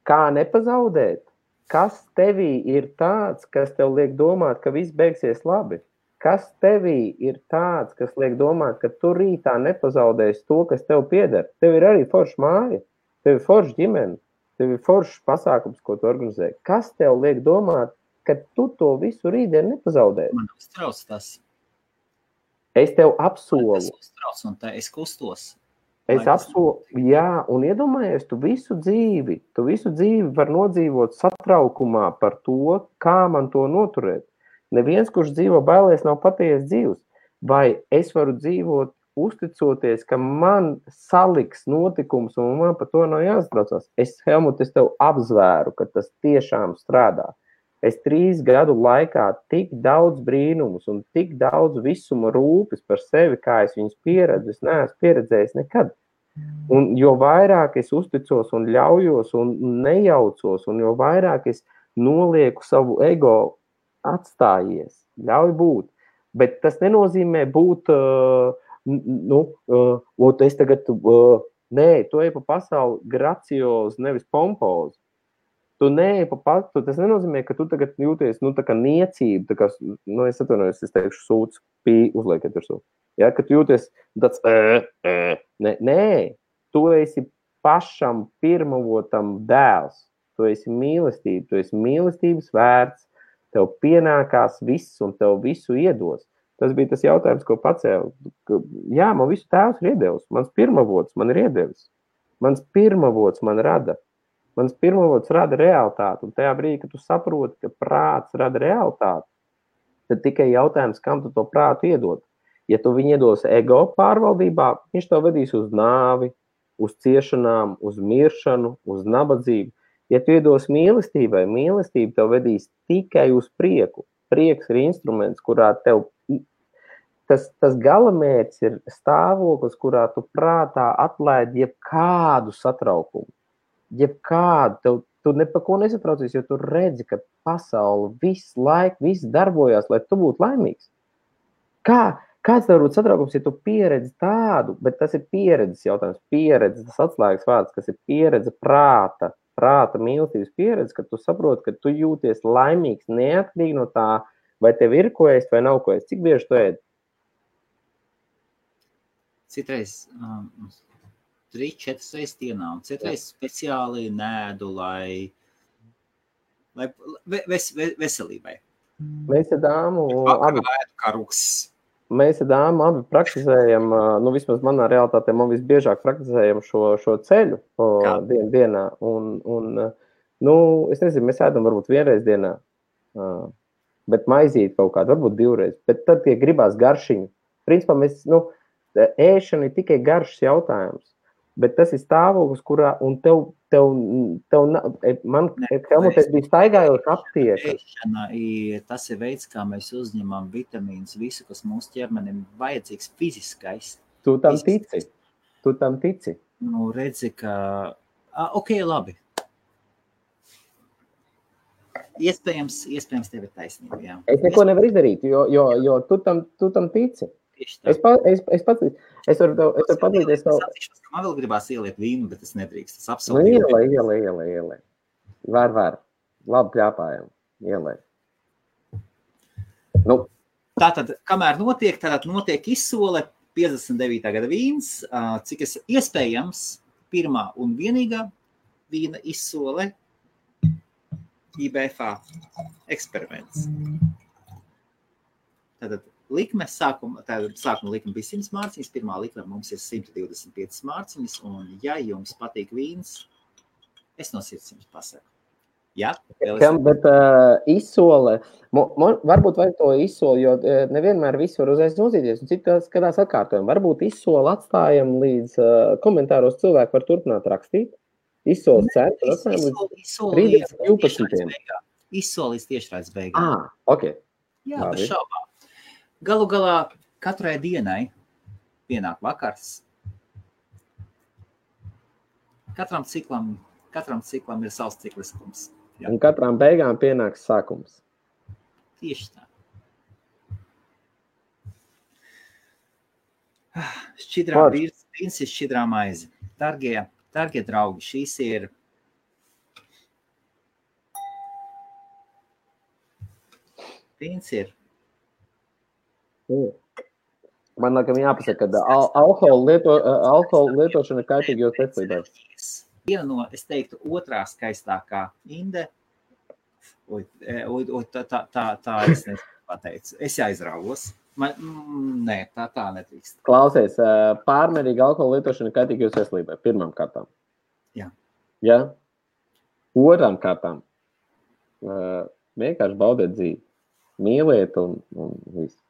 Kā nepazaudēt? Kas tevī ir tāds, kas tev liek domāt, ka viss beigsies labi? Kas tevī ir tāds, kas liek domāt, ka tu rītā nepazaudēsi to, kas tev pieder? Tev ir arī forša māja, tev ir forša ģimene, tev ir foršs pasākums, ko tu organizē. Kas tev liek domāt, ka tu to visu rītdien nepazaudēsi? Man uztrauc tas. Es tev apsolu. Es uztrauc un tā es kustos. Es apsolu, jā, un iedomājies, tu visu dzīvi var nodzīvot satraukumā par to, kā man to noturēt. Neviens, kurš dzīvo bailēs, nav patiesi dzīvs. Vai es varu dzīvot uzticoties, ka man saliks notikums un man par to nav jāsatraucās? Helmut, es tev apzvēru, ka tas tiešām strādā. Es 3 gadu laikā tik daudz brīnumus un tik daudz visuma rūpes par sevi, kā es viņus pieredzu, es neesmu pieredzējis nekad. Un jo vairāk es uzticos un ļaujos un nejaucos, un jo vairāk es nolieku savu ego, atstājies, ļauj būt. Bet tas nenozīmē būt, es tagad, nē, tu ej pa pasauli graciozi, nevis pompozi. Tu neej pa patu, tas nenozīmē, ka tu tagad jūties, tā kā niecība, tā kā, es atvainojos, es teikšu sūds, uzliekiet virsū. Ja, ka tu jūties tāds, nē, tu esi pašam pirmavotam dēls, tu esi mīlestība, tu esi mīlestības vērts, tev pienākās viss un tev visu iedos. Tas bija tas jautājums, ko pacēlu. Jā, man visu tēvs ir iedevis. Mans pirmavots man ir iedevis. Mans pirmavots man rada. Mans pirmavots rada realitāti. Un tajā brīdī, kad tu saproti, ka prāts rada realitāti, tad tikai jautājums, kam tu to prātu iedod. Ja tu viņu iedos ego pārvaldībā, viņš tev vedīs uz nāvi, uz ciešanām, uz miršanu, uz nabadzību. Ja tu iedos mīlestībai, mīlestība tev vedīs tikai uz prieku. Prieks ir instruments, kurā tev tas galamērķis ir stāvoklis, kurā tu prātā atlaid jebkādu satraukumu. Jebkādu, tu ne pa ko nesatraucies, jo tu redzi, ka pasaule visu laiku, viss darbojās, lai tu būtu laimīgs. Kāds tev būtu satraukums, ja tu pieredzi tādu, bet tas ir pieredzes jautājums, pieredze, tas atslēgas vārds, kas ir pieredze prāta mīlestības pieredze, ka tu saproti, ka tu jūties laimīgs neatkarīgi no tā, vai tev ir ko ēst vai nav ko ēst. Cik bieži tu ēd? Citreiz 3-4 reizes dienā, un citreiz speciāli nēdu, lai veselībai. Mēs ar dāmu abi praktizējam, vismaz manā realitātē, man visbiežāk praktizējam šo ceļu dienā. Es nezinu, mēs ēdam varbūt vienreiz dienā, bet maizīt kaut kādu, varbūt 2 reizes. Bet tad, ja gribās garšiņu, principā mēs, ēšana ir tikai garšas jautājums, bet tas ir stāvoklis, kurā, un man Helmutēs bija staigājoša aptieka. Ēšana tas ir veids, kā mēs uzņemam vitamīnus, visu, kas mūsu ķermenim vajadzīgs fiziskais. Tu tam tici. Redzi, ka, ok, labi. Iespējams tev ir taisnība, jā. Es neko nevaru izdarīt, jo tu tam tici. Es varu padalīties savu. Man vēl gribās ieliet vīnu, bet es nedrīkst. Tas absolūti. Ielai. Var. Labi pļāpājam. Ielai. Tātad, kamēr notiek izsole 59. gada vīns, cik es iespējams pirmā un vienīgā vīna izsole IBFA eksperiments. Tātad, sākuma likme bija 100 mārciņas, pirmā likme mums ir 125 mārciņas, un ja jums patīk vīns, es no sirds jums pasaku. Jā? Bet izsole, varbūt vajag to izsoli, jo nevienmēr visu var uzreiz nozīties, un citās skatās atkārtojam. Varbūt izsoli atstājam līdz komentāros cilvēki var turpināt rakstīt. Izsoles cenu atstājam līdz 12. Izsolis tiešraides beigām. Ok. Jā, bez šaubām. Galu galā katrai dienai pienāk vakars. Katram ciklam ir savs cikliskums. Jā. Un katram beigām pienāks sākums. Tieši tā. Šķidrā vīns ir šķidrā maize. Dargie draugi, šīs ir vīns ir. Man laikam jāpasaka, ka alkohola lietošana ir kaitīga jūsu veselībai. Viena no, es teiktu, otrā skaistākā inde. Tā es nepateicu. Es aizrāvos. Nē, tā netrīkst. Klausies, pārmērīga alkohola lietošana ir kaitīga jūsu veselībai. Pirmām kārtām. Jā. Ja? Otrām kārtām. Vienkārši baudiet dzīvi. Mīliet un visu.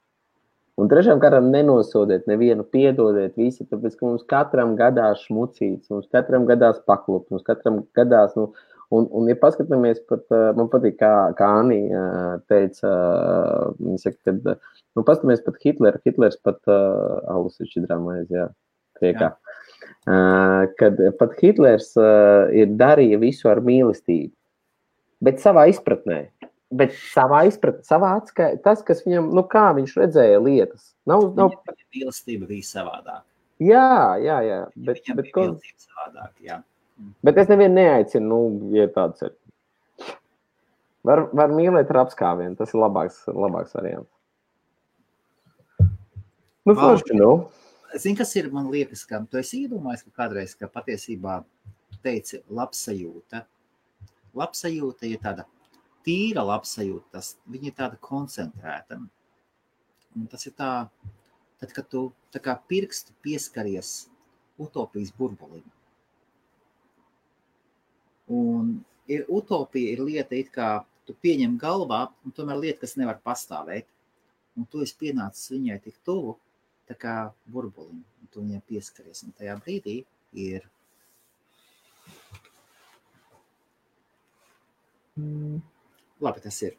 Un trešām kārtām nenosodiet nevienu, piedodiet visi, tāpēc, ka mums katram gadās šmucīts, mums katram gadās paklupt, mums katram gadās, un ja paskatāmies pat, man patīk, kā Anī teica, viņa saka, kad, paskatāmies pat Hitlers pat, alus ir šķidrā maize, jā, priekā, kad pat Hitlers ir darīja visu ar mīlestību, bet savā izpratnē. Bet savā atskaitā, tas, kas viņam, kā viņš redzēja lietas. Mīlestība bija savādāk. Jā. Bet savādāk, jā. Bet es nevienu neaicinu, ja tāds ir. Var mīlēt ar apskāvienu, tas ir labāks variants. Forši, Zini, kas ir, man liekas, ka tu esi iedomājis, ka kādreiz, ka patiesībā teici labsajūta. Labsajūta ir tāda tīra labsajūta, viņa ir tāda koncentrēta. Un tas ir tā, tad, kad tu tā kā pirkstu pieskaries utopijas burbulim. Un utopija ir lieta, it kā tu pieņem galvā, un tomēr lieta, kas nevar pastāvēt. Un tu esi pienācis viņai tik tuvu, tā kā burbulim, un tu viņai pieskaries. Un tajā brīdī ir... Labi, tas ir.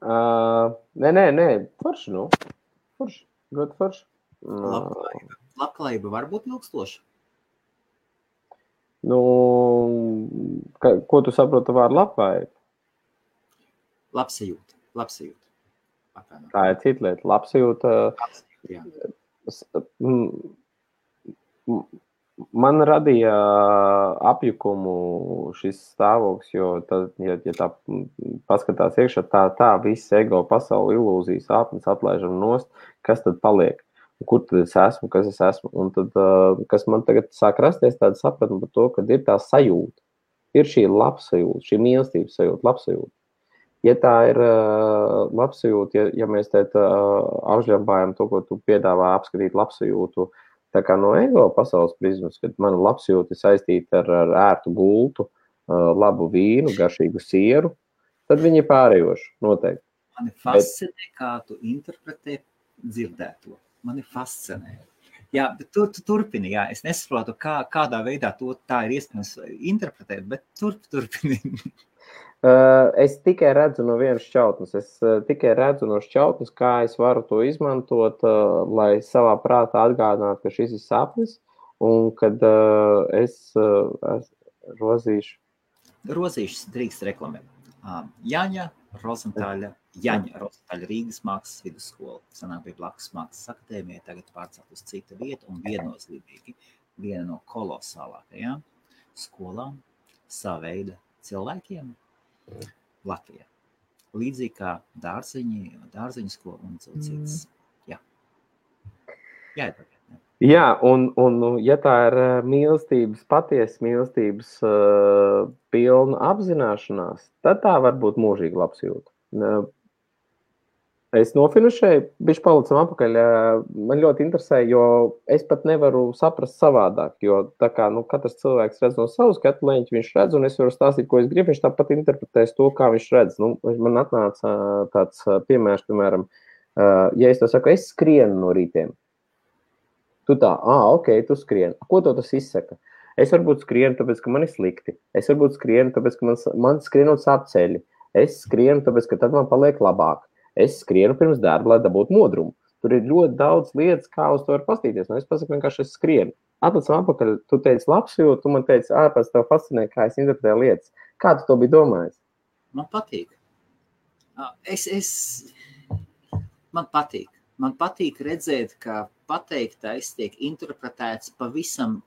Nē, forši, Forši, ļoti forši. Labklājība var būt ilgstoša? Ko tu saproti vārdu labklājība? Labsajūta. Tā ir cita lieta. Labsajūta. Jā. Man radīja apjukumu šis stāvoklis, jo tad, ja tā paskatās iekšā, tā viss ego pasauli ilūzijas āpnes atlaižam nost, kas tad paliek? Kur tad es esmu, kas es esmu? Un tad, kas man tagad sāk rasties tāda sapratne par to, ka ir tā sajūta. Ir šī labsajūta, šī mīlestības sajūta, labsajūta. Ja tā ir labsajūta, ja mēs apžļambājam to, ko tu piedāvā apskatīt labsajūtu, tā kā no ego pasaules prizmas, kad mana labsajūta ir saistīta ar ērtu gultu, labu vīnu, garšīgu sieru, tad viņi ir pārējoši, noteikti. Mani fascinē, kā tu interpretē dzirdēto. Mani fascinē. Jā, bet tu turpini, jā. Es nesaprotu, kādā veidā tā ir iespējams interpretēt, bet turpini. Es tikai redzu no vienas šķautnes. Es tikai redzu no šķautnes, kā es varu to izmantot, lai savā prātā atgādinātu, ka šis ir sapnis, un kad es rozīšu. Rozīšas drīkst reklamēt. Jaņa Rozentāļa Rīgas mākslas vidusskola. Sanāk bija blakus mākslas akadēmija, tagad pārcelt uz citu vietu un viennozīmīgi viena no kolosālākajām skolām sava veida cilvēkiem Latvijā. Līdzīgi kā dārziņu skola un citas. Jā. Jā, un ja tā ir mīlestības, patiesas mīlestības pilna apzināšanās, tad tā var būt mūžīga labsajūta. Es nofinišēju, bišķi palicam apakaļ, man ļoti interesē, jo es pat nevaru saprast savādāk, jo tā kā katrs cilvēks redz no savu skatu leņķi, viņš redz, un es varu stāstīt, ko es gribu, viņš tāpat interpretēs to, kā viņš redz. Man atnāca tāds piemērs, piemēram, ja es to saku, es skrienu no rītiem. Tu tā, ok, tu skrieni. Ko to tas izsaka? Es varbūt skrienu, tāpēc, ka man ir slikti. Es varbūt skrienu, tāpēc, ka man skrienot sāp ceļi. Es skrienu, tāpēc, ka tad man paliek labāk. Es skrienu pirms darba, lai dabūtu modrumu. Tur ir ļoti daudz lietas, kā uz to var pastīties. Es pasaku vienkārši, es skrienu. Atlicam apakaļ, tu teici labsajūtu, tu man teici, ārpēc tev fascinē, kā es interpretēju lietas. Kā tu to biji domājis? Man patīk. Man patīk. Man patīk redzēt, ka pateiktais tiek interpretēts pavisam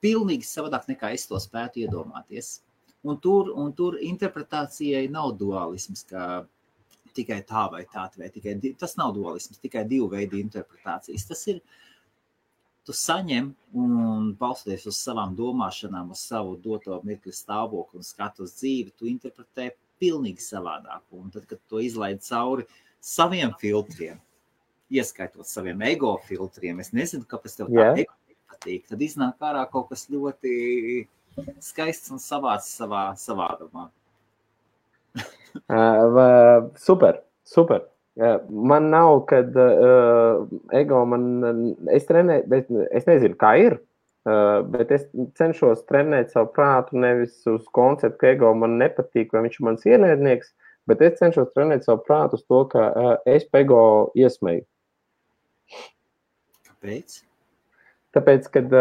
pilnīgi savādāk, nekā es to spētu iedomāties. Un tur interpretācijai nav dualisms, kā tikai tā vai tā, vai tikai tas nav dualisms, tikai divu veidu interpretācijas. Tas ir, tu saņem un balstoties uz savām domāšanām, uz savu doto mirkli stāvokli un skatu uz dzīvi, tu interpretē pilnīgi savādāk. Un tad, kad to izlaid cauri saviem filtriem, ieskaitot saviem ego filtriem, es nezinu, kāpēc tev tā ego patīk, tad iznāk ārā kaut kas ļoti skaists un savāds savādumā. Super. Man nav, kad ego es trenēju, bet es nezinu, kā ir, bet es cenšos trenēt savu prātu nevis uz konceptu, ka ego man nepatīk, vai viņš ir mans ienaidnieks, bet es cenšos trenēt savu prātu uz to, ka es pa ego iesmeju. Kāpēc? Tāpēc, kad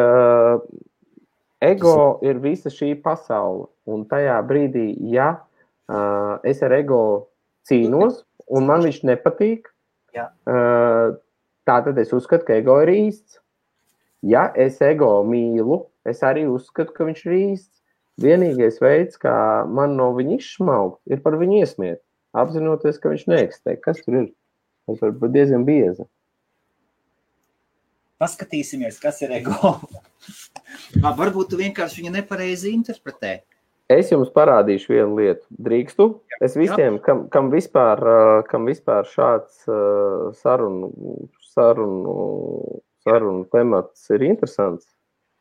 ego ir visa šī pasaule, un tajā brīdī, ja es ar ego cīnos, un man viņš nepatīk, tātad es uzskatu, ka ego ir īsts. Ja es ego mīlu, es arī uzskatu, ka viņš ir īsts. vienīgais veids, kā man no viņa izšmaukt, ir par viņu iesmiet, apzinoties, ka viņš neeksistē. Kas tur ir? Tas var būt diezgan bieza. Paskatīsimies, kas ir ego. Varbūt tu vienkārši viņu nepareizi interpretē. Es jums parādīšu vienu lietu. Drīkstu? Es visiem, kam vispār šāds sarunu temats ir interesants.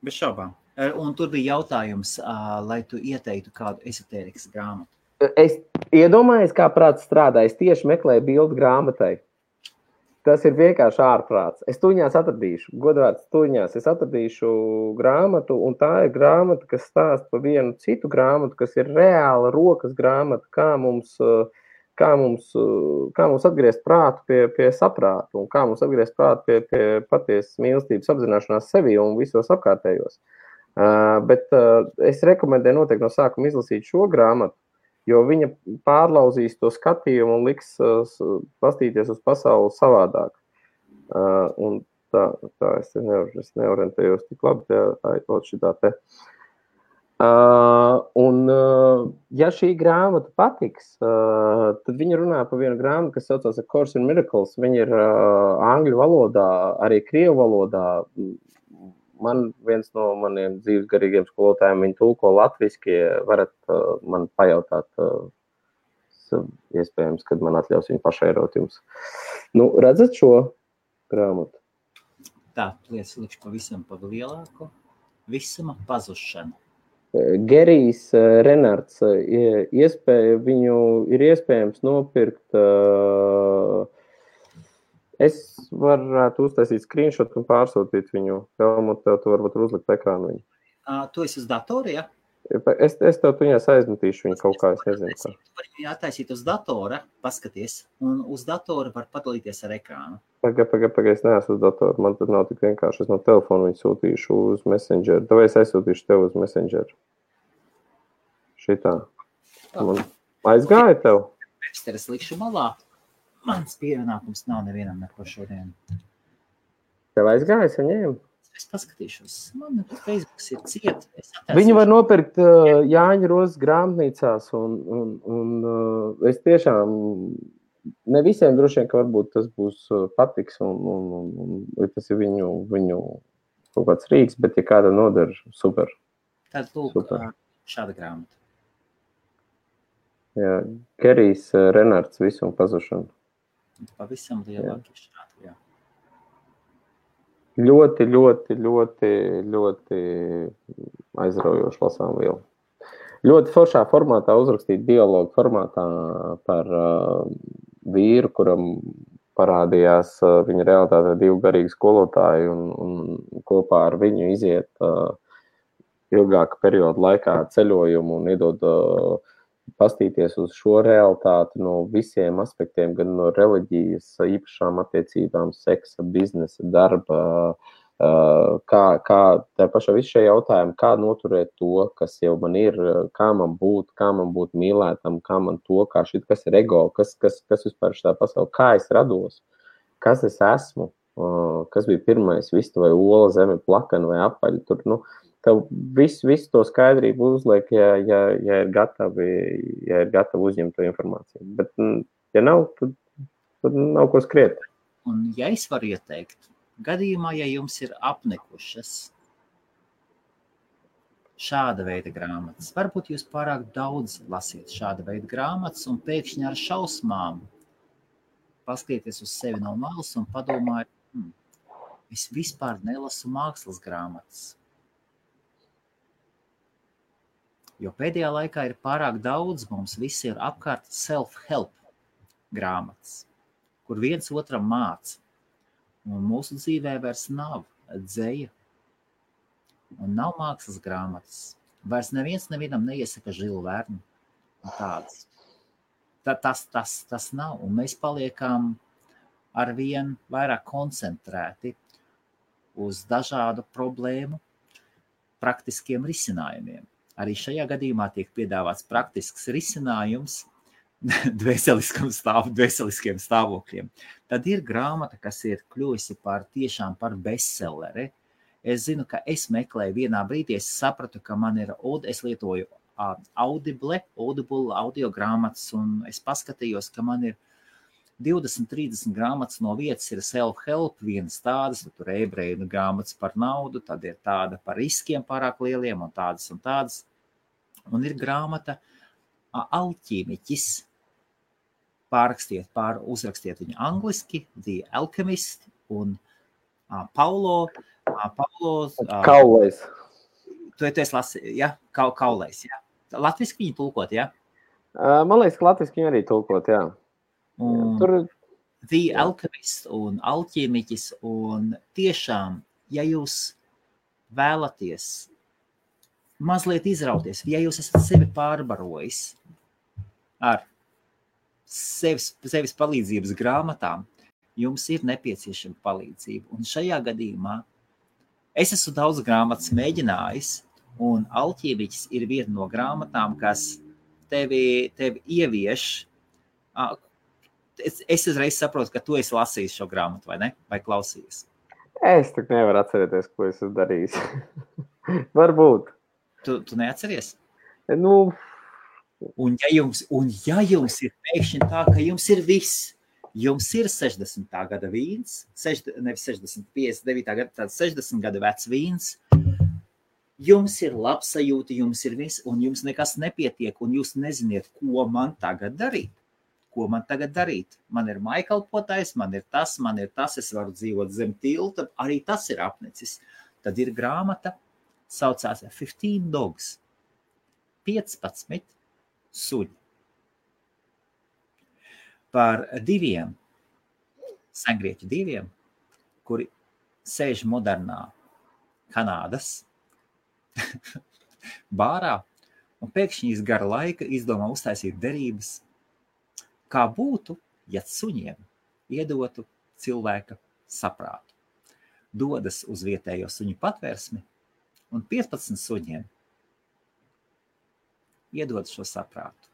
Bez šaubām. Un tur bija jautājums, lai tu ieteiktu kādu ezotērikas grāmatu. Es iedomājos, kā prāts strādā. Es tieši meklēju bildu grāmatai. Tas ir vienkārši ārprāts. Es tuņās atradīšu, godvārds tuņās, es atradīšu grāmatu, un tā ir grāmata, kas stāsta par vienu citu grāmatu, kas ir reāla rokas grāmata, kā mums atgriezt prātu pie saprātu, un kā mums atgriezt prātu pie patiesas mīlestības apzināšanās sevi un visos apkārtējos. Bet es rekomendēju noteikti no sākuma izlasīt šo grāmatu, jo viņa pārlauzīs to skatījumu un liks pastīties uz pasauli savādāk. Un tā es neorientējos tik labi, šitā te. Un, ja šī grāmata patiks, tad viņa runā par vienu grāmatu, kas saucās A Course in Miracles. Viņa ir angļu valodā, arī krievu valodā. Man viens no maniem dzīves garīgiem skolotājiem, viņi tulko latviski, varat man pajautāt, iespējams, kad man atļaus viņu pašairot jums. Nu, redzat šo grāmatu? Tā, lietas likšu pavisam pa lielāku. Visuma pazušana. Gerijs Renards, viņu ir iespējams nopirkt. Es varētu uztaisīt screenshot un pārsūtīt viņu. Helmut, tev tu varbūt uzlikt ekrānu viņu. Tu esi uz datora, ja? Es tev tuņās aizmetīšu viņu kaut kā, es nezinu. Tu vari viņu attaisīt uz datora, paskaties, un uz datora var padalīties ar ekrānu. Paga, es neesmu uz datora, man tad nav tik vienkārši. Es no telefona viņu sūtīšu uz Messenger. Tev es aizsūtīšu tev uz Messenger. Šitā. Man aizgāja tev? Es likšu malā. Mans pievienākums nav nevienam neko šodien. Tev aizgāja, es viņiem? Es paskatīšos. Man Facebooks ir ciet. Viņu var nopirkt Jāņa Rozes grāmatnīcās, un es tiešām, ne visiem droši vien, ka varbūt tas būs patiks, un tas ir viņu kaut kāds rīks, bet ja kāda nodara, super. Tad lūk, šāda grāmata. Jā, Gerijs Renards, Visuma pazušana. Pavisam lielāki šādi, jā. Ļoti aizraujoši lasām vielu. Ļoti foršā formātā uzrakstīt dialogu formātā par vīru, kuram parādījās viņa realitāte 2 garīgi skolotāji un kopā ar viņu iziet ilgāka perioda laikā ceļojumu un iedod pastīties uz šo realitāti no visiem aspektiem, gan no reliģijas, īpašām attiecībām, seksa, biznesa, darba, kā tā pašā visu šie jautājumi, kā noturēt to, kas jau man ir, kā man būt mīlētam, kā man to, kas ir ego, kas vispār šitā pasaulē, kā es rados, kas es esmu, kas bija pirmais, vista vai ola, zeme, plakana vai apaļa, tur, tev visu to skaidrību uzliek, ja ir gatavi uzņemt to informāciju. Bet, ja nav, tad nav ko skriet. Un ja es varu ieteikt, gadījumā, ja jums ir apnikušas šāda veida grāmatas, varbūt jūs pārāk daudz lasiet šāda veida grāmatas un pēkšņi ar šausmām paskatieties uz sevi no malas un padomājiet, es vispār nelasu mākslas grāmatas. Jo pēdējā laikā ir pārāk daudz, mums visi ir apkārt self-help grāmatas, kur viens otram māca. Un mūsu dzīvē vairs nav dzeja un nav mākslas grāmatas. Vairs nevienam neiesaka Žilu Vernu un tādas. Tas nav, un mēs paliekam arvien vairāk koncentrēti uz dažādu problēmu praktiskiem risinājumiem. Arī šajā gadījumā tiek piedāvāts praktisks risinājums dvēseliskiem stāvokļiem. Tad ir grāmata, kas ir kļuvusi tiešām par bestselleri. Es zinu, ka es meklēju vienā brīdī, es sapratu, ka man ir, es lietoju Audible audio grāmatas, un es paskatījos, ka man ir 20-30 grāmatas no vietas ir self-help, vienas tādas, tur ebreju grāmatas par naudu, tad ir tāda par riskiem pārāk lieliem un tādas. Un ir grāmata Alķīmiķis, uzrakstiet viņu angliski, The Alchemist, un Paulo Kaulais. Tu esi lasījis, ja? Kaulais, ja? Latviski viņu tulkot, ja? Man liekas, ka latviski viņu arī tulkot, jā. Tur The Alchemist un Alķīmiķis, un tiešām, ja jūs vēlaties mazliet izrauties, ja jūs esat sevi pārbarojis ar sevis palīdzības grāmatām, jums ir nepieciešama palīdzība. Un šajā gadījumā es esmu daudz grāmatas mēģinājis, un Alķīmiķis ir viena no grāmatām, kas tevi ievieš. Es uzreiz saprotu, ka tu esi lasījis šo grāmatu, vai ne? Vai klausījies? Es tak nevaru atcerēties, ko es esmu darījis. Varbūt. Tu neatceries? Nu... Un ja jums ir pēkšņi tā, ka jums ir viss, jums ir 60. gada vīns, nevis 60, 59. gada, tāds 60 gada vecs vīns, jums ir labsajūta, jums ir viss, un jums nekas nepietiek, un jūs neziniet, ko man tagad darīt. Man ir mājkalpotājs, man ir tas, es varu dzīvot zem tilta, arī tas ir apnicis. Tad ir grāmata, saucās 15 Dogs, 15 suņi. Par sengrieķu diviem, kuri sēž modernā Kanādas bārā, un pēkšņi iz gara laika izdomā uztaisīt derības, kā būtu, ja suņiem iedotu cilvēka saprātu. Dodas uz vietējo suņu patvērsmi, un 15 suņiem iedod šo saprātu.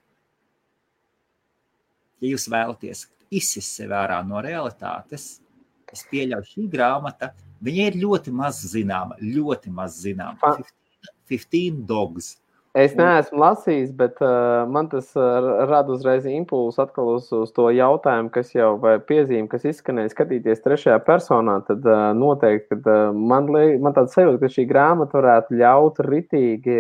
Ja jūs vēlaties izsist sevi ārā no realitātes, es pieļauju šī grāmata, viņa ir ļoti maz zināma. 15 Dogs. Es neesmu lasījis, bet man tas rada uzreiz impulsu atkal uz to jautājumu, kas jau vai piezīme, kas izskanēja skatīties trešajā personā, tad noteikti, kad man tāds sajūta, ka šī grāmata varētu ļaut ritīgi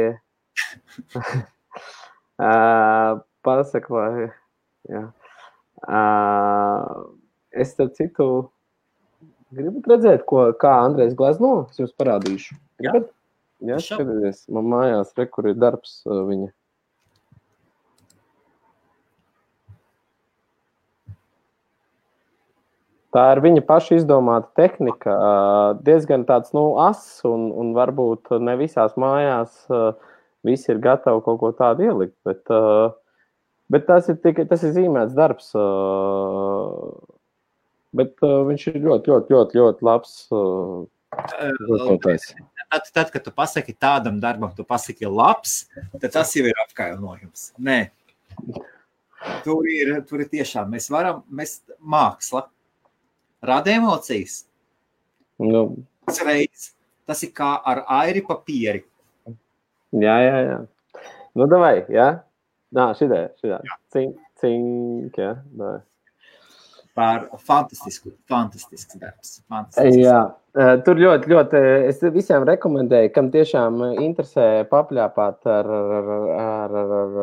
pasaka, vai, jā. Es starp citu gribat redzēt, kā Andrejs glezno, es jums parādīšu. Gribat? Jā, skaties, man mājās kur ir darbs viņa. Tā ir viņa paša izdomāta tehnika, diezgan tāds, ass, un varbūt ne visās mājās visi ir gatavi kaut ko tādu ielikt, bet tas ir zīmēts darbs, bet viņš ir ļoti labs. Tad, kad tu pasaki tādam darbam, tu pasaki labs, tad tas jau ir apkainojums. Nē. Tur ir tiešām, mēs māksla rada emocijas. Tas ir kā ar airi papieri. Jā. Nu, davai, jā? Nā, šitā. Cink, jā, davai. Par fantastisks darbs. Jā, tur ļoti, es visiem rekomendēju, kam tiešām interesē papļāpāt ar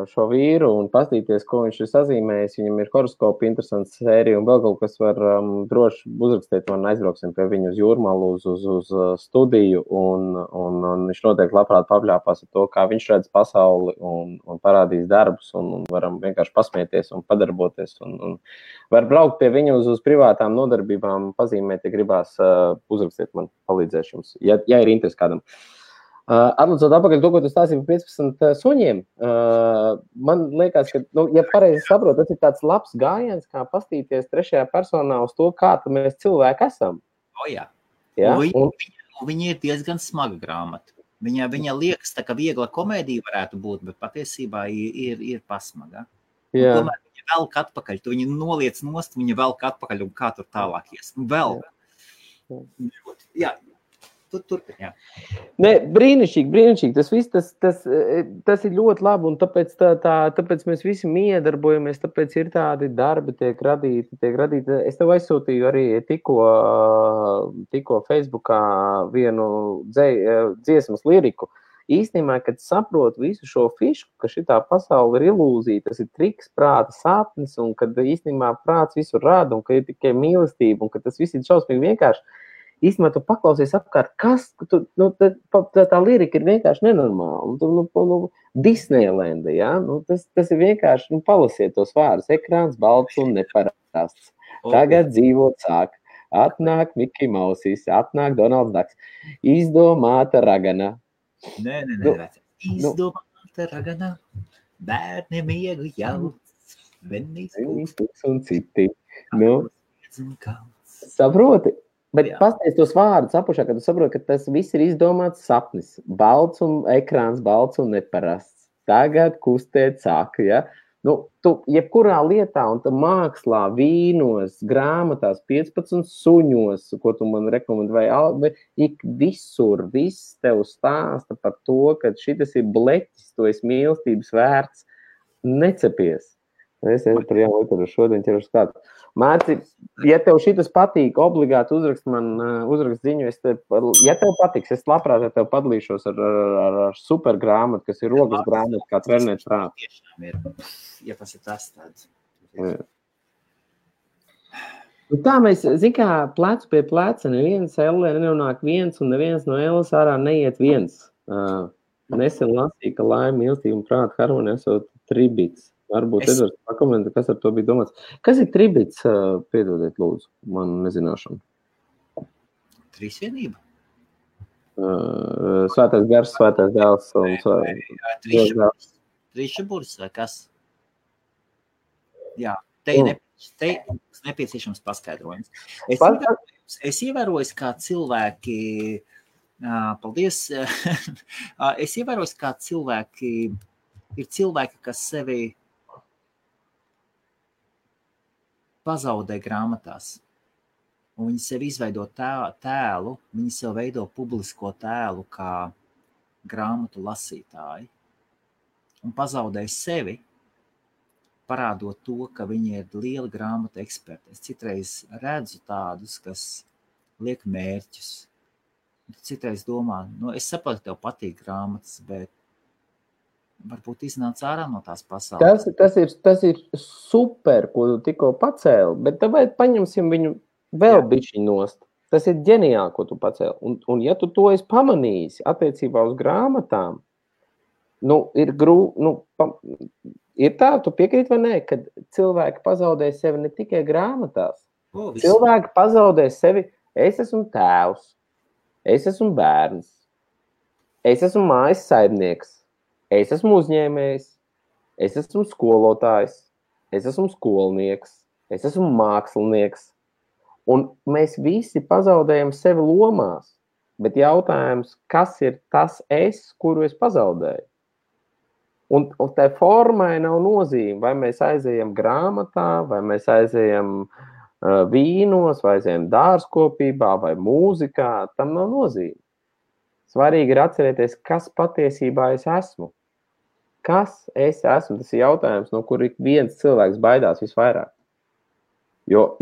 šo vīru un pastīties, ko viņš ir sazīmējis. Viņam ir horoskopi, interesants sērija un vēl kaut kas var droši uzrakstīt man, aizbrauksim pie viņu uz Jūrmalu, uz studiju un viņš noteikti labprāt papļāpās ar to, kā viņš redz pasauli un parādīs darbus un varam vienkārši pasmieties un padarboties un var braukt pie viņu uz privātām nodarbībām, pazīmēt, ja gribās uzrakstīt man, palīdzēšu jums, ja ir interesi kādam. Atlicot apakaļ to, ko tu stāstīji par 15 suņiem, man liekas, ka, ja pareizi saprotu, tas ir tāds labs gājiens, kā pastīties trešajā personā uz to, kā mēs cilvēki esam. Jā. Ja? Viņa ir diezgan smaga grāmata. Viņa liekas, tā, ka viegla komēdija varētu būt, bet patiesībā ir pasmaga. Jā. Tomēr viņa velk atpakaļ, tu viņu noliec nost, viņa velk atpakaļ un kā tur tālāk ies. Vēl. Jā. Turpin, jā. Nē, brīnišķīgi. Tas viss, tas ir ļoti labi, un tāpēc mēs visi miedarbojamies, tāpēc ir tādi darbi tiek radīti. Es tev aizsūtīju arī tikko Facebookā vienu dziesmas liriku. Īstenībā, kad saprotu visu šo fišku, ka šitā pasaule ir ilūzija, tas ir triks, prāta sapnis, un kad īstenībā prāts visu rada, un ka ir tikai mīlestība, un ka tas viss ir šausmīgi vienkārši, īstenībā tu paklausies apkārt, kas, tā lirika ir vienkārši nenormāla. Disneylanda, ja? Tas ir vienkārši, palasiet tos vārdus, ekrāns balts un neparasts. Tagad dzīvot sāk, atnāk Miki Mausīs, atnāk Donalds Daks, izdomāta ragana. Nē. Izdomāta ragana, bērni miegu jauc, venīs pūks un citi. Saproti? Bet pasties tos vārdus apušā, kad tu saproti, ka tas viss ir izdomāts sapnis. Balts un ekrāns, balts un neparasts. Tagad kustēt sāk, ja? Tu jebkurā lietā, un tu mākslā, vīnos, grāmatās, 15 suņos, ko tu man rekomendēji, ik visur, viss tev stāsta par to, ka šitas ir bleķis, tu esi mīlestības vērts, necepies. Es par jaunu literu šodien ķeru skatu. Mērci, ja tev šitas patīk, obligāti uzrakst ziņu, ja tev patiks, es labprāt ar tev padalīšos ar super grāmatu, kas ir rokas grāmata, kā trenēt prātu. Ja tas ir tas tāds. Tā mēs, kā plecu pie pleca, neviens Ellē nenonāk viens, un neviens no Elles ārā neiet viens. Nesen lasīja, ka laime, mīlestība un prāta harmonija esot tribits. Varbūt Edvards pakomentē, kas ar to bija domāts. Kas ir tribits? Piedodiet, lūdzu, man nezināšanu. Trīsvienība? Svētais gars, svētais dēls un Trīšaburis vai kas? Jā, te nepieciešams paskaidrojums. Es ievēroju, kā cilvēki, paldies, es ievēroju, kā cilvēki, ir cilvēki, kas sevi pazaudē grāmatās, un viņi sev izveido tēlu, viņi sev veido publisko tēlu kā grāmatu lasītāji, un pazaudē sevi, parādot to, ka viņi ir lieli grāmatu eksperti. Es citreiz redzu tādus, kas liek mērķus. Citreiz domā, es saprotu, tev patīk grāmatas, bet varbūt iznāc ārā no tās pasaules. Tas ir super, ko tu tikko pacēli, bet tāpēc paņemsim viņu vēl bišķi nost. Tas ir ģeniāli, ko tu pacēli. Un ja tu to esi pamanījis attiecībā uz grāmatām, ir ir tā, tu piekrīt vai nē, kad cilvēki pazaudē sevi ne tikai grāmatās. Cilvēki pazaudē sevi, es esmu tēvs, es esmu bērns, es esmu mājas saimnieks, es esmu uzņēmējs, es esmu skolotājs, es esmu skolnieks, es esmu mākslinieks. Un mēs visi pazaudējam sevi lomās, bet jautājums, kas ir tas es, kuru es pazaudēju? Un tai formai nav nozīme, vai mēs aizejam grāmatā, vai mēs aizejam vīnos, vai aizejam dārzkopībā, vai mūzikā, tam nav nozīme. Svarīgi ir atcerēties, kas patiesībā es esmu. Kas es esmu? Tas ir jautājums, no kur ik viens cilvēks baidās visvairāk. Jo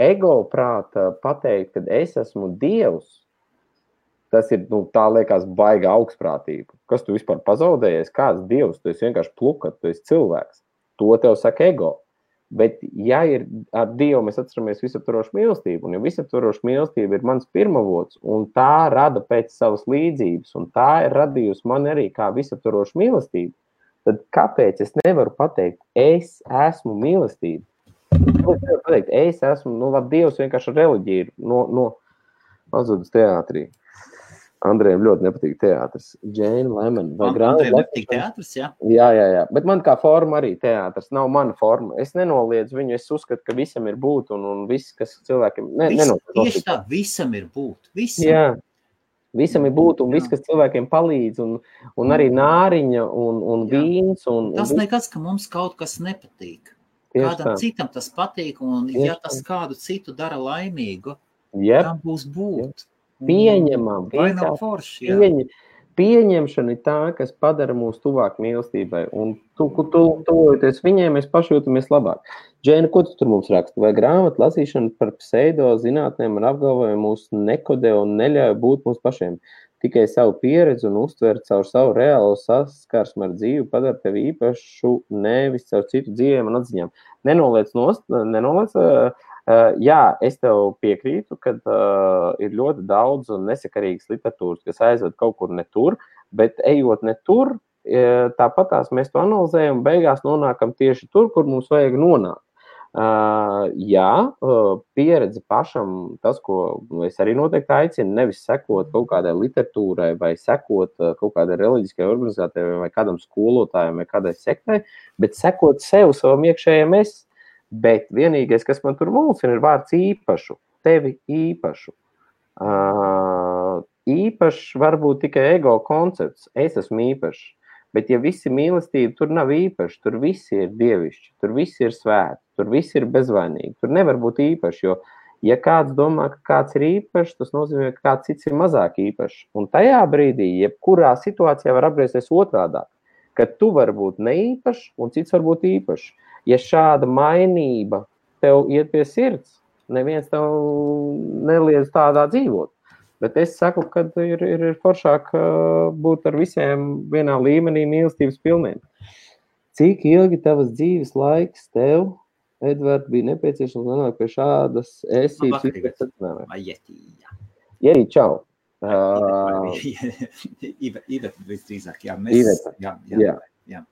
ego prāta pateikt, ka es esmu Dievs, tas ir, tā liekas baiga augstprātība. Kas tu vispār pazaudējies? Kāds Dievs? Tu esi vienkārši plukat, tu esi cilvēks. To tev saka ego. Bet, ja ir ar Dievu mēs atceramies visaptvarošu mīlestību, un ja visaptvaroša mīlestība ir mans pirmavots, un tā rada pēc savas līdzības, un tā ir radījusi man arī kā visaptvarošu mīlestību, tad kāpēc es nevaru pateikt, es esmu mīlestība? Es esmu, labi, Dievs vienkārši reliģija ir pazudus teātrī. Andrejam ļoti nepatīk teātris. Jane Lemon. Andrejam nepatīk teātris, jā? Jā. Bet man kā forma arī teātris. Nav mana forma. Es nenoliedzu viņu. Es uzskatu, ka visam ir būt un viss, kas cilvēkiem... Tieši tā, visam ir būt. Visam. Jā. Visam ir būt un viss, kas cilvēkiem palīdz un arī nāriņa un vīns. Tas nekas, ka mums kaut kas nepatīk. Kādam citam tas patīk un ja tas kādu citu dara laimīgu, tam būs būt. Pieņemam. Vai nav forši, jā. Pieņemšana ir tā, kas padara mūs tuvāk mīlestībai. Un tuvojoties viņiem, mēs pašjūtamies labāk. Džēna, ko tu tur mums raksta? Vai grāmatu lasīšana par pseido zinātnēm un apgalvojumu mūs nekodē un neļauj būt mums pašiem? Tikai savu pieredzi un uztver caur savu reālo saskarsmu ar dzīvi padara tevi īpašu, nevis caur citu dzīvēm un atziņām. Nenoliec. Jā, es tev piekrītu, ka ir ļoti daudz nesakarīgas literatūras, kas aizved kaut kur ne tur, bet ejot ne tur, tāpatās mēs to analizējam un beigās nonākam tieši tur, kur mums vajag nonākt. Jā, pieredze pašam, tas, ko es arī noteikti aicinu, nevis sekot kaut kādai literatūrai vai sekot kaut kādai reliģiskai organizācijai vai kādam skolotājam vai kādai sektai, bet sekot sev, savam iekšējiem es. Bet vienīgais, kas man tur mulsina, ir vārds īpašu, tevi īpašu. Īpašs varbūt tikai ego koncepts, es esmu īpašs, bet ja visi mīlestība, tur nav īpaši, tur visi ir dievišķi, tur visi ir svēti, tur visi ir bezvainīgi, tur nevar būt īpaši, jo ja kāds domā, ka kāds ir īpašs, tas nozīmē, ka kāds cits ir mazāk īpašs. Un tajā brīdī, jebkurā situācijā var apgriezties otrādāk, ka tu vari būt neīpašs un cits var būt īpašs. Ja šāda mainība tev iet pie sirds, neviens tev neliedz tādā dzīvot. Bet es saku, ka ir foršāk būt ar visiem vienā līmenī mīlestības pilniem. Cik ilgi tavas dzīves laiks tev, Edvard, bija nepieciešams nonākt pie šādas esības? Ierī, čau. Iveta visdrīzāk, jā. Jā.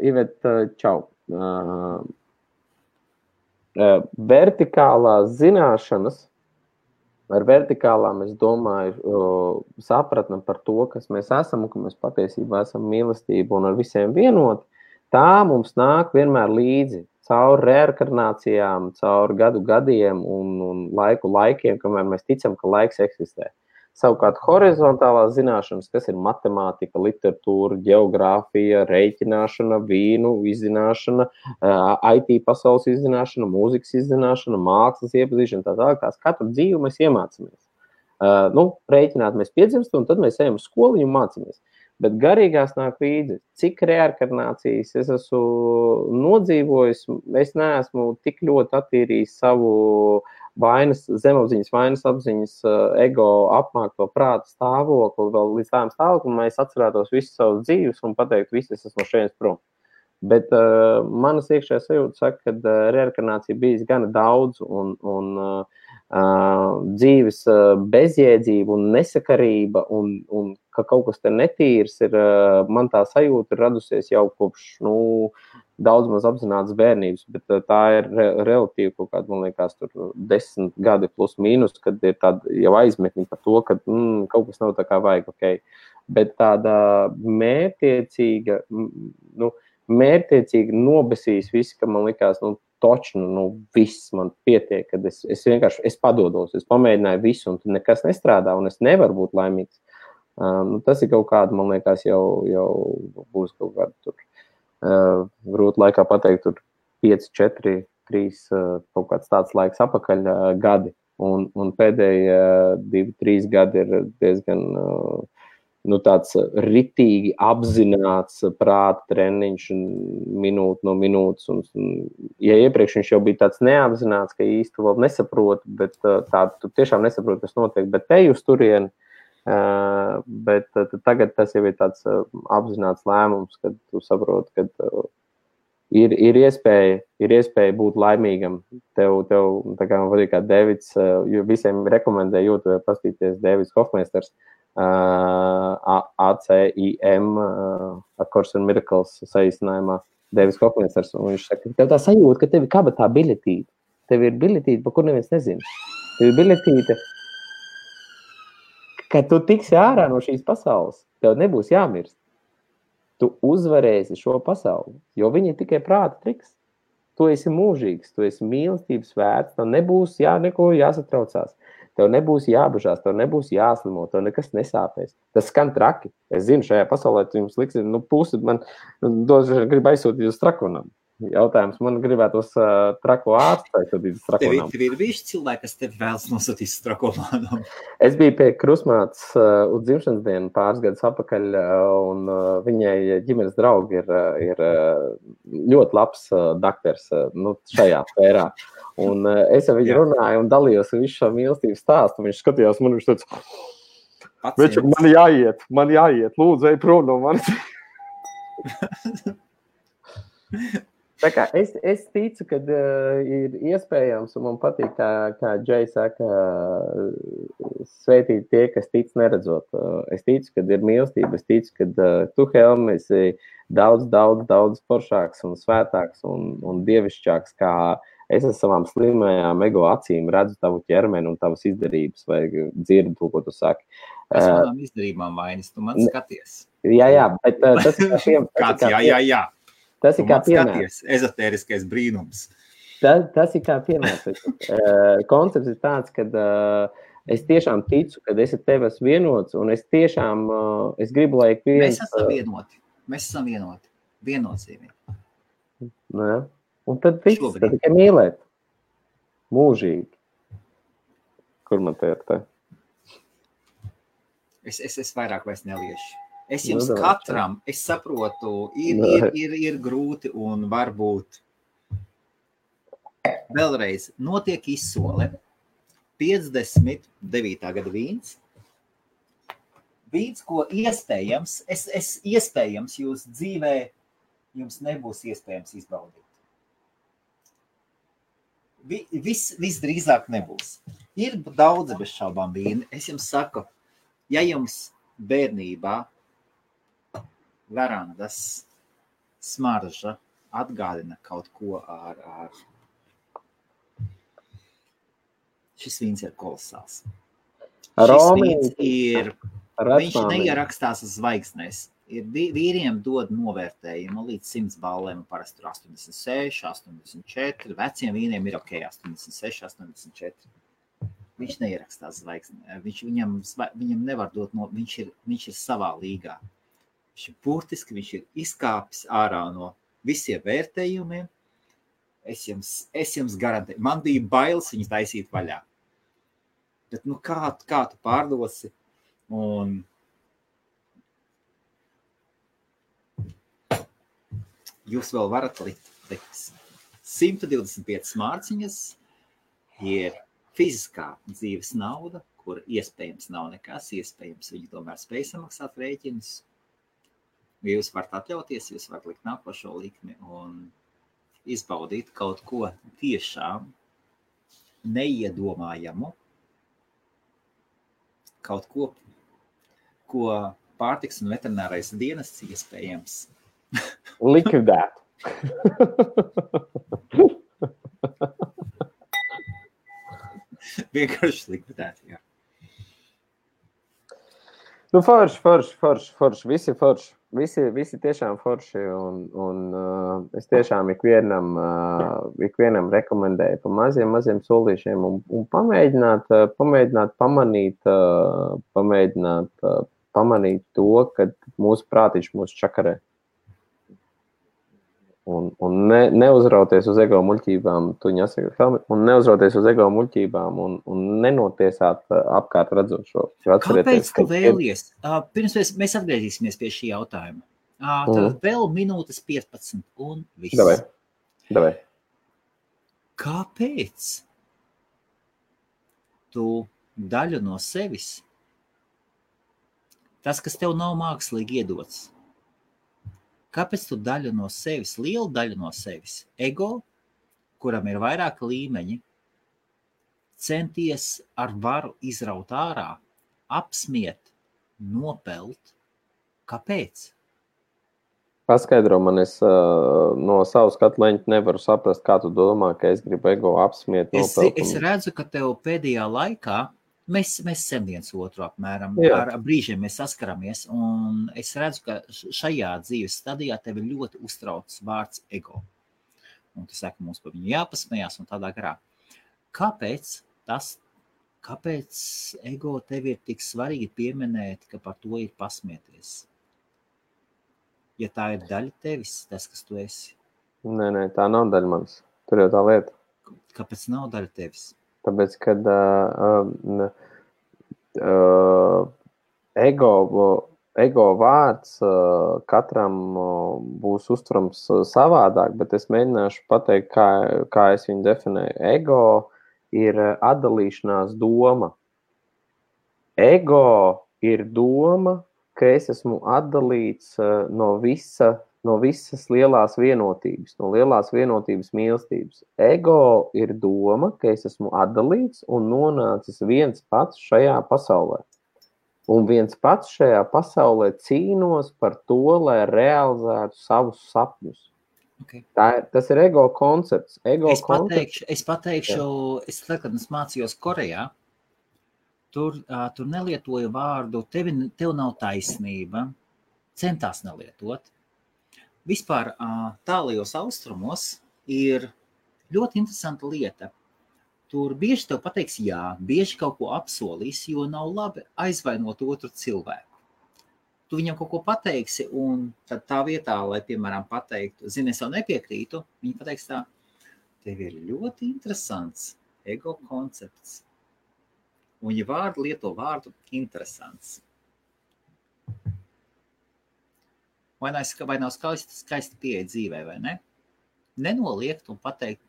Iveta, čau. Vertikālās zināšanas, ar vertikālām es domāju sapratni par to, kas mēs esam un ka mēs patiesībā esam mīlestība un ar visiem vienot, tā mums nāk vienmēr līdzi caur reinkarnācijām, caur gadiem un laikiem, kamēr mēs ticam, ka laiks eksistē. Savukārt horizontālās zināšanas, kas ir matemātika, literatūra, geogrāfija, reiķināšana, vīnu izzināšana, IT pasaules izzināšana, mūzikas izzināšana, mākslas iepazīšana, tālāk, tās katru dzīvi mēs iemācāmies. Reiķināt mēs piedzimstam, un tad mēs ejam uz skoliņu un mācāmies. Bet garīgās nāk līdzi, cik reinkarnācijas es esmu nodzīvojis, es neesmu tik ļoti attīrījis savu zemapziņas, vainas apziņas, ego apmākto prāta stāvokli, vēl līdz tādam stāvoklim, mēs atcerētos visu savus dzīves un pateikt, visi es esmu no šeit prom. Bet manas iekšējā sajūta saka, ka reinkarnācija bijis gana daudz un dzīves bezjēdzība un nesakarība un ka kaut kas te netīrs ir, man tā sajūta ir radusies jau kopš, daudz maz apzinātas bērnības, bet tā ir relatīvi kaut kāda, man liekas, tur 10 gadi plus mīnus, kad ir tāda jau aizmetņa par to, ka kaut kas nav tā kā vajag, ok. Bet tāda mērķiecīgi nobesīs visi, ka man likās, viss man pietiek, kad es vienkārši padodos, es pamēģināju visu, un tur nekas nestrādā, un es nevaru būt laimīgs. Tas ir kaut kāda, man liekas, jau būs kaut kāda tur. Grūti laikā pateikt, tur 5, 4, 3, kaut kāds tāds laiks apakaļ gadi, un pēdējie 2, 3 gadi ir diezgan tāds ritīgi apzināts prāta treniņš minūte no minūtes, un ja iepriekš viņš jau bija tāds neapzināts, ka īsti vēl nesaprotu, bet tu tiešām nesaproti, kas notiek, bet te uz turieni. Bet tagad tas jau ir tāds apzināts lēmums, kad tu saproti, ka ir iespēja būt laimīgam. Tev tā kā man patīk kā Davids, jo visiem rekomendē YouTube pastīties Davids Hofmeisters, ACIM, A Course in Miracles saīsinājumā, Davids Hofmeisters, un viņš saka, tev tā sajūta, ka tev ir kabatā biļetīte. Tev ir biļetīte, pa kur neviens nezina. Tev ir biļetīte, ka tu tiksi ārā no šīs pasaules, tev nebūs jāmirst. Tu uzvarēsi šo pasauli, jo viņi ir tikai prāta triks. Tu esi mūžīgs, tu esi mīlestības vērts, tev nebūs neko jāsatraucās, tev nebūs jābažās, tev nebūs jāslimo, tev nekas nesāpēs. Tas skan traki. Es zinu, šajā pasaulē tu jums liks, pusi man grib aizsūtīt uz trakonam. Jautājums man gribētos trako ārstēt, tad ir trako namu. Tev ir bijuši cilvēki, kas tevi vēlas nosūtīt uz trako namu? Es biju pie krustmātes uz dzimšanas dienu pāris gadus atpakaļ, un viņai ģimenes draugi ir ļoti labs dakters šajā sfērā. Un es ar viņu runāju un dalījos visu šo mīlestības stāstu. Viņš skatījās man, viņš teica, man jāiet, lūdzu, ej prom no manis. Tā kā es ticu, ka ir iespējams, un man patīk, kā Džei saka, sveitīt tie, kas tic neredzot. Es ticu, ka ir mīlestība, es ticu, ka tu, Helmi, esi daudz foršāks un svētāks un dievišķāks, kā es ar savām slimajām ego acīm redzu tavu ķermeni un tavas izdarības, vai dzirdu to, ko tu saki. Es manām izdarībām vainas, tu man skaties. Jā, bet tas ir kā Tas ir kā piemērs. Ezotēriskais brīnums. Tas ir kā piemērs. Koncepts ir tāds, ka es tiešām ticu, ka es ar tevi esmu vienots, un es tiešām es gribu, lai Mēs esam vienoti. Viennozīmīgi. Un tad viss, tad tikai mīlēt. Mūžīgi. Kur man te ir te? Es vairāk vairs neliešu. Es jums katram, es saprotu, ir grūti un varbūt vēlreiz notiek izsole 59. gada vīns. Vīns, ko iespējams, iespējams jūs dzīvē, jums nebūs iespējams izbaudīt. Visdrīzāk nebūs. Ir daudz bez šaubām vīni. Es jums saku, ja jums bērnībā verandas smarža atgādina kaut ko ar šis vīns ir kolosāls. Šis vīns viņš neierakstās uz zvaigznēs. Vīriem dod novērtējumu līdz 100 ballēm, parasti tur 86, 84, veciem vīniem ir ok, 86, 84. Viņš neierakstās zvaigznē. Viņam nevar dot viņš ir savā līgā. Viņš ir burtiski, viņš ir izkāpis ārā no visiem vērtējumiem. Es jums garantēju. Man bija bailes viņu taisīt vaļā. Bet, kā tu pārdosi? Un jūs vēl varat likt 125 mārciņas ir fiziskā dzīves nauda, kur iespējams nav nekas, iespējams viņi tomēr spēj samaksāt rēķinus. Jūs varat atļauties, jūs varat likt nākošo likmi un izbaudīt kaut ko tiešām neiedomājamu, kaut ko, ko pārtiks un veterinārais dienests iespējams likvidēt. Vienkārši likvidēt, jā. Forši. Visi tiešām forši, un es tiešām ikvienam rekomendēju pa maziem solīšiem un pamēģināt pamanīt to, ka mūsu prātiņš mūs čakarē. Un neuzrauties uz ego muļķībām, un neuzrauties uz ego muļķībām un nenotiesāt apkārt redzošo. Kāpēc tu vēlies? Pirms mēs atgriezīsimies pie šī jautājuma. Tad vēl minūtes 15 un viss. Davai. Kāpēc tu daļu no sevis, tas, kas tev nav mākslīgi iedots, kāpēc tu daļu no sevis, lielu daļu no sevis, ego, kuram ir vairāki līmeņi, centies ar varu izraut ārā, apsmiet, nopelt? Kāpēc? Paskaidro man, es no savas skatleņa nevaru saprast, kā tu domā, ka es gribu ego apsmiet, nopelt. Es redzu, ka tev pēdējā laikā Mēs sem viens otru apmēram, ar brīžiem mēs saskaramies, un es redzu, ka šajā dzīves stadijā tevi ļoti uztrauc vārds ego. Un tu saki, mums par viņu jāpasmējās un tādā garā. Kāpēc ego tevi ir tik svarīgi pieminēt, ka par to ir pasmieties? Ja tā ir daļa tevis, tas, kas tu esi. Nē, tā nav daļa manis. Tur jau tā lieta. Kāpēc nav daļa tevis? Tāpēc, kad ego vārds katram būs uztverams savādāk, bet es mēģināšu pateikt, kā es viņu definēju. Ego ir atdalīšanās doma. Ego ir doma, ka es esmu atdalīts no visas lielās vienotības, no lielās vienotības mīlestības. Ego ir doma, ka es esmu atdalīts un nonācis viens pats šajā pasaulē. Un viens pats šajā pasaulē cīnos par to, lai realizētu savus sapņus. Okay. Tas ir ego koncepts. Es pateikšu, kad es mācījos Korejā, tur nelietoju vārdu, tev nav taisnība, centās nelietot. Vispār tālajos austrumos ir ļoti interesanta lieta. Tur bieži tev pateiks jā, bieži kaut ko apsolīs, jo nav labi aizvainot otru cilvēku. Tu viņam kaut ko pateiksi, un tad tā vietā, lai, piemēram, pateiktu, zini, es jau nepiekrītu, viņi pateiks tā, tev ir ļoti interesants ego koncepts. Un, ja vārdu lieto vārdu, interesants. Vai nav skaisti pieeja dzīvē, vai ne? Nenoliegt un pateikt,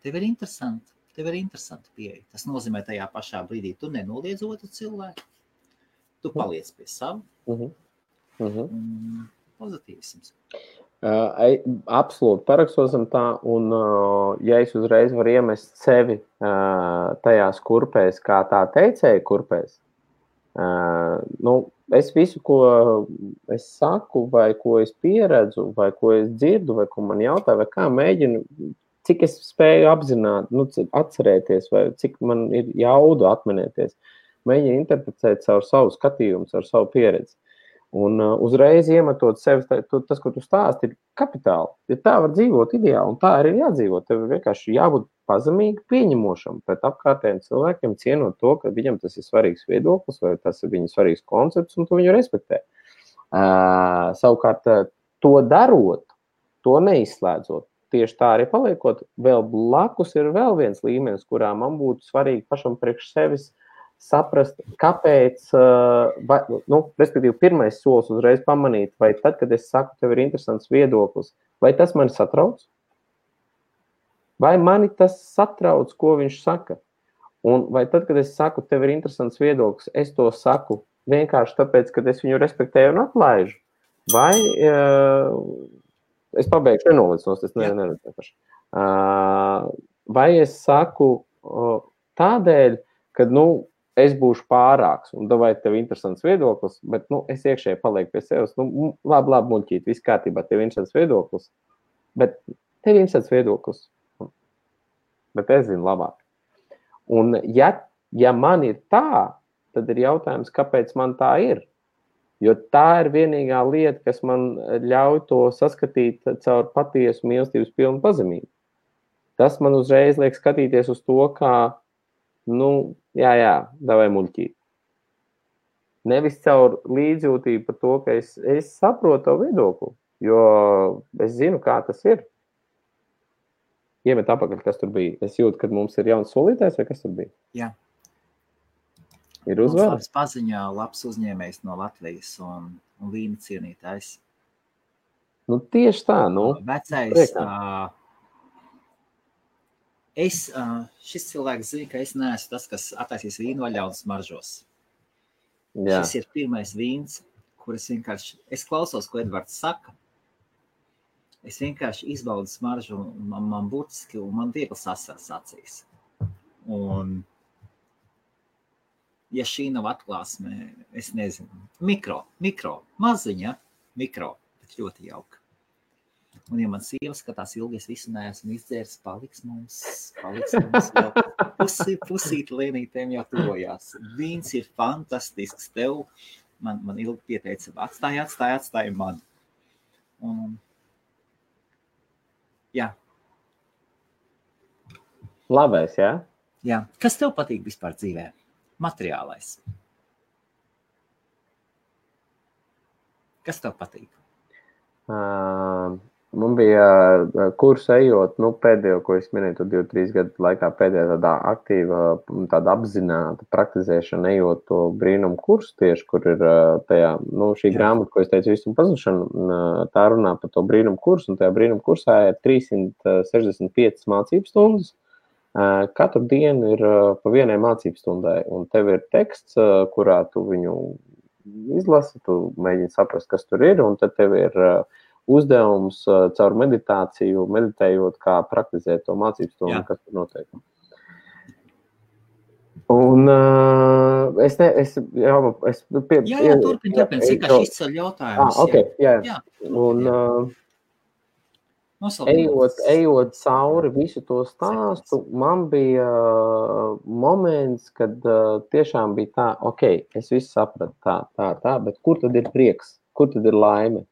tev ir interesanti pieeja. Tas nozīmē tajā pašā brīdī, tu nenoliedz otru cilvēku, tu paliec pie savu. Pozitīvisms. Absolūti parakstosim tā, un ja es uzreiz varu iemest sevi tajās kurpēs, kā tā teicēja kurpēs, es visu, ko es saku, vai ko es pieredzu, vai ko es dzirdu, vai ko man jautā, vai kā mēģinu, cik es spēju apzināt, atcerēties, vai cik man ir jaudu atminēties, mēģinu interpretēt caur savu skatījumu, caur savu pieredzi. Un uzreiz iemetot sevi, tas, ko tu stāsti, ir kapitāli. Ja tā var dzīvot ideāli, un tā arī ir jādzīvot. Tev vienkārši jābūt pazemīgi pieņemošam pret apkārtējiem cilvēkiem, cienot to, ka viņam tas ir svarīgs viedoklis, vai tas ir viņa svarīgs koncepts, un tu viņu respektē. Savukārt, to darot, to neizslēdzot, tieši tā arī paliekot, vēl blakus ir vēl viens līmenis, kurā man būtu svarīgi pašam priekš sevis saprast, kāpēc, respektīvi, pirmais solis uzreiz pamanīt, vai tad, kad es saku, tev ir interesants viedoklis, vai tas mani satrauc? Vai mani tas satrauc, ko viņš saka? Un vai tad, kad es saku, tev ir interesants viedoklis, es to saku vienkārši tāpēc, ka es viņu respektēju un atlaižu? Vai es pabeigšu nenolīdz, es neredzu. Vai es saku tādēļ, kad, es būšu pārāks, un vai tev interesants viedoklis, bet, es iekšēji palieku pie sevis, labi, muļķīt, viss kārtībā, tev interesants viedoklis, bet tev interesants viedoklis, bet es zinu labāk. Un ja man ir tā, tad ir jautājums, kāpēc man tā ir, jo tā ir vienīgā lieta, kas man ļauj to saskatīt caur patiesu mīlestības pilnu pazemību. Tas man uzreiz liek skatīties uz to, kā davai muļķīt. Nevis caur līdzjūtību par to, ka es saprotu to viedokli, jo es zinu, kā tas ir. Iemet apakaļ, kas tur bija. Es jūtu, kad mums ir jauns solītājs, vai kas tur bija? Jā. Ir uzvēl? Mums paziņā labs uzņēmējs no Latvijas un vīna cienītājs. Tieši tā, Vecais... šis cilvēks zina, ka es neesmu tas, kas attaisīs vīnu vaļā un smaržos. Jā. Šis ir pirmais vīns, kur es klausos, ko Edvards saka. Es vienkārši izbaudu smaržu, un man burtiski, un man viegli sasaras acīs. Un, ja šī nav atklāsme, es nezinu, mikro, maziņa, bet ļoti jauka. Un, ja man sieva skatās ilgi, es visu neesmu izdzēris, paliks mums vēl pusīt lēnītēm jau tuvojās. Vīns ir fantastisks tev. Man ilgi pieteica, atstāj man. Un, jā. Labais, jā? Jā. Kas tev patīk vispār dzīvē? Materiālais. Kas tev patīk? Man bija kursu ejot, pēdējo, ko es minēju, 2-3 gadu laikā pēdējā tādā aktīva, tāda apzināta praktizēšana ejot to brīnumu kursu tieši, kur ir tajā, šī grāmata, ko es teicu, visu pazušanu, tā runā par to brīnumu kursu, un tajā brīnumu kursā ir 365 mācības stundas. Katru dienu ir pa vienai mācības stundai, un tev ir teksts, kurā tu viņu izlasi, tu mēģini saprast, kas tur ir, un tad tev ir uzdevums caur meditāciju, meditējot, kā praktizēt to mācības stundu, kas tur notiek. Un turpin, vienkārši izceļ jautājumus. Okay, jā. Un ejot cauri visu to stāstu, man bija moments, kad tiešām bija tā, es visu sapratu tā, bet kur tad ir prieks, kur tad ir laime?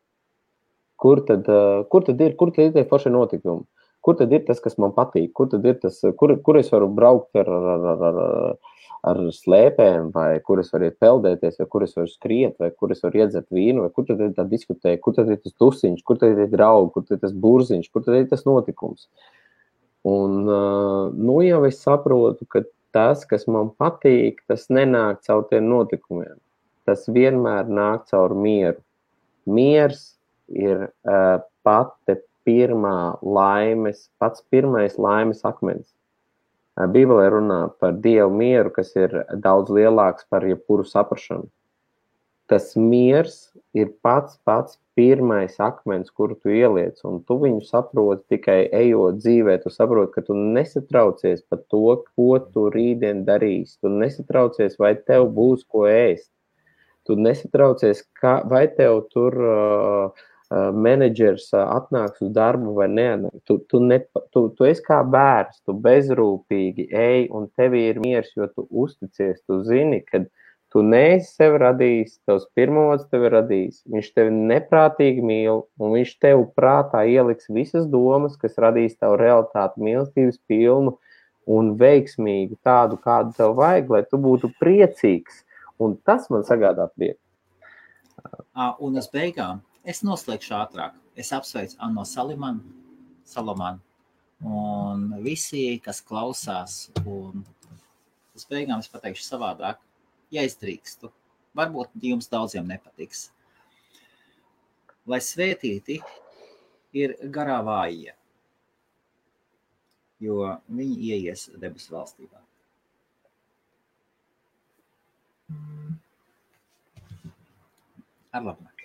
Kur tad ir tie foršie notikumi? Kur tad ir tas, kas man patīk? Kur tad ir tas, kur es varu braukt ar slēpēm, vai kur es varu iet peldēties, vai kur es varu skriet, vai kur es varu iedzert vīnu, vai kur tad ir tā diskutēja, kur tad ir tas tusiņš, kur tad ir draugi, kur tad ir tas burziņš, kur tad ir tas notikums. Un jau es saprotu, ka tas, kas man patīk, tas nenāk caur tiem notikumiem. Tas vienmēr nāk caur mieru. Miers ir pats pirmais laimes akmens. Bībelē runā par Dievu mieru, kas ir daudz lielāks par jebkuru saprašanu. Tas miers ir pats pirmais akmens, kuru tu ieliec, un tu viņu saproti tikai ejot dzīvē. Tu saproti, ka tu nesatraucies par to, ko tu rītdien darīsi. Tu nesatraucies, vai tev būs ko ēst. Tu nesatraucies, vai tev tur menedžers atnāks uz darbu vai neatnāks. Tu esi kā bērns, tu bezrūpīgi ej, un tev ir miers, jo tu uzticies. Tu zini, ka tu neesi sevi radījis, tavs pirmavots tevi radījis. Viņš tevi neprātīgi mīl, un viņš tev prātā ieliks visas domas, kas radīs tavu realitāti mīlestības pilnu un veiksmīgu, tādu, kādu tev vajag, lai tu būtu priecīgs. Un tas man sagādā prieku. Un uz beigām es noslēgšu ātrāk. Es apsveicu Anno Salomanu un visi, kas klausās. Un uz beigām es pateikšu savādāk, ja es drīkstu. Varbūt jums daudziem nepatiks. Lai svētīti ir garā vājie, jo viņi ieies debesu valstībā. Ar labāk.